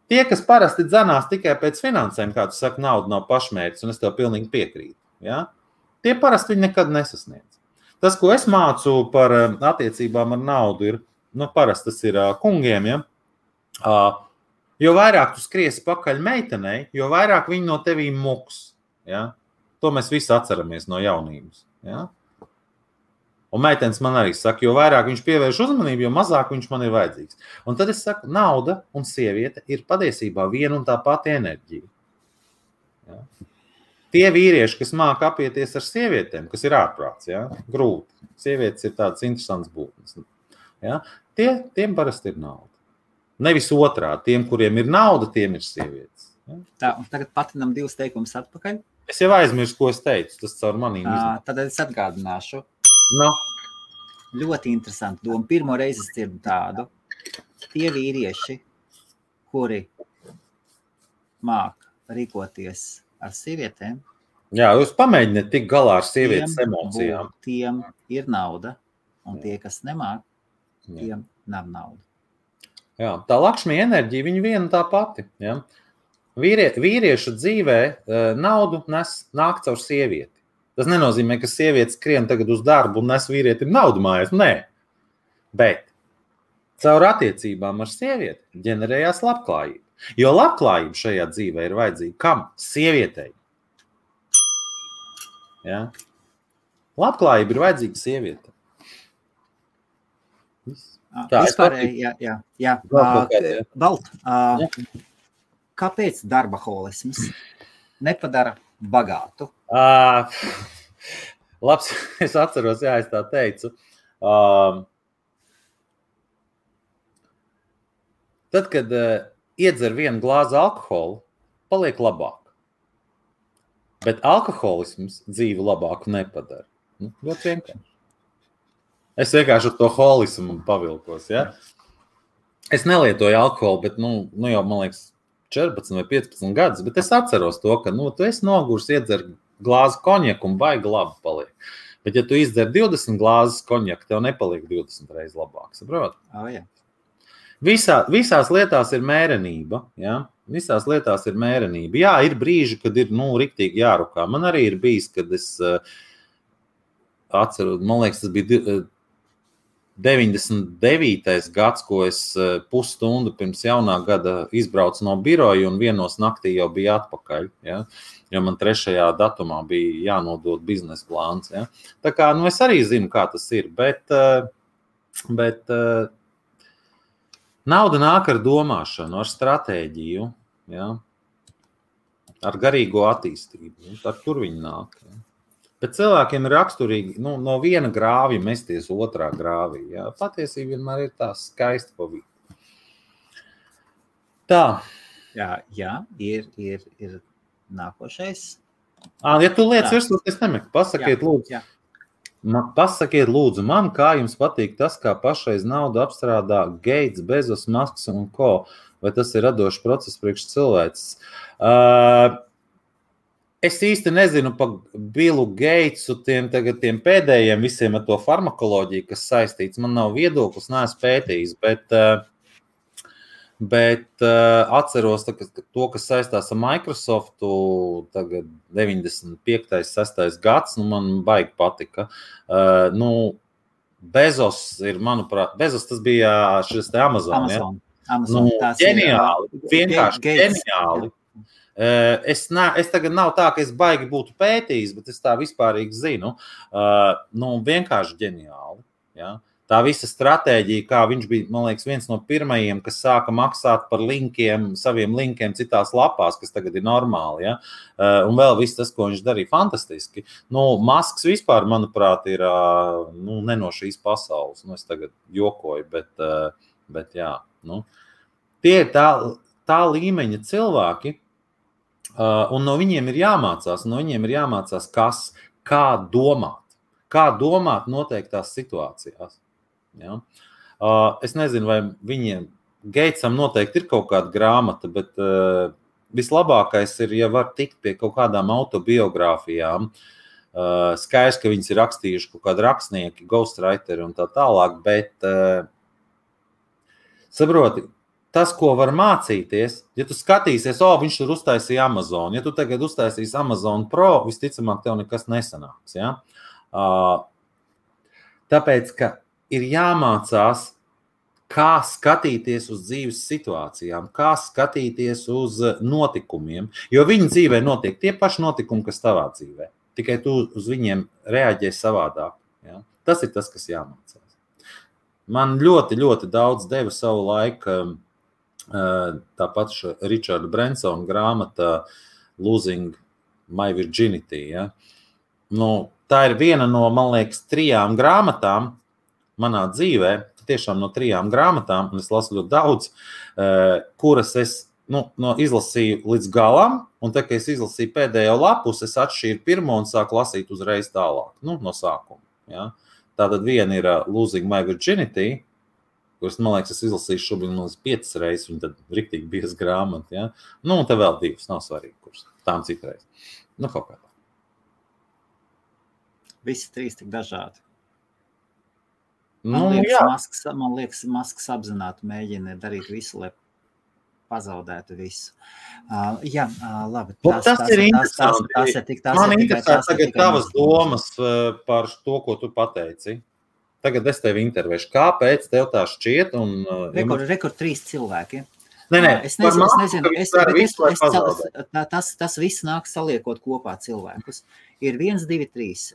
S2: Tie, kas parasti dzenās tikai pēc finansēm, kā tu saki, nauda nav pašmērķis, un es tev pilnīgi piekrītu. Ja? Tie parasti viņi nekad nesasniedz. Tas, ko es mācu par attiecībām ar naudu, ir, parasti tas ir kungiem, ja? Jo vairāk tu skriesi pakaļ meitenei, jo vairāk viņi no tevīm muks. Ja? To mēs visi atceramies no jaunības. Ja? Un meitenes man arī saka, jo vairāk viņš pievērš uzmanību, jo mazāk viņš man ir vajadzīgs. Un tad es saku, nauda un sieviete ir patiesībā viena un tā pati enerģija. Ja? Tie vīrieši, kas māca apieties ar sievietēm, kas ir ārprāts, ja? Grūti. Sievietes ir tādas interesantas būtnes. Ja? Tiem parasti ir nauda. Nevis otrādi. Tiem, kuriem ir nauda, tiem ir sievietes. Ja?
S1: Tā, un tagad patinam 2 teikumus atpakaļ.
S2: Es jau aizmirsu, ko es teicu. Tas caur manīm iznāk.
S1: Tad es atgādināšu.
S2: No.
S1: Ļoti interesanti doma. Pirmo reizi es dzirdu tādu. Tie vīrieši, kuri māk rīkoties ar sievietēm.
S2: Jā, jūs pamēģiniet tik galā ar sievietes emocijām.
S1: Tiem ir nauda, un tie, kas nemāk, tiem nav nauda.
S2: Jā, tā Lakšmija enerģija, viņa viena tā pati. Ja? Vīrieša dzīvē naudu nāk caur sievieti. Tas nenozīmē, ka sieviete skrien tagad uz darbu un nes vīrietim naudu mājās. Nē, bet caur attiecībām ar sievieti ģenerējās labklājība. Jo labklājība šajā dzīvē ir vajadzīga kam? Sievietei. Ja? Labklājība ir vajadzīga sievietei.
S1: Jā. Balt, kāpēc darbaholisms nepadara bagātu?
S2: Labs, es atceros, jā, es tā teicu. Tad, kad iedzer vienu glāzi alkoholu, paliek labāk. Bet alkoholisms dzīvi labāku nepadara. Ļoti vienkārši. Es vienkārši ar to holismu pavilkos, ja? Es nelietoju alkoholu, bet, jau, man liekas, 14 vai 15 gadus, bet es atceros to, ka, tu esi nogurs, iedzer glāzi konjaku un baigi labi paliek. Bet, ja tu izdzer 20 glāzes konjaku, tev nepaliek 20 reizes labāk, saprot?
S1: Jā.
S2: Visās lietās ir mērenība, ja? Visās lietās ir mērenība. Jā, ir brīži, kad ir, riktīgi jārukā. Man arī ir bijis, kad es atceru, man liekas, tas bija 99. gads, ko es pusstundu pirms jaunā gada izbraucu no biroja un vienos naktī jau bija atpakaļ, ja? Jo man 3. datumā bija jānodod biznesa plāns. Ja? Tā kā, es arī zinu, kā tas ir, bet nauda nāk ar domāšanu, ar stratēģiju, ja? Ar garīgo attīstību. Ar tur viņi nāk. Ja? Bet cilvēkiem ir raksturīgi no viena grāvja mesties otrā grāvī. Ja? Patiesība vienmēr ir tā skaista pa vidu. Tā.
S1: Jā, ir nākošais.
S2: Ja tu lietas virsot, es nemeku. Pasakiet, lūdzu. Pasakiet, lūdzu, man, kā jums patīk tas, kā pašreiz naudu apstrādā Gates, Bezos, Musks un ko? Vai tas ir radošs process priekš cilvēces? Es īsti nezinu pa Billu Gatesu, tiem pēdējiem visiem ar to farmakoloģiju, kas saistīts. Man nav viedoklis, neesmu pētījis, bet atceros to, kas saistās ar Microsoftu, tagad 95. 6. gads, man baigi patika. Bezos ir, manuprāt, tas bija šis te Amazon.
S1: Amazon.
S2: Ģeniāli, vienkārši ģeniāli. Es tagad nav tā, ka es baigi būtu pētījis, bet es tā vispārīgi zinu. Vienkārši ģeniāli. Ja? tā visa stratēģija, kā viņš bija, man liekas, viens no pirmajiem, kas sāka maksāt par linkiem, saviem linkiem citās lapās, kas tagad ir normāli, ja? Un vēl viss tas, ko viņš darīja, fantastiski. Masks vispār, manuprāt, ir ne no šīs pasaules. Es tagad jokoju, bet jā. Tie ir tā līmeņa cilvēki, un no viņiem ir jāmācās, kā domāt noteiktās situācijās. Ja? Es nezinu, vai viņiem Geitsam noteikti ir kaut kāda grāmata, bet vislabākais ir, ja var tikt pie kaut kādām autobiogrāfijām. Skaidrs, ka viņas ir rakstījuši kaut kādi rakstnieki, ghostwriteri un tā tālāk, bet saproti, tas, ko var mācīties, ja tu skatīsies, viņš tur uztaisīja Amazon, ja tu tagad uztaisīsi Amazon Pro, visticamāk tev nekas nesanāks. Ja? Tāpēc, ka ir jāmācās, kā skatīties uz dzīves situācijām, kā skatīties uz notikumiem, jo viņa dzīvē notiek tie paši notikumi, kas tavā dzīvē. Tikai tu uz viņiem reaģē savādāk. Ja? Tas ir tas, kas jāmācās. Man ļoti, ļoti daudz deva savu laiku tāpat Richarda Bransona grāmata Losing My Virginity. Ja? Tā ir viena no, man liekas, 3 grāmatām manā dzīvē, tiešām no 3 grāmatām, un es lasu ļoti daudz, kuras es izlasīju līdz galam, un tā, ka es izlasīju pēdējo lapus, es atšķīru pirmo un sāku lasīt uzreiz tālāk, no sākuma. Ja? Tātad viena ir Losing My Virginity, kuras, man liekas, es izlasīju šobrīd 5 reizes, un tad riktīgi bieza grāmata. Ja? Un te vēl 2, nav svarīgi, kuras tām citreiz. Kaut kā tā.
S1: Visi 3 tik dažādi. Man liekas, Masks apzināti mēģina darīt visu, lai pazaudētu visu. Labi.
S2: Tas ir interesanti. Man interesē tagad tavas domas par to, ko tu pateici. Tagad es tevi intervēšu. Kāpēc tev tā šķiet?
S1: Rekord 3 cilvēki.
S2: Es nezinu,
S1: tas viss nāk saliekot kopā cilvēkus. Ir 1, 2, 3.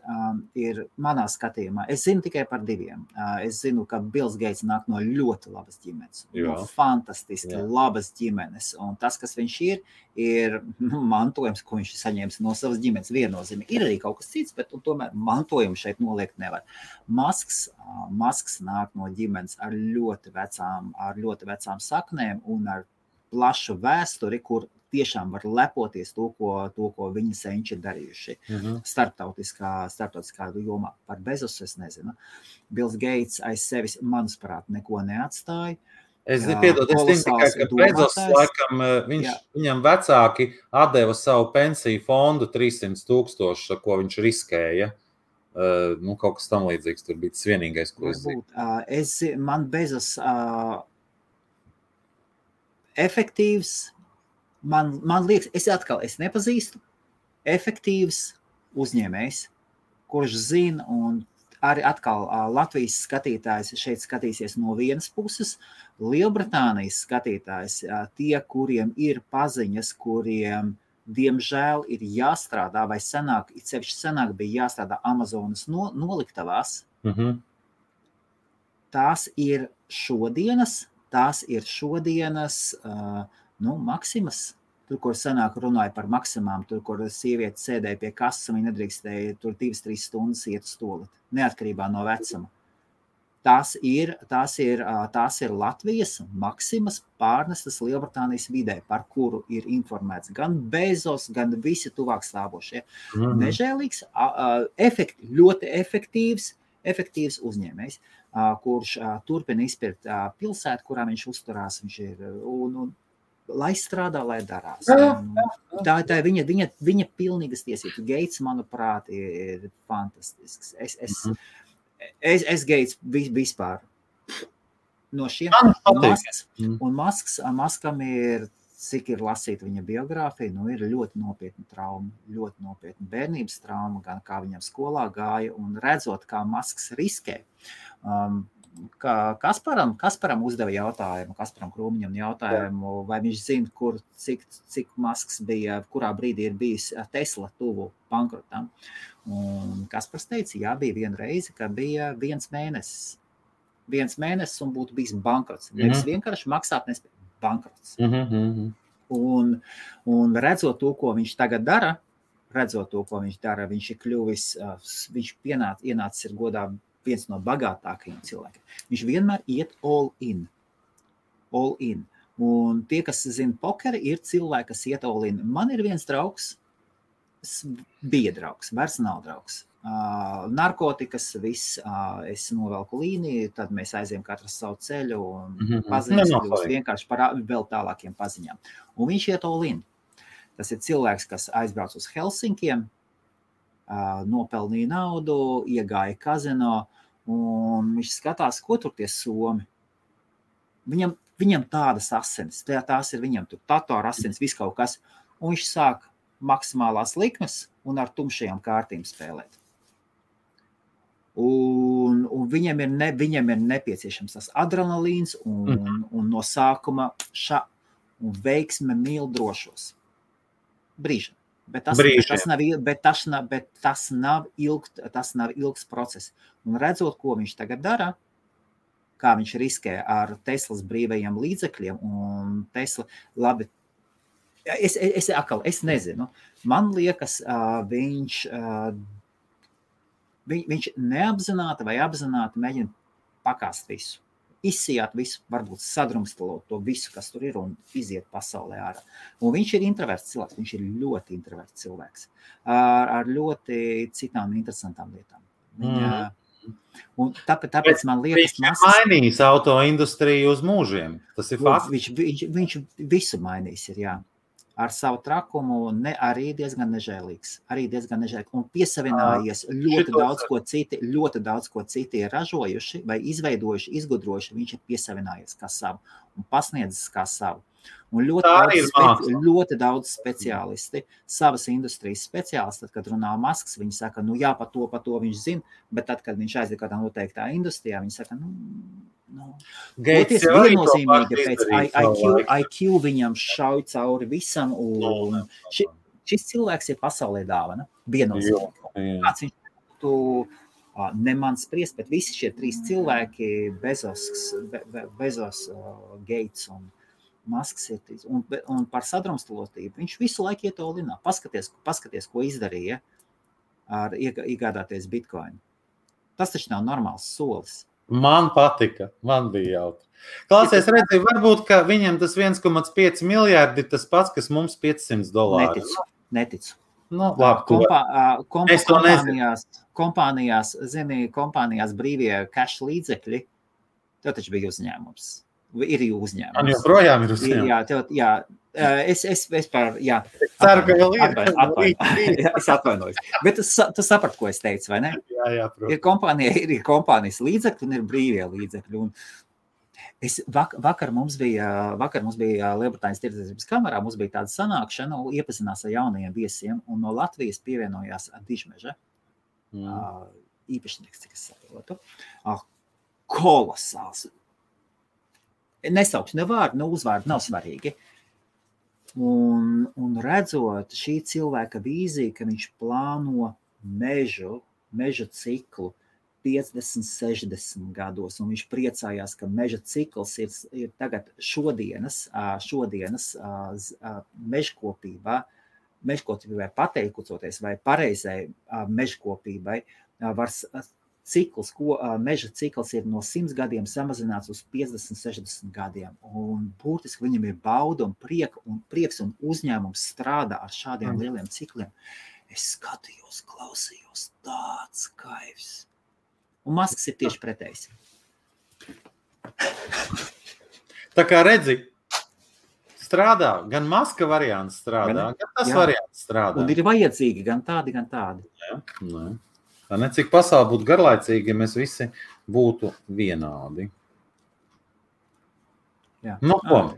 S1: Ir manā skatījumā. Es zinu tikai par 2. Es zinu, ka Bills Geits nāk no ļoti labas ģimenes. No fantastiski labas ģimenes. Un tas, kas viņš ir mantojums, ko viņš saņēmis no savas ģimenes viennozīmīgi. Ir arī kaut kas cits, bet tomēr mantojumu šeit noliekt nevar. Masks nāk no ģimenes ar ļoti vecām saknēm un ar plašu vēsturi, kur tiešām var lepoties to, ko viņa senči ir darījuši starptautiskā jomā. Par Bezosu es nezinu. Bills Geits aiz sevis, manuprāt, neko neatstāja.
S2: Es zinu tikai, ka Bezos, laikam, viņam vecāki atdeva savu pensiju fondu 300,000, ko viņš riskēja. Kaut kas tam līdzīgs, tur bija tas vienīgais, ko es zinu.
S1: Man Bezos efektīvs, man liekas, es nepazīstu efektīvs uzņēmējs, kurš zina, un arī atkal Latvijas skatītājs šeit skatīsies no vienas puses, Lielbritānijas skatītājs, tie, kuriem ir paziņas, kuriem, diemžēl, ir jāstrādā, vai senāk bija jāstrādā Amazonas noliktavās. Tās ir šodienas Maksimas, tur, kur senāk runāja par Maksimām, tur, kur sieviete sēdēja pie kasas, viņa nedrīkstēja tur 2-3 stundas iet uz toaleti, neatkarībā no vecuma. Tās ir Latvijas Maksimas pārnestas Lielbritānijas vidē, par kuru ir informēts gan Bezos, gan visi tuvāk stāvošie. Nežēlīgs, ļoti efektīvs uzņēmējs, kurš turpina izpirkt pilsētu, kurā viņš uzturās, viņš ir, un lai strādā, lai darās. Tā ir viņa pilnīgas tiesības. Geits, manuprāt, ir fantastisks. Es Geits vispār no šiem Maskam ir, cik ir lasīta viņa biogrāfija, ir ļoti nopietna trauma, ļoti nopietna bērnības trauma, gan kā viņam skolā gāja, un redzot, kā Masks riskē. Kasparam uzdeva jautājumu, Kasparam Krūmiņam jautājumu, vai viņš zina, cik Masks bija, kurā brīdī ir bijis Tesla tuvu bankrotam. Un Kaspars teica, jā, bija viena reize, ka bija 1 mēnesis. 1 mēnesis un būtu bijis bankrots. Nevis vienkārši maksāt nespēj, bankrots. Un redzot to, ko viņš tagad dara, viņš ir kļuvis, viņš ienācis ir godā viens no bagātākajiem cilvēkiem. Viņš vienmēr iet all in. Un tie, kas zina pokeri, ir cilvēki, kas iet all in. Man ir viens draugs, bija draugs, vairs nav draugs. Narkotikas, viss, es novelku līniju, tad mēs aizējam katrs savu ceļu un paziņas kļūst vienkārši par vēl tālākiem paziņām. Un viņš iet all in. Tas ir cilvēks, kas aizbrauc uz Helsinkiem, nopelnīja naudu, iegāja kazino, un viņš skatās, ko tur tie somi. Viņam tādas asinis, tās ir viņam tur tatoru asinis, viss kaut kas, un viņš sāk maksimālās likmes un ar tumšajām kārtīm spēlēt. Un viņam ir nepieciešams tas adrenalīns un no sākuma un veiksme mīl drošos. Brīžam. Bet tas nav ilgs process. Un redzot, ko viņš tagad dara, kā viņš riskē ar Teslas brīvajiem līdzekļiem, un Tesla, labi, es nezinu. Man liekas, viņš neapzināti vai apzināti mēģina pakāst visu. Izsijāt visu, varbūt sadrumstalot to visu, kas tur ir, un iziet pasaulē ārā. Un viņš ir introverts cilvēks, viņš ir ļoti introverts cilvēks, ar ļoti citām interesantām lietām. Un tāpēc man liekas,
S2: viņš ir mainījis autoindustriju uz mūžiem. Tas ir fakts.
S1: Viņš visu mainījis ir, jā. Ar savu trakumu arī diezgan nežēlīgs. Un piesavinājies ļoti daudz, ko citi ir ražojuši vai izveidojuši, izgudrojuši, viņš ir piesavinājies kā savu un pasniedzis kā savu. Un ļoti daudz speciālisti, savas industrijas speciālisti, tad, kad runā Masks, viņi saka, jā, pa to viņš zina, bet tad, kad viņš aiziet kādā noteiktā industrijā, viņi saka, Gates viennozīmīgi pēc IQ viņam šauj cauri visam, un šis cilvēks ir pasaulē dāvana, viennozīmīgi. Kāds viņš būtu, ne man spriest, bet visi šie 3 cilvēki, Bezos, Gates un Masks ir, un par sadrumstalotību, viņš visu laiku iet olinā. Paskaties, ko izdarīja ar iegādāties Bitcoin. Tas taču nav normāls solis.
S2: Man patika, man bija jautri. Klausies, redzi, varbūt, ka viņam tas 1,5 miljārdi ir tas pats, kas mums $500.
S1: Neticu.
S2: Labi,
S1: kompānijās brīvie cash līdzekļi, tev taču bija uzņēmums. Ir uzņēmums.
S2: Man joprojām ir uzņēmums.
S1: Jā, es par, jā.
S2: Ceru, ka vēl
S1: Es atvainojos. Bet tu saprati, ko es teicu, vai ne?
S2: Jā, protams.
S1: Ir kompānijas līdzekļi un ir brīvie līdzekļi. Un vakar mums bija Lielbritānijas tirdzniecības kamerā, mums bija tāda sanākšana, iepazinās ar jaunajiem viesiem, un no Latvijas pievienojās Dižmeža. Īpašnieks, cik es saprotu. Kolosāls. Nesaukšu ne vārdu, ne uzvārdu, nav svarīgi. Un redzot šī cilvēka vīziju, ka viņš plāno meža ciklu 50, 60 gados, un viņš priecājās, ka meža cikls ir tagad šodienas mežkopībai pateikoties vai pareizai mežkopībai var meža cikls ir no 100 gadiem samazināts uz 50, 60 gadiem. Un būtiski viņam ir bauda un prieks un uzņēmums strādā ar šādiem lieliem cikliem. Es skatījos, klausījos, tāds kaivs. Un Masks ir tieši pretējs.
S2: Tā kā redzi, strādā, gan Maska variants strādā, gan tas variants strādā.
S1: Un ir vajadzīgi gan tādi, gan tādi.
S2: Jā. Tā necik pasauli būtu garlaicīgi, ja mēs visi būtu vienādi.
S1: Jā.
S2: Ko?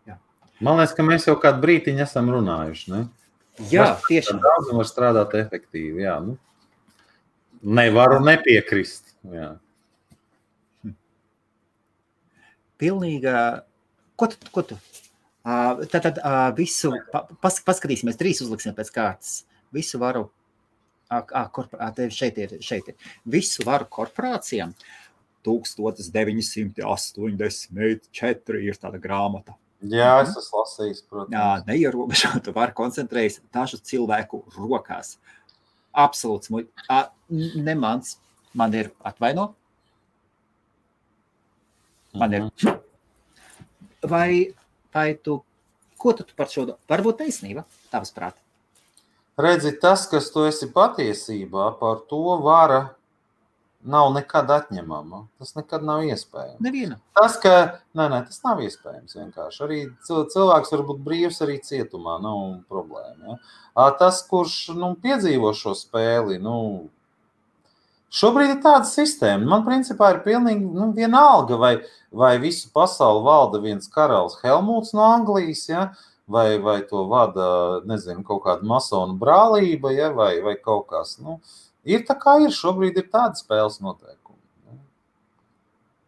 S2: Jā. Man liekas, ka mēs jau kādu brītiņu esam runājuši, ne?
S1: Jā, tieši.
S2: Daudz var strādāt efektīvi, jā. Nevaru nepiekrist, jā.
S1: Pilnīga... Ko tu? Tad visu... Paskatīsimies, 3 uzliksim pēc kārtas. Visu varu... šeit ir. Visu varu korporācijām. 1984 ir tāda grāmata.
S2: Jā, es esmu lasījis, protams.
S1: Neierobežotu var koncentrējas dažu cilvēku rokās. Absolūts ne mans. Man ir atvaino. Man ir. Vai tu, ko tu par šo, varbūt taisnība, tavas prāt?
S2: Redzi, tas, kas tu esi patiesībā, par to vara nav nekad atņemama. Tas nekad nav iespējams.
S1: Neviena.
S2: Tas, ka, tas nav iespējams vienkārši. Arī cilvēks var būt brīvs arī cietumā, nav problēma. Ja? Tas, kurš piedzīvo šo spēli, šobrīd ir tāda sistēma. Man principā ir pilnīgi vienalga, vai visu pasauli valda viens karalis Helmuts no Anglijas, ja? vai to vada, nezinu, kaut kāda masonu brālība, ja? vai kaut kas. Ir tā kā ir, šobrīd ir tāda spēles noteikumi.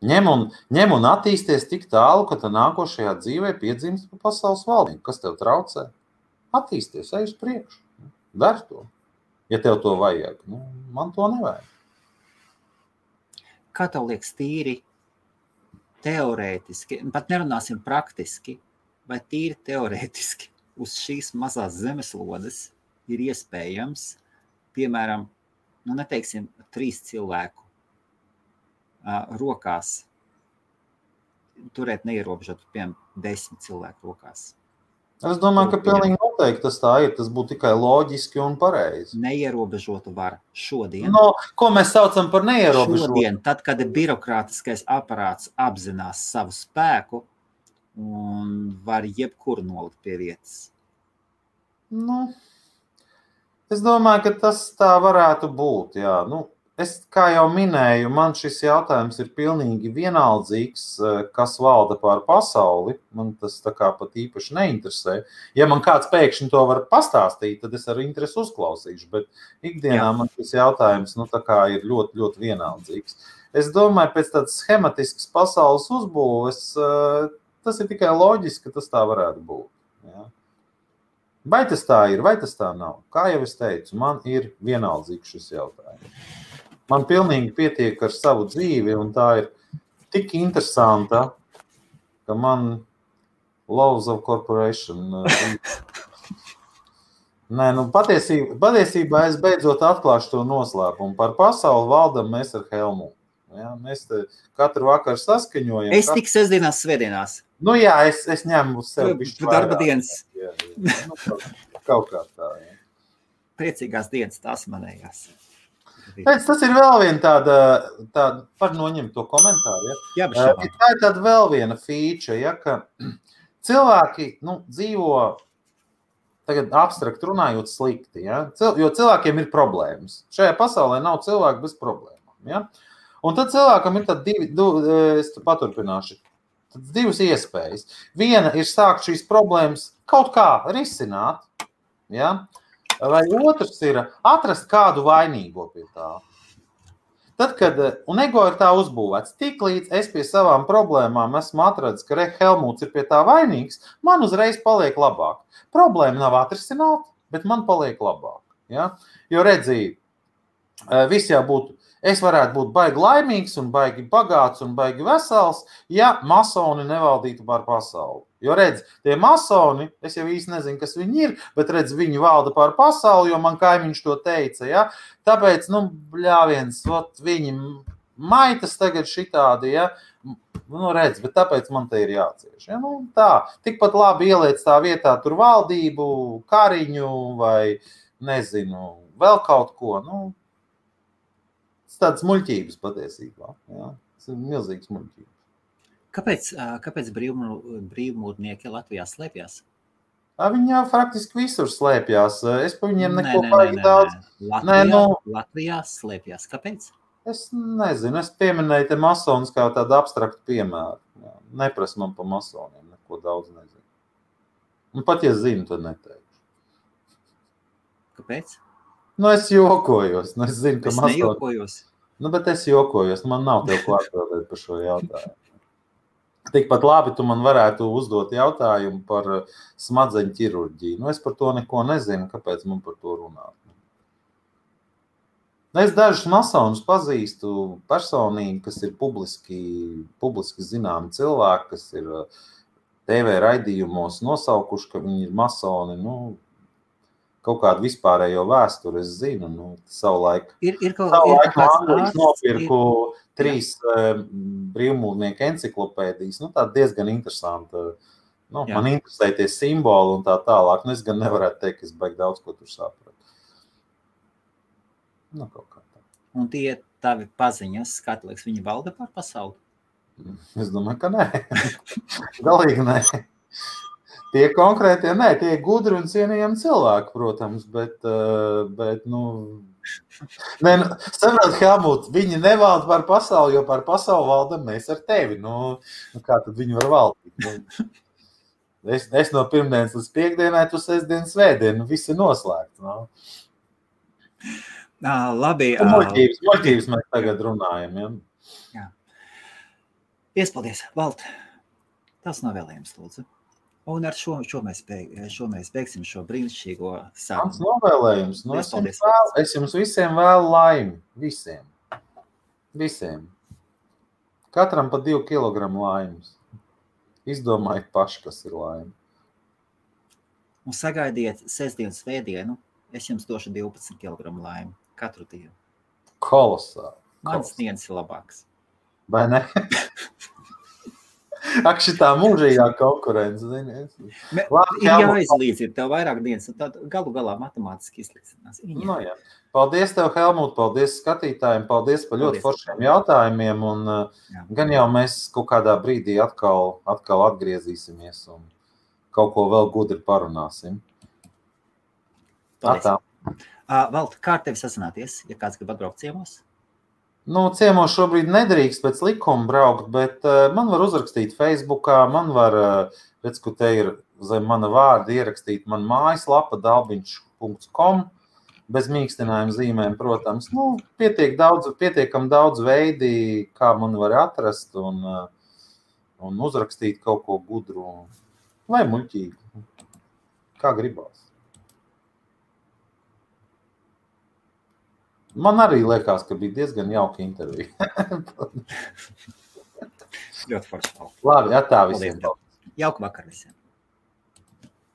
S2: Ņem un attīsties tik tālu, ka tā nākošajā dzīvē piedzimst pa pasaules valdību. Kas tev traucē? Attīsties, ej uz priekšu. Dari to, ja tev to vajag. Man to nevajag.
S1: Kā tev liekas tīri teorētiski, pat nerunāsim praktiski, vai tīri teorētiski uz šīs mazās zemeslodes ir iespējams, piemēram, neteiksim, 3 cilvēku rokās turēt neierobežot, piemēram, 10 cilvēku rokās.
S2: Es domāju, ka pilnīgi noteikti tas tā ir. Tas būtu tikai loģiski un pareizi.
S1: Neierobežotu var šodien.
S2: Ko mēs saucam par neierobežotu?
S1: Šodien, tad, kad birokrātiskais aparāts apzinās savu spēku un var jebkuru nolikt pie vietas.
S2: Es domāju, ka tas tā varētu būt, jā. Es, kā jau minēju, man šis jautājums ir pilnīgi vienaldzīgs, kas valda pār pasauli. Man tas tā kā pat īpaši neinteresē. Ja man kāds pēkšņi to var pastāstīt, tad es ar interesi uzklausīšu, bet ikdienā man šis jautājums tā kā ir ļoti, ļoti vienaldzīgs. Es domāju, pēc tādas schematiskas pasaules uzbūves, tas ir tikai loģiski, ka tas tā varētu būt. Jā. Vai tas tā ir, vai tas tā nav? Kā jau es teicu, man ir vienaldzīgs šis jautājums. Man pilnīgi pietiek ar savu dzīvi, un tā ir tik interesanta, ka man Laws of Corporation. Patiesībā es beidzot atklāšu to noslēpumu. Par pasauli valdam mēs ar Helmutu. Ja? Mēs katru vakaru saskaņojam.
S1: Es tik sestdienās, svētdienās.
S2: Jā, es ņemu uz sevi bišķi
S1: darba dienas.
S2: Jā. Kaut kā tā. Ja.
S1: Priecīgās dienas, tās manējās.
S2: Tas ir vēl viena tāda par noņemt to komentāru. Ja?
S1: Jā, tā
S2: ir tāda vēl viena feature, ja, ka cilvēki dzīvo, tagad abstrakt runājot, slikti. Ja? Jo cilvēkiem ir problēmas. Šajā pasaulē nav cilvēku bez problēmām. Ja? Un tad cilvēkam ir es paturpināšu, divas iespējas. Viena ir sākt šīs problēmas kaut kā risināt, ja? Vai otrs ir atrast kādu vainīgo pie tā. Tad, kad, un ego ir tā uzbūvēts, tik līdz es pie savām problēmām esmu atradis, ka Helmuts ir pie tā vainīgs, man uzreiz paliek labāk. Problēma nav atrisināta, bet man paliek labāk. Ja? Jo redzī, viss jau būtu, es varētu būt baigi laimīgs un baigi bagāts un baigi vesels, ja masoni nevaldītu pār pasauli. Jo redz, tie masoni, es jau īsti nezinu, kas viņi ir, bet redz, viņi valda pār pasauli, jo man kaimiņš to teica, ja? Tāpēc, bļāviens, viņi maitas tagad šitādi, ja? Redz, bet tāpēc man te ir jācieš. Ja? Tā, tikpat labi ieliec tā vietā tur valdību, kariņu vai, nezinu, vēl kaut ko, tādas muļķības patiesībā. Ja? Tas ir milzīgs muļķības.
S1: Kāpēc brīvmūrnieki Latvijā slēpjas?
S2: Viņi jau faktiski visur slēpjas. Es pa viņiem neko baigi daudz.
S1: Latvijā slēpjas. Kāpēc?
S2: Es nezinu. Es pieminēju te masonus kā tādu abstraktu piemēru. Nepras man pa masoniem. Neko daudz nezinu. Un pat, ja zinu, tad neteikšu.
S1: Kāpēc?
S2: Es jokojos. Es zinu, ka masoni...
S1: nejokojos.
S2: Bet es jokojos. Man nav tev ko atbildēt par šo jautājumu. Tikpat labi tu man varētu uzdot jautājumu par smadzeņu ķirurģiju. Es par to neko nezinu, kāpēc man par to runāt. Es dažus masonus pazīstu personīgi, kas ir publiski zināmi cilvēki, kas ir TV raidījumos nosaukuši, ka viņi ir masoni, kaut kādu vispārējo vēsturi es zinu, savulaik. Savulaik Anglis nopirku 3 brīvmūrnieku enciklopēdijas, tā diezgan interesanta. Man interesē tie simboli un tā tālāk, es gan nevarētu teikt, ka es baigi daudz ko tur sapratu. Kaut kā tā.
S1: Un tie tavi paziņas, kā tu liekas, viņi valda par pasauli?
S2: Es domāju, ka nē. Galīgi nē. Tie konkrētie nē, tie gudri un cienījami cilvēki, protams, bet saprāt, Helmut, viņi nevalda par pasauli, jo par pasauli valdam mēs ar tevi. Kā tad viņi var valdīt? Es no pirmdienas līdz piekdienai, tu sestdien, svētdien, viss ir noslēgts.
S1: Labi.
S2: Muļķības mēs tagad runājam,
S1: Jā. Iespaldies, Valt. Tas novēlējums, lūdzu. Un ar šo mēs beigsim šo brīnišķīgo sarunu.
S2: Mans novēlējums. Es jums visiem vēlu laimi. Visiem. Katram pa 2 kilogramu laimes. Izdomājiet paši, kas ir laime.
S1: Un sagaidiet sestdienu, svētdienu. Es jums došu 12 kilogramu laimi katru dienu.
S2: Kolosāli.
S1: Mans dienas ir labāks.
S2: Vai ne? Ak, šitā mūžīgā konkurence.
S1: Ir jāizlīdz, ir tev vairāk dienas, un tad galu galā matemātiski izlīdzinās.
S2: Jā. Paldies tev, Helmut, paldies skatītājiem, paldies par ļoti foršiem jautājumiem, un gan jau mēs kaut kādā brīdī atkal atgriezīsimies un kaut ko vēl gudri parunāsim.
S1: Paldies. Valt, kā ar tevi sazināties, ja kāds grib atbraukt ciemos?
S2: Ciemos šobrīd nedrīkst pēc likuma braukt, bet man var uzrakstīt Facebookā, man var, redz, ka te ir zem mana vārda ierakstīt man mājaslapa dalbiņš.com, bez mīkstinājuma zīmēm, protams. Pietiekam daudz veidi, kā man var atrast un uzrakstīt kaut ko gudru vai muļķīgu, kā gribās. Man arī liekas, ka bija diezgan jauka intervija.
S1: Ļoti forši.
S2: Labi, atā visiem.
S1: Jauku vakar visiem.